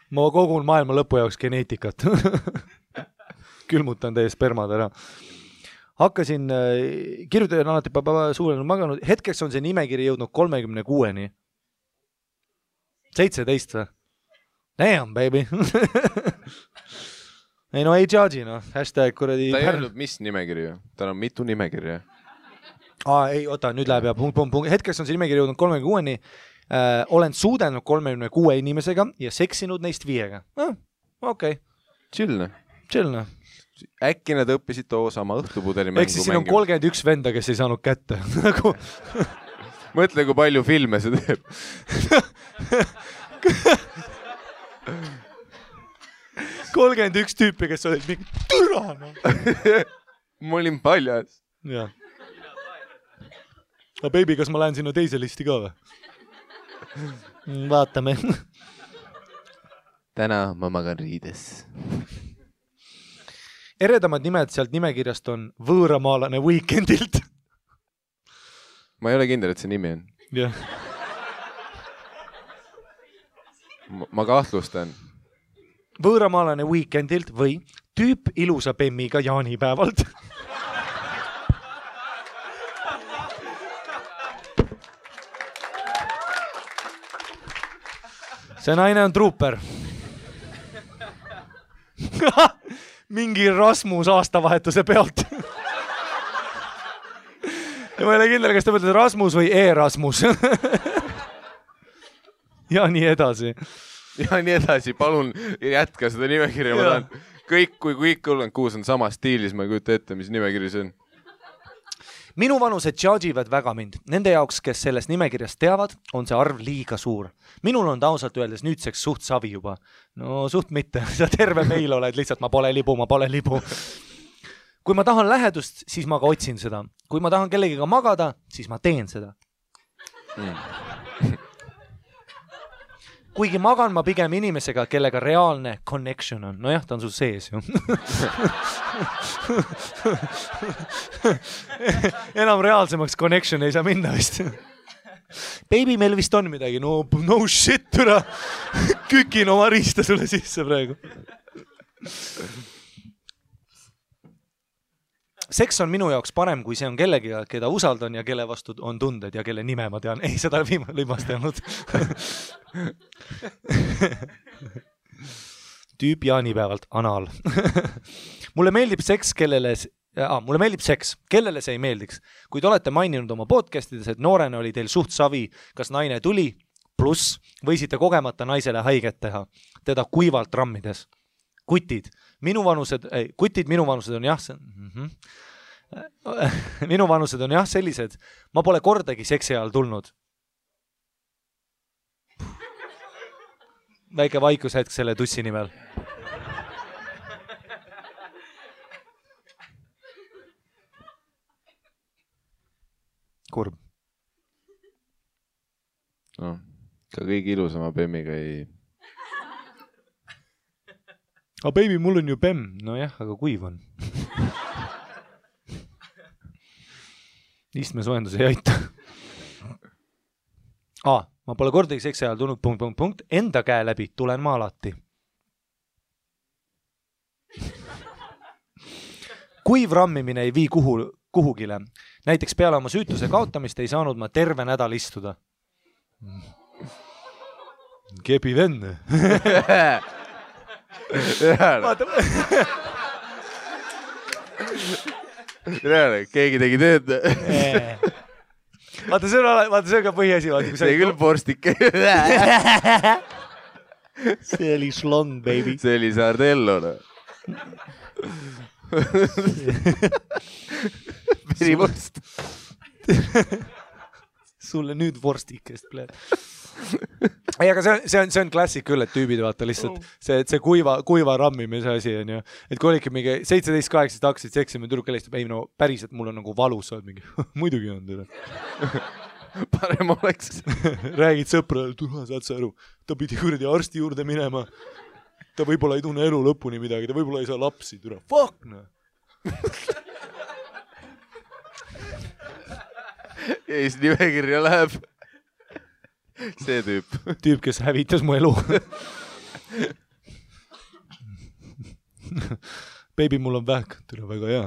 Ma kogun maailma lõpu jaoks geneetikat. Külmutan teie spermad ära. Hakkasin, kirjutajan alati suulenud maganud. Hetkeks on see nimekiri jõudnud 36-ni. 17 või? Damn, baby. Ei no ei judge'i, no. Hashtag kuradi... Ta ei öelnud, mis nimekiri ju? Tal on mitu nimekirja. Ei, oota, nüüd läheb ja punkt. Hetkeks on see nimekiri jõudnud 36-ni. Olen suudelnud 36 inimesega ja seksinud neist 5-ga. Okei. Chill. Äkki nad õppisid too sama õhtupudeli mängu. Eks siis siin on 31 venda, kes ei saanud kätte. Mõtle, kui palju filme see teeb. 31 tüüpi, kes olid mingi türana. Ma olin paljas. Jah. Aga baby, kas ma lähen sinna teise listi ka või? Vaatame. Täna ma magan riides. Eredamad nimed sealt nimekirjast on Võõramaalane Weekendilt. Ma ei ole kindel, et see nimi on. Jah. Ma kahtlustan. Võõramaalane Weekendilt või tüüp ilusa bemmiga jaanipäevalt. See naine on truuper. Mingi Rasmus aastavahetuse pealt. Ja ma ei ole kindel, kas ta mõtled Rasmus või E-Rasmus. Ja nii edasi. Ja nii edasi, palun jätka seda nimekirja. Ma tahan kõik, kui kõik 36 on sama stiilis, ma ei kujuta ette, mis nimekiri see on. Minu vanused judge'ivad väga mind. Nende jaoks, kes sellest nimekirjast teavad, on see arv liiga suur. Minul on ta ausalt öeldes nüüdseks suht savi juba. No suht mitte. Sa terve meil oled lihtsalt, ma pole libu. Kui ma tahan lähedust, siis ma ka otsin seda. Kui ma tahan kellegiga magada, siis ma teen seda. Kuigi magan ma pigem inimesega, kellega reaalne connection on. Nojah, ta on sul sees ju. Enam reaalsemaks connection ei saa minna vist. Baby, meil vist on midagi. No shit, türa. Kükin oma riista sulle sisse praegu. Seks on minu jaoks parem, kui see on kellegiga, keda usaldan ja kelle vastu on tunded ja kelle nime ma tean. Ei, seda lõimast ei olnud. Tüüp jaanipäevalt anal. Mulle meeldib seks, kellele see ei meeldiks. Kui te olete maininud oma podcastides, et noorena oli teil suht savi, kas naine tuli, pluss võisite kogemata naisele haiget teha, teda kuivalt rammides. Kutid minu vanused on jah, minu vanused on jah sellised, ma pole kordagi seksi ajal tulnud. Väike vaikushetk selle tussi nimel. Kurb. No, ka kõige ilusama bemmiga ei... Aga baby, mul on ju bemm. No jah, aga kuiv on. Istmesoojendus ei aita. Ma pole kordagi seksi ajal tulnud ... Enda käe läbi tulen ma alati. Kuiv rammimine ei vii kuhugile. Näiteks peale oma süütuse kaotamist ei saanud ma terve nädal istuda. Kepi venne. Keegi tegi tööd. Vaata, see on ka põhiasi. See küll porstik. see oli slong, baby. See oli sardello. Verivorst. Sulle nüüd vorstikest, pleed. Ei, aga see on klassik küll, et tüübid vaata lihtsalt see kuiva rammimise asi on ju, et kui olidki mingi 17-18 hakkasid seksima, tüdruk helistab, ei no päriselt mul on nagu valus, sa oled mingi, muidugi on tüdruk. Parem oleks. Räägid sõprale, tuha, saad sa aru, ta pidi kuradi arsti juurde minema, ta võib-olla ei tunne elu lõpuni midagi, ta võib-olla ei saa lapsi, tüdruk, fuck no. Ja siis nimekirja läheb see tüüp, kes hävitas mu elu. Baby, mul on vähk, tule väga hea.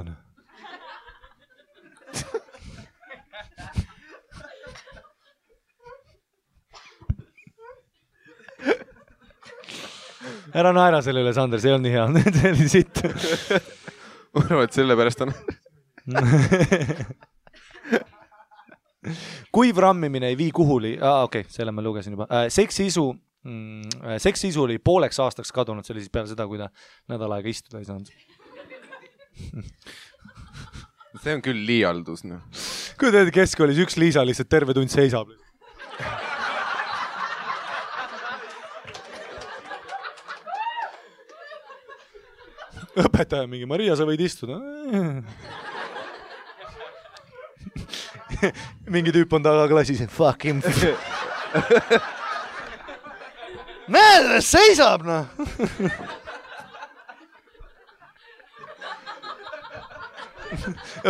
Ära naera selle üle, Sander, see ei olnud nii hea. See oli sitt. Ma arvan, et selle pärast on. Kuiv rammimine ei vii kuhuli. Okei, selle ma lugesin juba. Seksiisu oli pooleks aastaks kadunud, see oli siis peale seda, kui ta nädal aega istuda ei saanud. See on küll liialdus. No. Kui teed keskkoolis üks Liisa lihtsalt terve tund seisab. Õpetaja mingi, Maria, sa võid istuda. Mingi tüüp on taga klassis, fuck him. Näe, seisab, noh.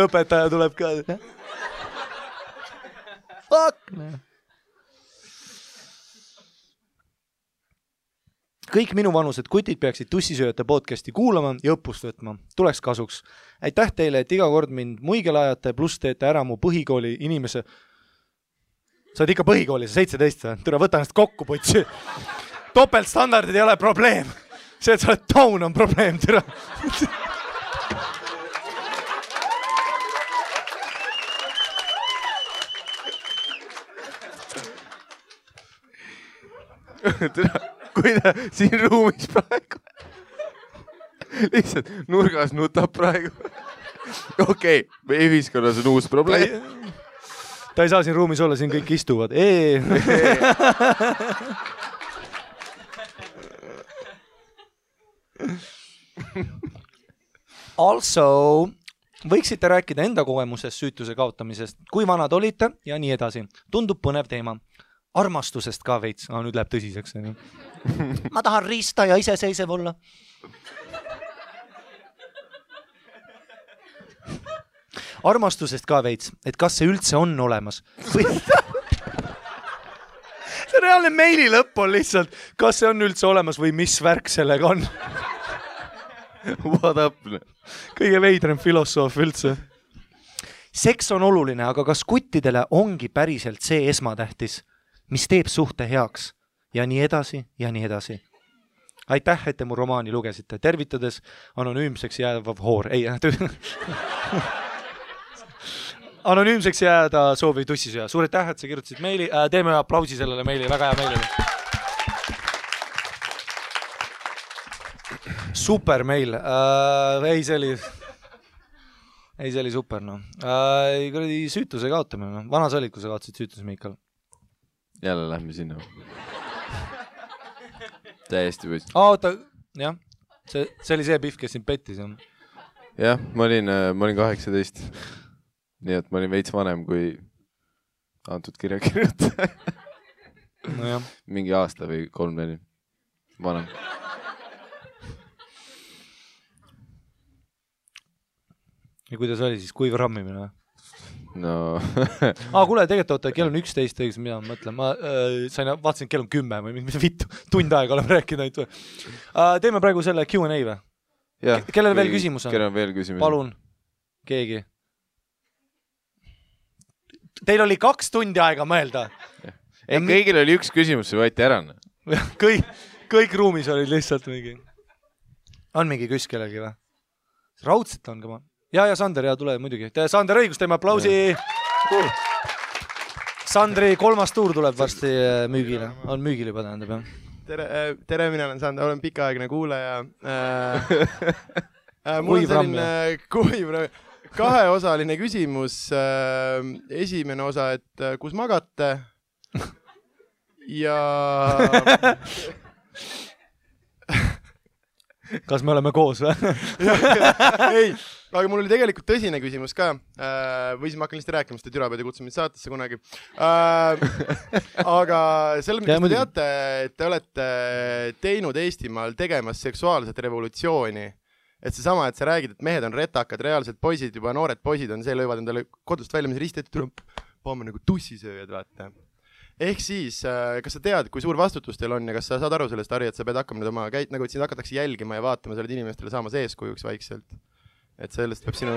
Õpetaja tuleb ka. Fuck, noh. Kõik minu vanused kutid peaksid tussisööjate podcasti kuulama ja õppust võtma. Tuleks kasuks. Aitäh teile, et iga kord mind muigele ajate, pluss teete ära mu põhikooli inimese. Sa oled ikka põhikooli, sa 17. Türa, võta ennast kokku, putsi. Topeltstandardid ei ole probleem. See, et sa oled taun, on probleem, türa. Türa. Kui ta siin ruumis praegu lihtsalt nurgas nutab praegu. Okei, meie ühiskonnas on uus probleem. Ta ei saa siin ruumis olla, siin kõik istuvad. Also, võiksite rääkida enda kogemusest süütuse kaotamisest, kui vanad olite ja nii edasi. Tundub põnev teema. Armastusest ka veits. Nüüd läheb tõsiseks. Ma tahan riista ja iseseisev olla. Armastusest ka veits, et kas see üldse on olemas. See reaalne meili lõpp on lihtsalt, kas see on üldse olemas või mis värk sellega on. What up? Kõige veidrem filosoof üldse. Seks on oluline, aga kas kuttidele ongi päriselt see esmatähtis? Mis teeb suhte heaks ja nii edasi ja nii edasi. Aitäh, et te mu romaani lugesite. Tervitades anonüümseks jäävav hoor. Ei, anonüümseks jääda sooviv tussisööja. Suur aitäh, et sa kirjutasid meili. Teeme aplausi sellele meili. Väga hea meili. Super meil. See oli super. No. Süütuse kaotamine. No. Vanas olid, kui sa kaotasid süütuse, Miikal? Jälle lähme sinna. Täiesti võis. Oota, jah. See oli see Pihv, kes sind pettis. Jah, ma olin 18. Nii et ma olin veits vanem kui antud kirjakirjutaja. No jah. Mingi aasta või 3-4 vanem. Ja kuidas oli siis kuiv rammimine? No. Kuule, tegelikult oota, kell on 11, õigus, mida ma mõtlen. Ma vaatasin, et kell on 10 või mis vittu, tund aega oleme rääkinud. Teeme praegu selle Q&A või? Kellel veel küsimus on? Kellel on veel küsimus? Palun, keegi. Teil oli 2 tundi aega mõelda. Ei, kõigil oli üks küsimus, see võeti ära. Kõik ruumis olid lihtsalt mingi. On mingi küs kellelgi või? Raudselt on ka ma. Ja Sander, tule muidugi. Sander õigus, teeme aplausi. Sandri 3. tuur tuleb varsti müügile. On müügil juba tähendab, jah. tere, mina olen pikaaegne kuulaja. Mul on selline kuiv, kaheosaline küsimus. Esimene osa, et kus magate? Ja... Kas me oleme koos või? Ei, aga mul oli tegelikult tõsine küsimus ka. Või siis ma hakkan lihtsalt rääkima, sest Türa pead ja kutsun mind saatesse kunagi. Aga selle, mida te teate, et te olete teinud Eestimaal tegemas seksuaalset revolutsiooni. Et see sama, et sa räägid, et mehed on retakad, reaalsed poisid, juba noored poisid on see, lõivad endale kodust välja, mis risti, et paame nagu tussisööjad, vaata. Ehk siis, kas sa tead, kui suur vastutus teil on ja kas sa saad aru sellest, Harri, et sa pead hakkama nüüd oma nagu et sind hakatakse jälgima ja vaatama, sa oled inimestele saamas eeskujuks vaikselt. Et sellest peab sinu...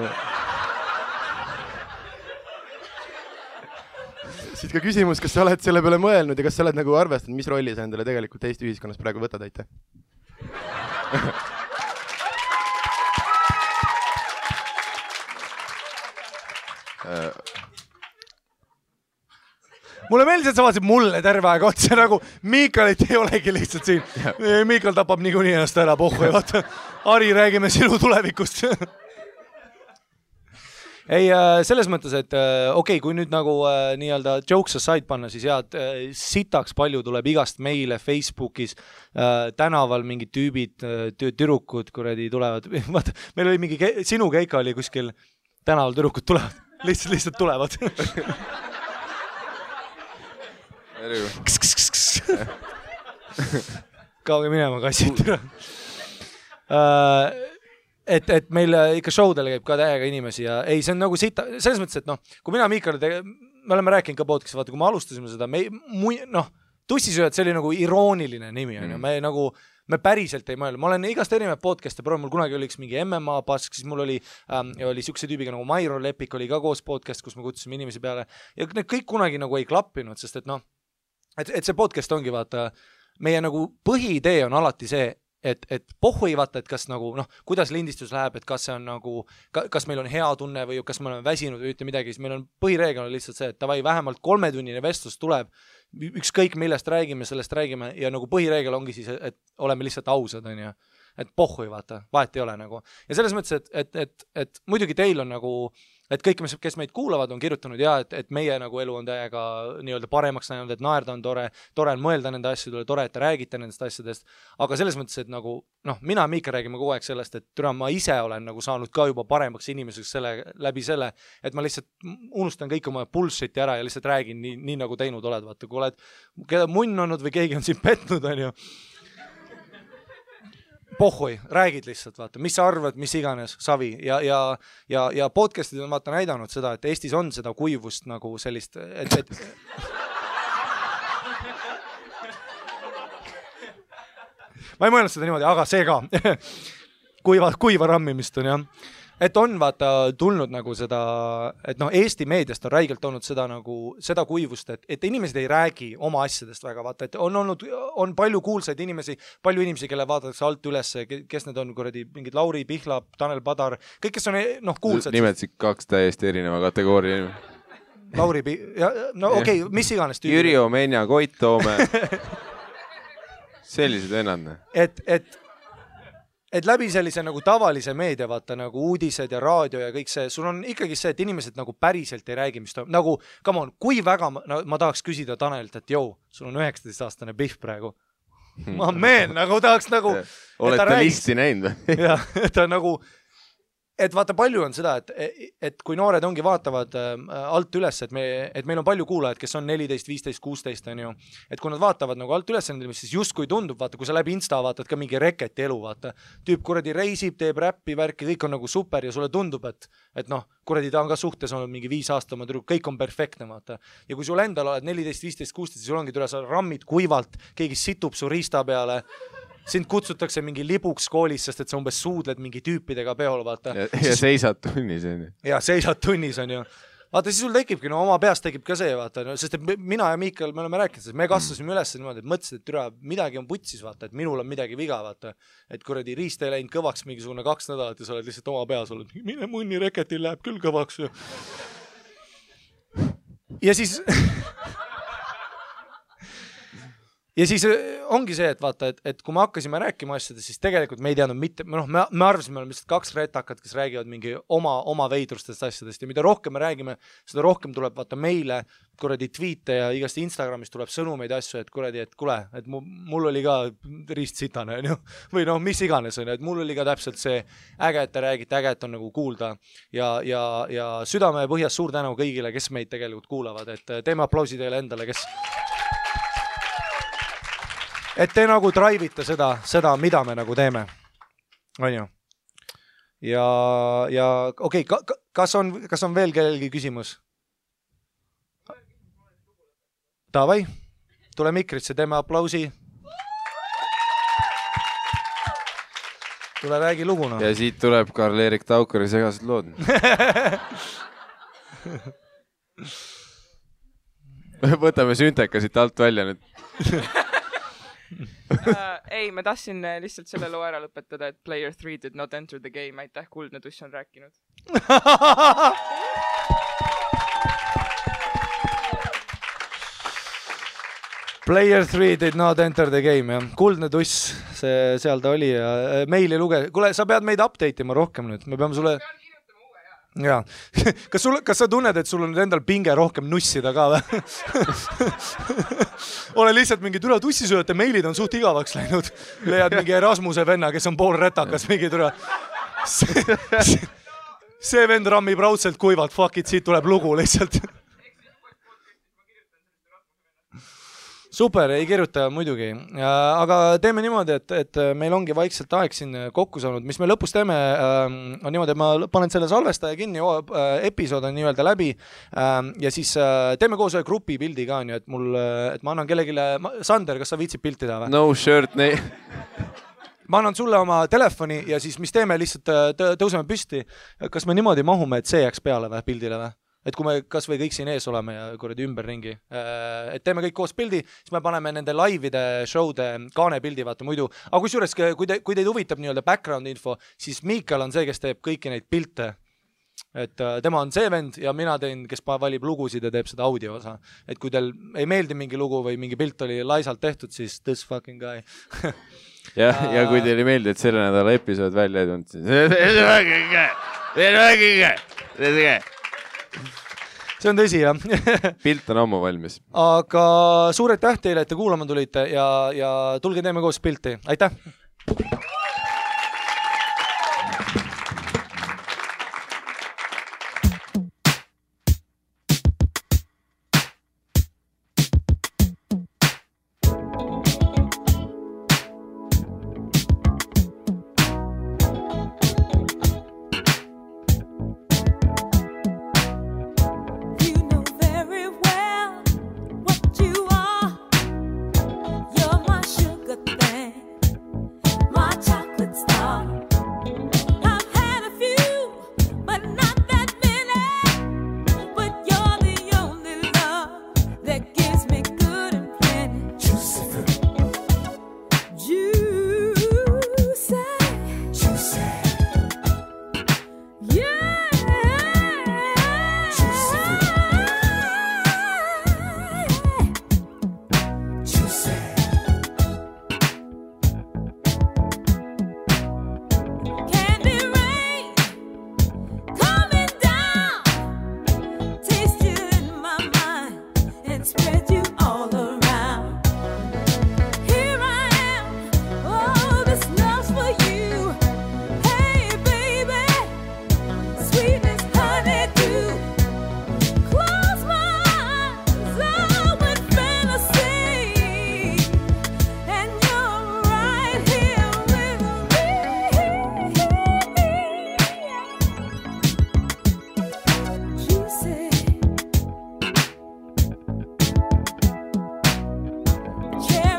Siit ka küsimus, kas sa oled selle peale mõelnud ja kas sa oled nagu arvestanud, mis rolli sa endale tegelikult Eesti ühiskonnas praegu võtad, aitäh? Mulle meeldis, et sa vaatasid mulle terve aeg otsa, nagu Miikalit ei olegi lihtsalt siin. Miikal tapab niikuinii ennast ära pohhu ja vaata, Harri, räägime sinu tulevikust. Ei, selles mõttes, et okei, kui nüüd nagu nii-öelda jokes aside panna, siis jah, sitaks palju tuleb igast meile Facebookis, tänaval mingid tüübid, türukud kuradi tulevad. Vaata, meil oli mingi, sinu keika oli kuskil tänaval türukud tulevad, lihtsalt tulevad. Kauge minema kassid. Et meil ikka showdele käib ka täiega inimesi ja ei, see on nagu sita, selles mõttes, et noh, kui mina Miikale me oleme rääkinud ka podcast'i, vaata, kui me alustasime seda, tussisööjad, see oli nagu irooniline nimi, on ju, me päriselt ei mõelnud, ma olen igast erinevad podcast'e, mul kunagi oli üks mingi MMA pask, siis mul oli siukse tüübiga nagu Mairo Lepik oli ka koos podcast, kus me kutsusime inimesi peale ja need kõik kunagi nagu ei klappinud, sest et noh, et see podcast ongi vaata, meie nagu põhiidee on alati see, et pohhu ei vaata, et kas nagu, noh, kuidas lindistus läheb, et kas see on nagu, kas meil on hea tunne või kas me oleme väsinud või ütle midagi, siis meil on põhireegel on lihtsalt see, et tavai, vähemalt 3-tunnine vestlus tuleb, ükskõik millest räägime, sellest räägime ja nagu põhireegel ongi siis, et oleme lihtsalt ausad, on ju, et pohhu ei vaata, vahet ei ole nagu. Ja selles mõttes, et muidugi teil on nagu, et kõik, kes meid kuulavad, on kirjutanud ja, et meie nagu elu on täiega nii-öelda paremaks näinud, et naerda on tore on mõelda nende asjadele, tore, et te räägite nendest asjadest, aga selles mõttes, et nagu, noh, mina ja Miika räägime kogu aeg sellest, et türa, ma ise olen nagu saanud ka juba paremaks inimeseks läbi selle, et ma lihtsalt unustan kõik oma bullshit'i ära ja lihtsalt räägin nii nagu teinud oled, vaata, kui oled keda munn olnud või keegi on siin petnud, on ju, pohhui, räägid lihtsalt, vaata, mis sa arvad, mis iganes, savi ja podcastid on vaata näidanud seda, et Eestis on seda kuivust nagu sellist, et ma ei mõelnud seda niimoodi, aga see ka kuiva rammimist on jah. Et on vaata tulnud nagu seda, et noh, Eesti meediast on räigelt olnud seda nagu, seda kuivust, et inimesed ei räägi oma asjadest väga, vaata, et on palju kuulsaid inimesi, palju inimesi, kelle vaadatakse alt üles, kes need on, kuradi, mingid Lauri Pihlap, Tanel Padar, kõik, kes on, noh, kuulsad. Nimetasid 2 täiesti erineva kategooria. Lauri no okei, mis iganes tüübi. Jüri Omenja, Koit Toome. Sellised vennad. Et läbi sellise nagu tavalise meedia, vaata nagu uudised ja raadio ja kõik see, sul on ikkagi see, et inimesed nagu päriselt ei räägi, mis toimub. Nagu, come on, kui väga ma tahaks küsida Tanelilt, et jõu, sul on 19-aastane Pihv praegu. Ma meen, nagu tahaks nagu... Olete listi näinud või? Jah, ta nagu... Et vaata, palju on seda, et kui noored ongi vaatavad alt üles, et meil on palju kuulajad, kes on 14, 15, 16, on ju. Et kui nad vaatavad nagu alt üles, siis just kui tundub, vaata, kui sa läbi Insta vaatad ka mingi reketi elu, vaata. Tüüp kuradi reisib, teeb räppi, värki, kõik on nagu super ja sulle tundub, et noh, kuradi ta on ka suhtes olnud mingi 5 aasta oma tüdruk, kõik on perfektne, vaata. Ja kui sul endal oled 14, 15, 16, siis sul ongi tule, sa rammid kuivalt, keegi situb su riista peale, sind kutsutakse mingi libuks koolis, sest et sa umbes suudled mingi tüüpidega peol, vaata. Ja seisad tunnis, on ju. Ja seisad tunnis, on ju. Vaata, siis sul tekibki, no oma peast tekib ka see, vaata, no, sest et mina ja Miikal, me oleme rääkinud, sest me kasvasime üles niimoodi, et mõtlesid, et türa, midagi on putsis, vaata, et minul on midagi viga, vaata. Et kuradi riist ei läinud kõvaks mingisugune 2 nädalat ja sa oled lihtsalt oma peas olnud, mine munni reketil läheb küll kõvaks. Ja siis... ja siis ongi see, et vaata, et kui me hakkasime rääkima asjadest, siis tegelikult me ei teadnud mitte, me arvasime, me oleme lihtsalt 2 retakat, kes räägivad mingi oma veidrustest asjadest ja mida rohkem me räägime, seda rohkem tuleb vaata meile kuradi tweete ja igast Instagramis tuleb sõnumeid asju, et kuradi, et kule, et mul oli ka ristsitane, või mis iganes, et mul oli ka täpselt see äge, et te räägite, äge, et on nagu kuulda ja südame põhjas suur tänu kõigile, kes meid tegelikult kuulavad, et teeme aplausi teile endale, kes et te nagu drive'ite seda, mida me nagu teeme. On ju? Ja okei, kas on veel kellelgi küsimus? Davai, tule mikrisse, teeme aplausi. Tule räägi luguna. Ja siit tuleb Karl-Erik Taukari segased lood. Võtame sünteka siit alt välja nüüd. Ei, ma tahtsin lihtsalt selle loo ära lõpetada, et Player 3 did not enter the game. Aitäh, Kuldne Tuss on rääkinud. Player 3 did not enter the game, jah. Kuldne Tuss, seal ta oli ja meili luge. Kuule, sa pead meid update ima rohkem nüüd. Me peame sulle... Jaa. Kas sa tunned, et sul on endal pinge rohkem nussida ka või? Ole lihtsalt mingi türa tussisööjate meilid on suht igavaks läinud. Leiad mingi Erasmuse venna, kes on pool retakas, mingi türa. See vend rammib raudselt kuivalt, fuck it, siit tuleb lugu lihtsalt. Super, ei kirjuta muidugi, aga teeme niimoodi, et meil ongi vaikselt aeg siin kokku saanud, mis me lõpus teeme, on niimoodi, et ma panen selle salvestaja kinni, episood on nii-öelda läbi ja siis teeme koos ühe grupi pildi ka, et ma annan kellegile, Sander, kas sa viitsid pilti teha või? No shirt, Ma annan sulle oma telefoni ja siis mis teeme, lihtsalt tõuseme püsti, kas me niimoodi mahume, et see jääks peale või pildile või? Et kui me kas või kõik siin ees oleme ja kuradi ümberringi, et teeme kõik koos pildi, siis me paneme nende laivide, show'de kaanepildi, vaata muidu. Aga kusjuures, kui teid huvitab nii-öelda background info, siis Miikal on see, kes teeb kõiki neid pilte. Et tema on see vend ja mina teen, kes valib lugusid ja teeb seda audio osa. Et kui teil ei meeldi mingi lugu või mingi pilt oli laisalt tehtud, siis this fucking guy. ja kui teil ei meeldi, et selle nädala episood välja ei tulnud, siis see on tõsi, jah. Pilt on ammu valmis. Aga suured täht teile, et te kuulama tulite ja tulge teeme koos pilti. Aitäh! Cherry